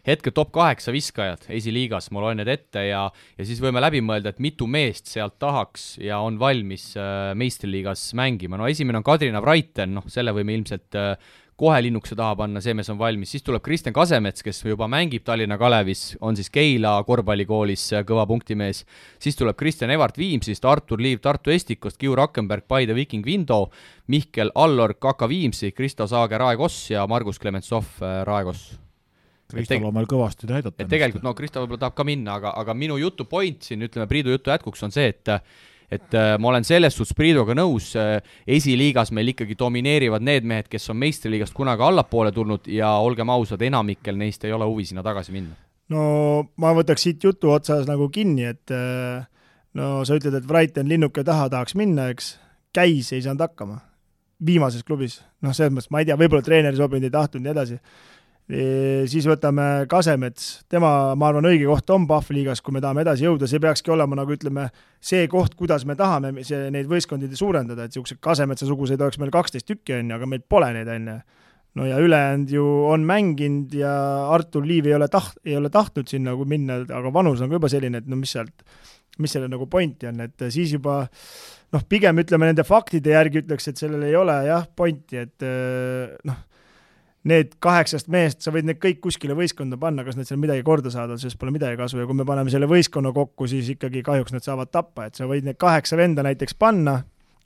S1: hetke top 8 viskajad esiliigas, ma loen need ette ja siis võime läbi mõelda, et mitu meest sealt tahaks ja on valmis meistriliigas mängima. No esimene on Kadrina Vraiten, noh selle võime ilmselt kohe linnukse taha panna, see mees on valmis, siis tuleb Kristjan Kasemets, kes juba mängib Tallinna Kalevis, on siis Keila korvpallikoolis kõva punktimees, siis tuleb Kristjan Evart Viimsist, Artur Liiv Tartu Estikost, Kiu Rakkenberg, Paide Viking Vindo, Mihkel Allor Kaka Viimsi, Kristo Saage Raekoss ja Margus Klementsov Raekoss.
S3: Kristol on meil kõvasti näidata.
S1: Tegelikult, no Kristo võib-olla tahab ka minna, aga minu jutu point siin, ütleme Priidu jutu jätkuks on see, et ma olen selles suhtes Priiduga nõus, esiliigas meil ikkagi domineerivad need mehed, kes on meistriliigast kunagi allapoole tulnud ja olgem ausad, enamikkel neist ei ole huvi sinna tagasi minna.
S4: No ma võtaks siit jutu otsas nagu kinni, et no sa ütled, et Vraiten linnuke taha tahaks minna, eks, Käis ei saanud hakkama viimases klubis, noh selles mõttes, ma ei tea, võib-olla treeneri sobinud ei tahtnud nii edasi. Siis võtame Kasemets, tema, ma arvan, õige koht on Pahvliigas, kui me tahame edasi jõuda, see peakski olema nagu ütleme see koht, kuidas me tahame neid võistkondid suurendada, et niisugused Kasemetsa-suguseid oleks meil 12 tükki, aga meil pole neid enne. No ja ülejäänud ju on mänginud ja Artur Liiv ei ole tahtnud sinna nagu minna, aga vanus on ka juba selline, et no mis selle nagu pointi on, et siis juba noh, pigem ütleme nende faktide järgi ütleks, et sellel ei ole jah pointi, et noh, need 8 meest, sa võid need kõik kuskile võistkonda panna, kas nad seal midagi korda saada, sest pole midagi kasu ja kui me paneme selle võistkonna kokku, siis ikkagi kahjuks nad saavad tappa, et sa võid need 8 venda näiteks panna,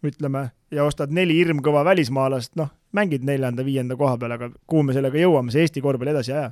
S4: ütleme, ja ostad 4 hirmkõva välismaalast, noh, mängid 4.-5. koha peal, aga kuhu me sellega jõuame, see Eesti korvpalli edasi aja.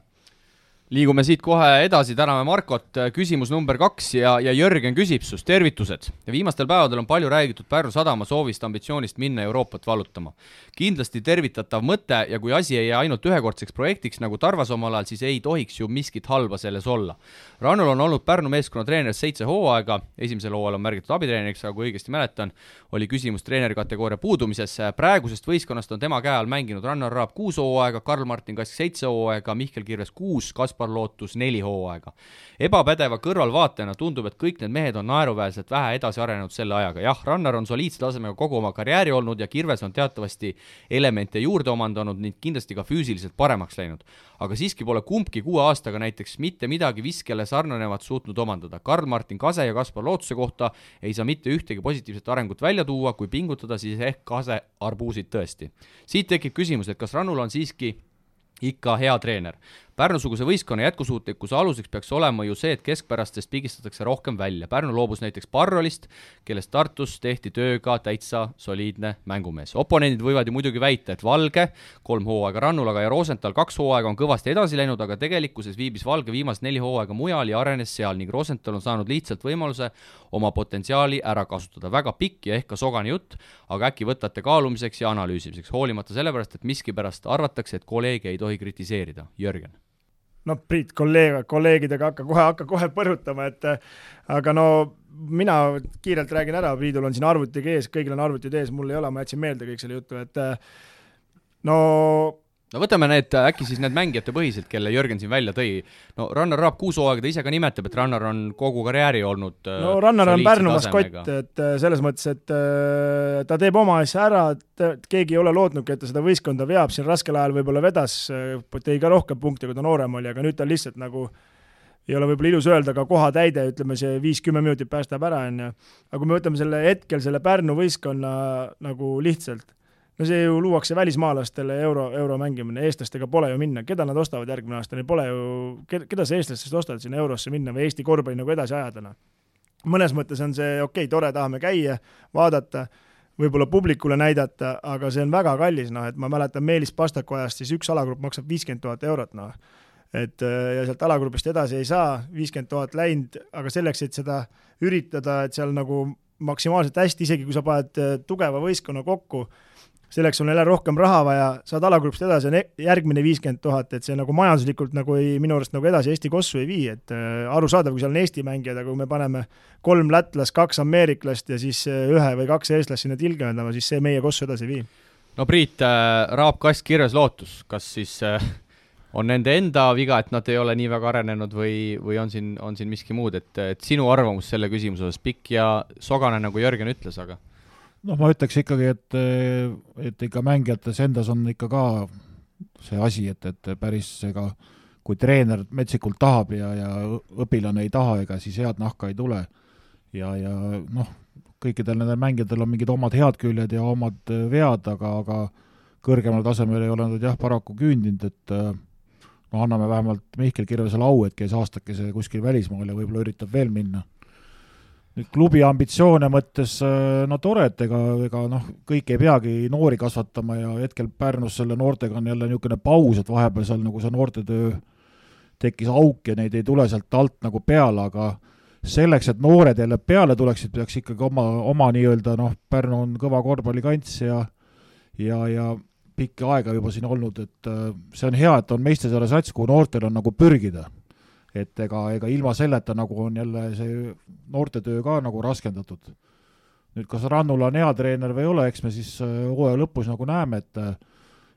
S1: Liigume siit kohe edasi, täname Markot, küsimus number 2 ja Jörgen küsib sust, tervitused. Viimastel päevadel on palju räägitud Pärnu Sadama soovist ambitsioonist minna Euroopat valutama. Kindlasti tervitatav mõte ja kui asi ei jää ainult ühekordseks projektiks nagu Tarvas omal ajal, siis ei tohiks ju miskit halba selles olla. Rannul on olnud Pärnu meeskonna treener 7 hooaega, esimesel hooajal on märgitud abitreeneriks, aga kui õigesti mäletan, oli küsimus treenerikategooria puudumises. Praegusest võistkonnast on tema käe all mänginud Rannar Raab 6 hooaega, Karl-Martin Kask 7 hooaega, Mihkel Kirves 6, Kaspar Lootus 4 hooaega. Ebapädeva kõrvalvaatajana tundub, et kõik need mehed on naeruväärselt vähe edasi arenenud selle ajaga. Jah, Rannar on soliidse tasemega kogu oma karjääri olnud ja Kirves on teatavasti elemente juurde omandanud ning kindlasti ka füüsiliselt paremaks läinud. Aga siiski pole kumbki 6 aastaga näiteks mitte midagi viskele sarnanevat suutnud omandada. Karl-Martin Kase ja Kaspar Lootuse kohta ei saa mitte ühtegi positiivset arengut välja tuua, kui pingutada, siis ehk Kase arbuusid tõesti. Siit tekib küsimus, et kas Rannul on siiski ikka hea treener. Pärnu-suguse võistkonna jätkusuutlikkuse aluseks peaks olema ju see, et keskpärastest pigistatakse rohkem välja. Pärnu loobus näiteks Parrolist, kellest Tartus tehti tööga täitsa soliidne mängumees. Oponendid võivad ju muidugi väita, et Valge 3 hooaega Rannul, aga ja Rosenthal 2 hooaega on kõvasti edasi läinud, aga tegelikkuses viibis Valge viimased 4 hooaega mujal ja arenes seal ning Rosenthal on saanud lihtsalt võimaluse oma potentsiaali ära kasutada. Väga pikk ja ehk ka sogane jutt, aga äkki võtate kaalumiseks ja analüüsimiseks, hoolimata sellepärast, et miskipärast arvatakse, et kolleege ei tohi kritiseerida. Jörgen.
S4: No Priit, kolleegidega hakka kohe põrutama, et aga no mina kiirelt räägin ära, Priidul on siin arvutiga ees, kõigil on arvutid ees, mul ei ole, ma jätsin meelde kõik selle jutu, et
S1: no võtame need, äkki siis need mängijate põhiselt, kelle Jörgen siin välja tõi. No Rannar Raab 6 hooaega, ta ise ka nimetab, et Rannar on kogu karjääri olnud
S4: no Rannar on Pärnu maskott, et selles mõttes, et ta teeb oma asja ära, keegi ei ole lootnudki, et ta seda võistkonda veab, siin raskel ajal võib-olla vedas, tõi ka rohkem punkte, kui ta noorem oli, aga nüüd ta lihtsalt nagu ei ole võib-olla ilus öelda, aga koha täide, ütleme see 5-10 minutit päästab ära, aga kui me võtame selle hetkel, selle Pärnu võistkonna nagu lihtsalt, no see ju luuakse välismaalastele euro mängimine, eestlastega pole ju minna, keda nad ostavad järgmine aasta, neil pole ju, keda see eestlastest ostavad sinna eurosse minna või Eesti korvpalli nagu edasi ajadana. Mõnes mõttes on see okei, tore, tahame käia, vaadata, võib-olla publikule näidata, aga see on väga kallis, noh, et ma mäletan Meelis Pastaku ajast, siis üks alagrupp maksab 50 000 eurot, noh. Et ja sealt alagrupist edasi ei saa, 50 000 läinud, aga selleks, et seda üritada, et seal nagu maksimaalselt hästi, isegi kui sa paned tugeva võistkonna kokku, selleks on jälle rohkem raha vaja, saad alagrupist edasi on järgmine 50 000, et see nagu majanduslikult nagu minu arust nagu edasi Eesti kossu ei vii, et arusaadav, kui seal on Eesti mängijad, aga kui me paneme 3 lätlast, 2 ameeriklast ja siis 1 või 2 eestlast sinna tilgemendama, siis see meie kossu edasi ei vii.
S1: No Priit, Raab Kask kirjas lootus, kas siis on nende enda viga, et nad ei ole nii väga arenenud või on siin miski muud, et sinu arvamus selle küsimuses pikk ja sogane, nagu Jörgen ütles, aga
S3: noh, ma ütleks ikkagi, et ikka mängijates endas on ikka ka see asi, et päris ega kui treener metsikult tahab ja õpilane ei taha, ega siis head nahka ei tule. Ja noh, kõikidel nendel mängijatel on mingid omad head küljed ja omad vead, aga kõrgemal tasemel ei ole nad jah paraku küündinud, et no anname vähemalt Mihkel Kirvesele au, et käis aastakese kuskil välismaal ja võib-olla üritab veel minna. Nüüd klubi ambitsioone mõttes, no tore, et ega noh, kõik ei peagi noori kasvatama ja hetkel Pärnus selle noortega on jälle niisugune paus, et vahepeal seal nagu see noortetöö tekkis auk ja neid ei tule sealt alt nagu peale, aga selleks, et noored jälle peale tuleksid, peaks ikkagi oma nii-öelda, noh, Pärnu on kõva korvpallikants ja pikki aega juba siin olnud, et see on hea, et on Meistesaare sats, kuhu noortel on nagu pürgida. Et ega ilma selleta nagu on jälle see noortetöö ka nagu raskendatud. Nüüd, kas Rannula on hea treener või ei ole, eks me siis hooaja lõpus nagu näeme,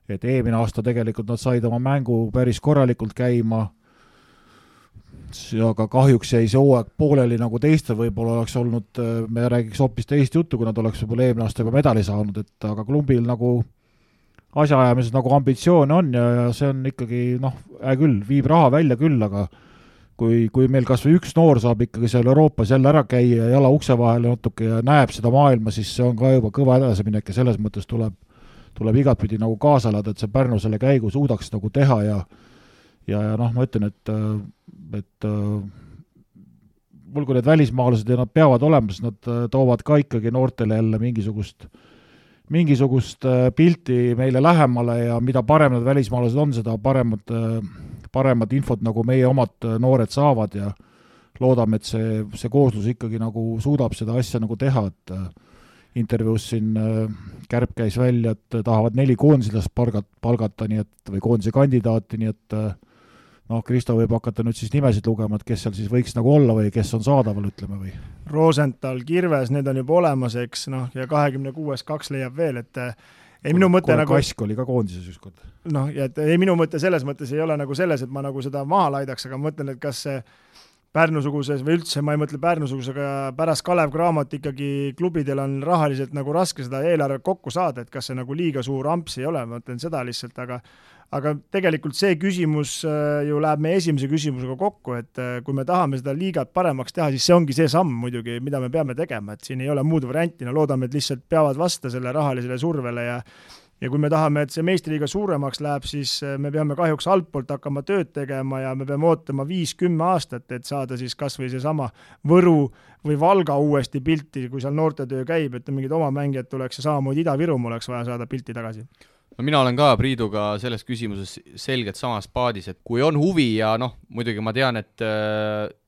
S3: et eelmine aasta tegelikult nad said oma mängu päris korralikult käima, aga kahjuks jäi see hooaeg pooleli nagu teistel, võib-olla oleks olnud, me räägiks hoopis teist juttu, kui nad oleks võib-olla eelmine aasta juba medali saanud, et aga klumbil nagu asjaajamises nagu ambitsioon on ja see on ikkagi, noh, küll, viib raha välja küll, aga kui meil kas või üks noor saab ikkagi seal Euroopas jälle ära käia ja jala ukse vahele natuke ja näeb seda maailma, siis see on ka juba kõva edasiminek ja selles mõttes tuleb igatpidi nagu kaasa elada, et see Pärnu selle käigu suudaks nagu teha ja noh, ma ütlen, et mul kui need välismaalased ja nad peavad olema, siis nad toovad ka ikkagi noortele jälle mingisugust pilti meile lähemale ja mida parem need välismaalased on, seda paremat infot nagu meie omad noored saavad ja loodame, et see kooslus ikkagi nagu suudab seda asja nagu teha, et intervjuus siin Kärp käis välja, et tahavad 4 koondislast palgata, nii et, või koondise kandidaati, nii et noh, Kristo võib hakata nüüd siis nimesid lugema, et kes seal siis võiks nagu olla või kes on saadaval, ütleme või?
S4: Rosenthal, Kirves, need on juba olemas, eks, noh, ja 26 2 leiab veel, et ei minu mõte nagu...
S3: Kask oli ka koondises ükskord.
S4: Noh, ja et ei minu mõte selles mõttes ei ole nagu selles, et ma nagu seda maha laidaks, aga ma mõtlen, et kas see Pärnusuguses või üldse, ma ei mõtle Pärnusugus, aga pärast Kalev Cramot ikkagi klubidel on rahaliselt nagu raske seda eelarve kokku saada, et kas see nagu liiga suur amps ei ole, ma mõtlen seda lihtsalt, aga tegelikult see küsimus ju läheb meie esimese küsimusega kokku, et kui me tahame seda liigat paremaks teha, siis see ongi see samm muidugi, mida me peame tegema, et siin ei ole muud varianti, no loodame, et lihtsalt peavad vasta selle rahalisele survele ja kui me tahame, et see meistriliiga suuremaks läheb, siis me peame kahjuks altpoolt hakkama tööd tegema ja me peame ootama 5-10 aastat, et saada siis kas või seesama Võru või Valga uuesti pilti, kui seal noortetöö käib, et mingid oma mängijad tuleks ja samamoodi Ida-Virumaa oleks vaja saada pilti tagasi.
S1: No mina olen ka Priiduga selles küsimuses selgelt samas paadis, et kui on huvi ja noh, muidugi ma tean, et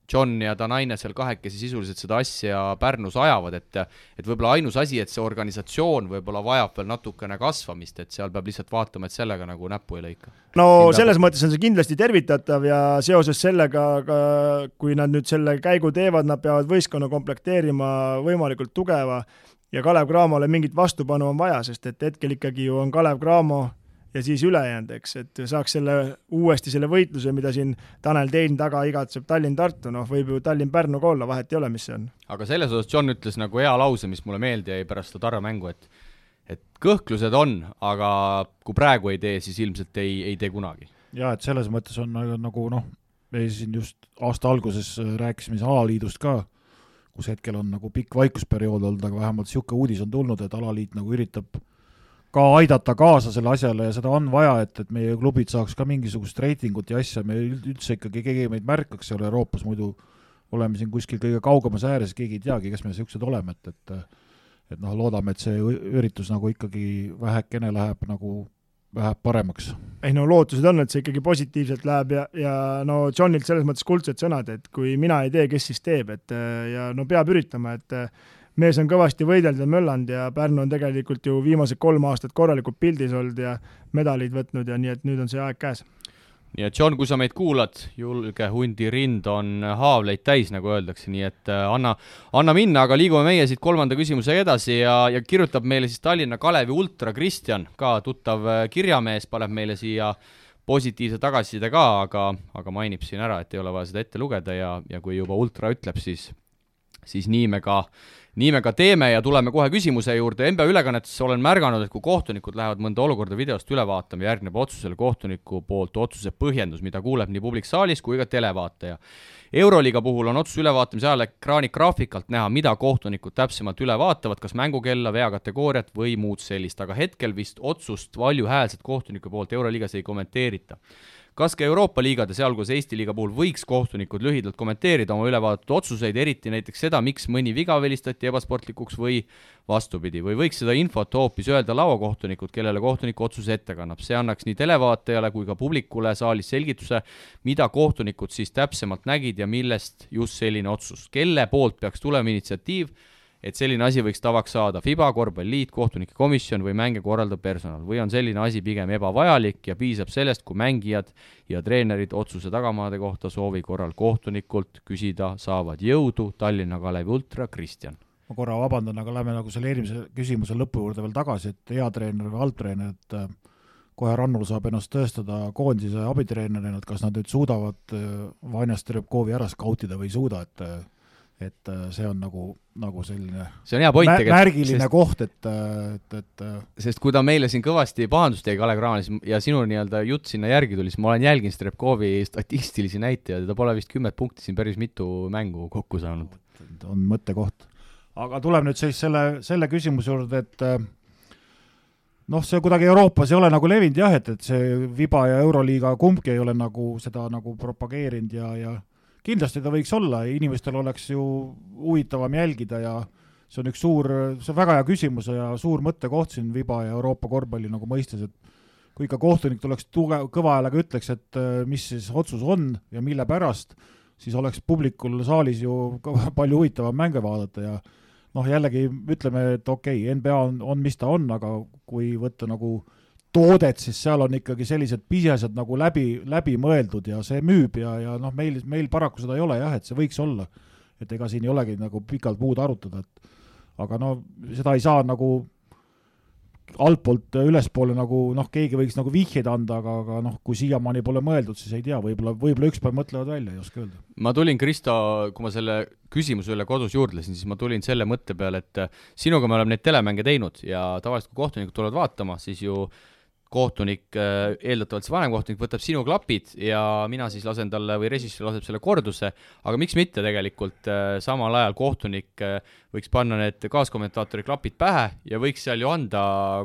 S1: John ja Danaine seal kahekesi sisuliselt seda asja Pärnus ajavad, et võib-olla ainus asi, et see organisatsioon võib-olla vajab veel natukene kasvamist, et seal peab lihtsalt vaatama, et sellega nagu näppu ei lõika.
S4: No selles mõttes on see kindlasti tervitatav ja seoses sellega, kui nad nüüd selle käigu teevad, nad peavad võistkonna komplekteerima võimalikult tugeva ja Kalev Cramole mingit vastupanu on vaja, sest et hetkel ikkagi ju on Kalev Cramo ja siis ülejäänud, eks, et saaks uuesti selle võitluse, mida siin Tanel Tein taga igatseb Tallinn-Tartu, noh, võib ju Tallinn-Pärnu ka olla, vahet ei ole, mis see on.
S1: Aga selles osas John ütles nagu hea lause, mis mulle meeldi jäi pärast seda Tarva mängu, et kõhklused on, aga kui praegu ei tee, siis ilmselt ei tee kunagi.
S3: Ja, et selles mõttes on nagu noh, me siin just aasta alguses rääkisime alaliidust ka, kus hetkel on nagu pikk vaikusperiood olnud, aga vähemalt siuke uudis on tulnud, et alaliit nagu üritab ka aidata kaasa selle asjale ja seda on vaja, et meie klubid saaks ka mingisugust reitingut ja asja, me üldse ikkagi keegi meid märkaks seal Euroopas, muidu oleme siin kuskil kõige kaugemas ääres, keegi ei teagi, kes me siuksed oleme, et noh, loodame, et see üritus nagu ikkagi vähekene läheb paremaks.
S4: Ei no lootused on, et see ikkagi positiivselt läheb ja no Johnilt selles mõttes kuldsed sõnad, et kui mina ei tee, kes siis teeb, ja no peab üritama, et mees on kõvasti võidelnud ja möllanud ja Pärnu on tegelikult ju viimased 3 aastat korralikult pildis olnud ja medalid võtnud ja nii, et nüüd on see aeg käes.
S1: Nii et John, kui sa meid kuulad, julge hundi rind on haavleid täis, nagu öeldakse, nii et anna minna, aga liigume meie siit 3. küsimuse edasi ja kirjutab meile siis Tallinna Kalevi ultra Kristjan, ka tuttav kirjamees, paneb meile siia positiivse tagasiside ka, aga mainib siin ära, et ei ole vaja seda ette lugeda ja kui juba ultra ütleb, siis nii me ka teeme ja tuleme kohe küsimuse juurde. NBA ülekannetes olen märganud, et kui kohtunikud lähevad mõnda olukorda videost üle vaatama, järgneb otsusele kohtuniku poolt otsuse põhjendus, mida kuuleb nii publik saalis kui ka televaataja. Euroliiga puhul on otsuse ülevaatamise ajal ekraani graafikalt näha, mida kohtunikud täpsemalt üle vaatavad, kas mängukella, veakategooriat või muud sellist, aga hetkel vist otsust valjuhäälset kohtuniku poolt Euroliigas ei kommenteerita. Kas ka Euroopa liigade, sealhulgas Eesti liiga puhul võiks kohtunikud lühidalt kommenteerida oma ülevaadatud otsuseid, eriti näiteks seda, miks mõni viga velistati ebasportlikuks või vastupidi, või võiks seda infot hoopis öelda lauakohtunikud, kellele kohtuniku otsuse ette kannab. See annaks nii televaatajale kui ka publikule saalis selgituse, mida kohtunikud siis täpsemalt nägid ja millest just selline otsus. Kelle poolt peaks tulema initsiatiiv, et selline asi võiks tavaks saada FIBA, korvpalliliit, kohtunike komisjon või mänge korraldav personal, või on selline asi pigem ebavajalik ja piisab sellest, kui mängijad ja treenerid otsuse tagamaade kohta soovi korral kohtunikult küsida saavad. Jõudu, Tallinna Kalevi ultra Kristjan.
S3: Ma korra vabandan, aga lähme nagu selle eelmise küsimuse lõpu juurde veel tagasi, et hea treener või halbtreener, et kohe Rannul saab ennast tõestada koondise abitreenerina, et kas nad nüüd suudavad Vanja Strepkovi ära skautida või ei suuda, et see on nagu selline
S1: see on hea point,
S3: märgiline koht, et
S1: sest kui ta meile siin kõvasti pahandust tegi Kalev Cramanis ja sinu nii-öelda jutt sinna järgi tuli, siis ma olen jälginud Strepkovi statistilisi näitajaid ja ta pole vist 10 punkti siin päris mitu mängu kokku saanud.
S3: On mõttekoht. Aga tuleb nüüd siis selle küsimuse juurde, et noh, see kuidagi Euroopas ei ole nagu levinud jah, et see Viba ja Euroliiga kumbki ei ole nagu seda nagu propageerinud ja kindlasti ta võiks olla, inimestel oleks ju huvitavam jälgida ja see on väga hea küsimus ja suur mõttekoht siin Viba ja Euroopa korvpalli nagu mõistes, et kui ikka kohtunik tuleks kõva häälega ütleks, et mis siis otsus on ja mille pärast, siis oleks publikul saalis ju palju huvitavam mänge vaadata ja noh, jällegi ütleme, et okei, NBA on mis ta on, aga kui võtta nagu toodet, siis seal on ikkagi sellised pisesed nagu läbi mõeldud ja see müüb ja noh, meil paraku seda ei ole jah, et see võiks olla, et ega siin ei olegi nagu pikalt muud arutada, aga no seda ei saa nagu altpoolt ülespoole nagu noh, keegi võiks nagu vihjeid anda, aga noh, kui siiamaani pole mõeldud, siis ei tea, võib-olla üks päev mõtlevad välja, ei oska öelda.
S1: Ma tulin, Kristo, kui ma selle küsimuse üle kodus juurdlesin, siis ma tulin selle mõtte peale, et sinuga me oleme neid telemänge teinud ja tavaliselt kui kohtunikud tulevad vaatama, siis ju kohtunik, eeldatavalt see vanemkohtunik võtab sinu klapid ja mina siis lasen talle või režissöör laseb selle korduse, aga miks mitte tegelikult samal ajal kohtunik võiks panna need kaaskommentaatori klapid pähe ja võiks seal ju anda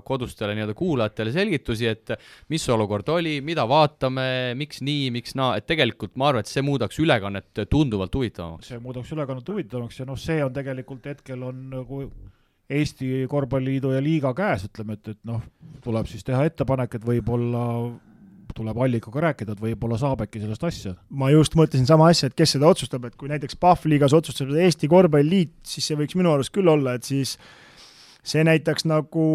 S1: kodustele nii-öelda kuulajatele selgitusi, et mis olukord oli, mida vaatame, miks nii, miks naa, et tegelikult ma arvan, et see muudaks ülekannet tunduvalt huvitavamaks.
S3: See muudaks ülekannet huvitavamaks ja noh, see on tegelikult hetkel on nagu Eesti Korvpalliliidu ja liiga käes, ütleme, et noh, tuleb siis teha ettepanek, et võib-olla tuleb allikaga rääkida, et võib-olla saab äkki sellest asja.
S4: Ma just mõtlesin sama asja, et kes seda otsustab, et kui näiteks PAF-liigas otsustab Eesti Korvpalliliit, siis see võiks minu arust küll olla, et siis see näitaks nagu,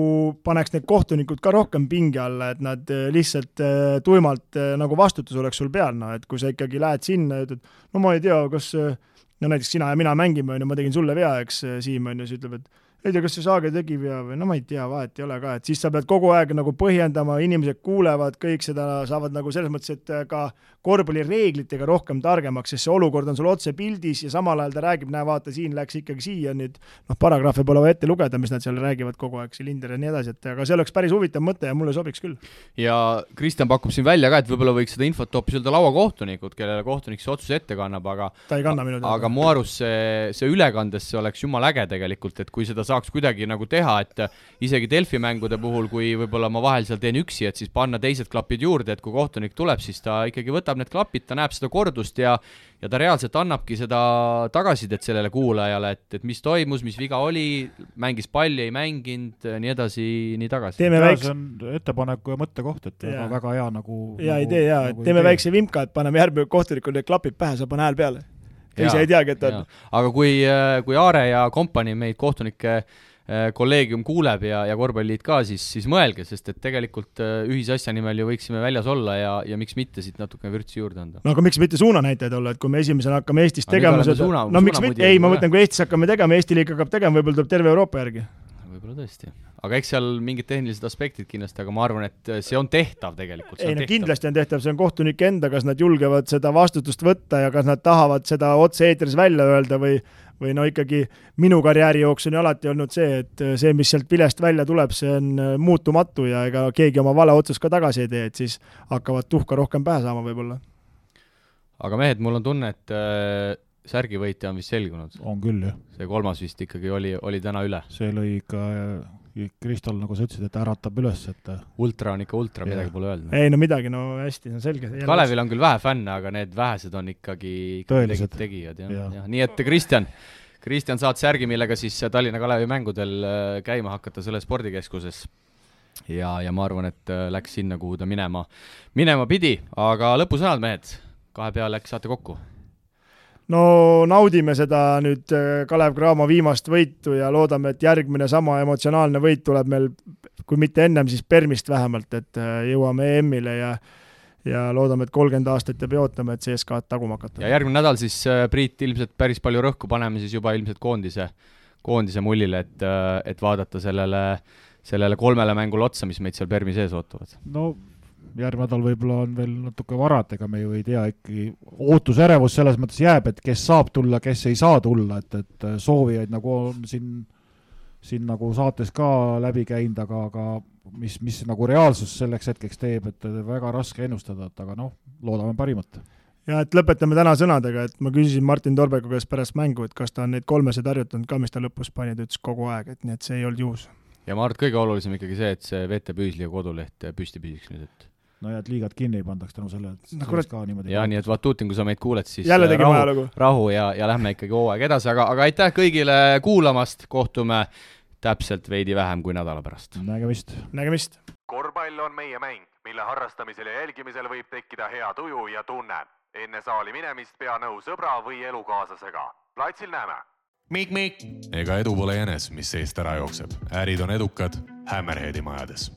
S4: paneks need kohtunikud ka rohkem pingi alla, et nad lihtsalt tuimalt nagu vastutus oleks sul peal, no, et kui sa ikkagi lähed sinna ja ütled, no ma ei tea, kas no näiteks sina ja mina mängime, ma tegin sulle vea, eks Siim on ja siis ütleb, et ei tea, kas see Saage tegi vea või no ma ei tea, vahet ei ole ka, et siis sa pead kogu aeg nagu põhjendama, inimesed kuulevad, kõik seda saavad nagu selles mõttes, et ka korvpallireeglitega rohkem targemaks, sest see olukord on sul otse pildis ja samal ajal ta räägib, näe vaata, siin läks ikkagi siia nüüd, noh, paragrahve pole vaja ette lugeda, mis nad seal räägivad kogu aeg, Silinder ja nii edasi, et aga see oleks päris huvitav mõte ja mulle sobiks küll.
S1: Ja Kristjan pakub siin välja ka, et võib-olla võiks seda infot hoopis öelda lauakohtunikud, kellele kohtunik see otsuse ette kannab, aga
S4: ta ei kanna minu
S1: aga mu arust see ülekandes see oleks jumala äge tegelikult, et kui seda saaks kuidagi nagu teha, et isegi Delfi mängude puhul, kui võib-olla ma vahel seal teen üksi, et siis panna teised klapid juurde, et kui kohtunik tuleb, siis ta ikkagi võtab need klapid, ta näeb seda kordust ja ta reaalselt annabki seda tagasidet sellele kuulajale, et mis toimus, mis viga oli, mängis palli, ei mänginud, nii edasi, nii tagasi.
S3: See on ettepaneku ja mõttekoht, et väga hea nagu
S4: hea idee, teeme väikse vimka, et paneme järgmine kohtunikul need klapid pähe, saab panna hääl peale. Ise ei teagi, et on.
S1: Aga kui Aare ja kompanii meid kohtunike kolleegium kuuleb ja korvpalliliit ka, siis mõelge, sest et tegelikult ühisasja nimel ju võiksime väljas olla ja miks mitte siit natuke vürtsi juurde anda.
S4: No aga miks mitte suunanäitajad olla, et kui me esimesena hakkame Eestis tegema seda, miks mitte, ei, ma mõtlen, kui Eestis hakkame tegema, Eesti liiga hakkab tegema, võib-olla tuleb terve Euroopa järgi.
S1: Võib-olla tõesti. Aga eks seal mingid tehnilised aspektid kindlasti, aga ma arvan, et see on tehtav tegelikult.
S4: Ei, no kindlasti on tehtav, see on kohtunik enda, kas nad julgevad seda vastutust võtta ja kas nad tahavad seda otse eetris välja öelda või no ikkagi minu karjääri jooksul on alati olnud see, et see, mis sealt vilest välja tuleb, see on muutumatu ja ega keegi oma vale otsust ka tagasi ei tee, et siis hakkavad tuhka rohkem pähe saama võib-olla.
S1: Aga mehed, mul on tunne, et särgivõitja on vist selgunud.
S3: On küll, jah.
S1: See kolmas vist ikkagi oli täna üle.
S3: See lõi ikka Kristol, nagu sa ütlesid, et äratab üles, et
S1: ultra on ikka ultra, midagi pole öelnud.
S4: Ei, no midagi, no hästi, see on selge.
S1: Kalevil on küll vähe fänne, aga need vähesed on ikkagi tegijad. Ja. Nii et Kristjan, saad särgi, millega siis Tallinna Kalevi mängudel käima hakata selle spordikeskuses. Ja ma arvan, et läks sinna, kuhu ta minema pidi, aga lõpusõnad, mehed, kahe peale äkki saate kokku.
S4: No naudime seda nüüd Kalev Cramo viimast võitu ja loodame, et järgmine sama emotsionaalne võit tuleb meil, kui mitte ennem, siis Permist vähemalt, et jõuame EM-ile ja loodame, et 30 aastat ja peotame, et CSKA-d taguma hakata.
S1: Ja järgmine nädal siis Priit ilmselt päris palju rõhku paneme siis juba ilmselt koondise mullile, et vaadata sellele 3 mängule otsa, mis meid seal Permi sees ootavad.
S3: No järgmine nädal võib-olla on veel natuke varad, ega me ju ei tea, ikkagi ootusärevus selles mõttes jääb, et kes saab tulla, kes ei saa tulla, et soovijaid nagu on siin nagu saates ka läbi käinud, aga mis nagu reaalsus selleks hetkeks teeb, et väga raske ennustada, et aga loodame parimat.
S4: Ja et lõpetame täna sõnadega, et ma küsisin Martin Torbeku käest pärast mängu, et kas ta on neid 3 harjutanud ka, mis ta lõpus pani, ta ütles kogu aeg, et nii et see ei olnud juhus.
S1: Ja ma arvan, et kõige olulisem ikkagi see, et see VT Püüsli ja koduleht püsti püsiks nüüd, et
S3: no ja et liigad kinni ei pandaks tänu selle, et ka niimoodi.
S1: Ja nii, et Vatutin, kui sa meid kuuled, siis rahu ja lähme ikkagi hooaeg edasi, aga aitäh kõigile kuulamast, kohtume täpselt veidi vähem kui nädala pärast.
S4: Nägemist.
S7: Korvpall on meie mäng, mille harrastamisel ja jälgimisel võib tekkida hea tuju ja tunne. Enne saali minemist pea nõu sõbra või elukaaslasega. Platsil näeme.
S8: Mik. Ega edu pole jänes, mis seest ära jookseb. Ärid on edukad Hammerheadi majades.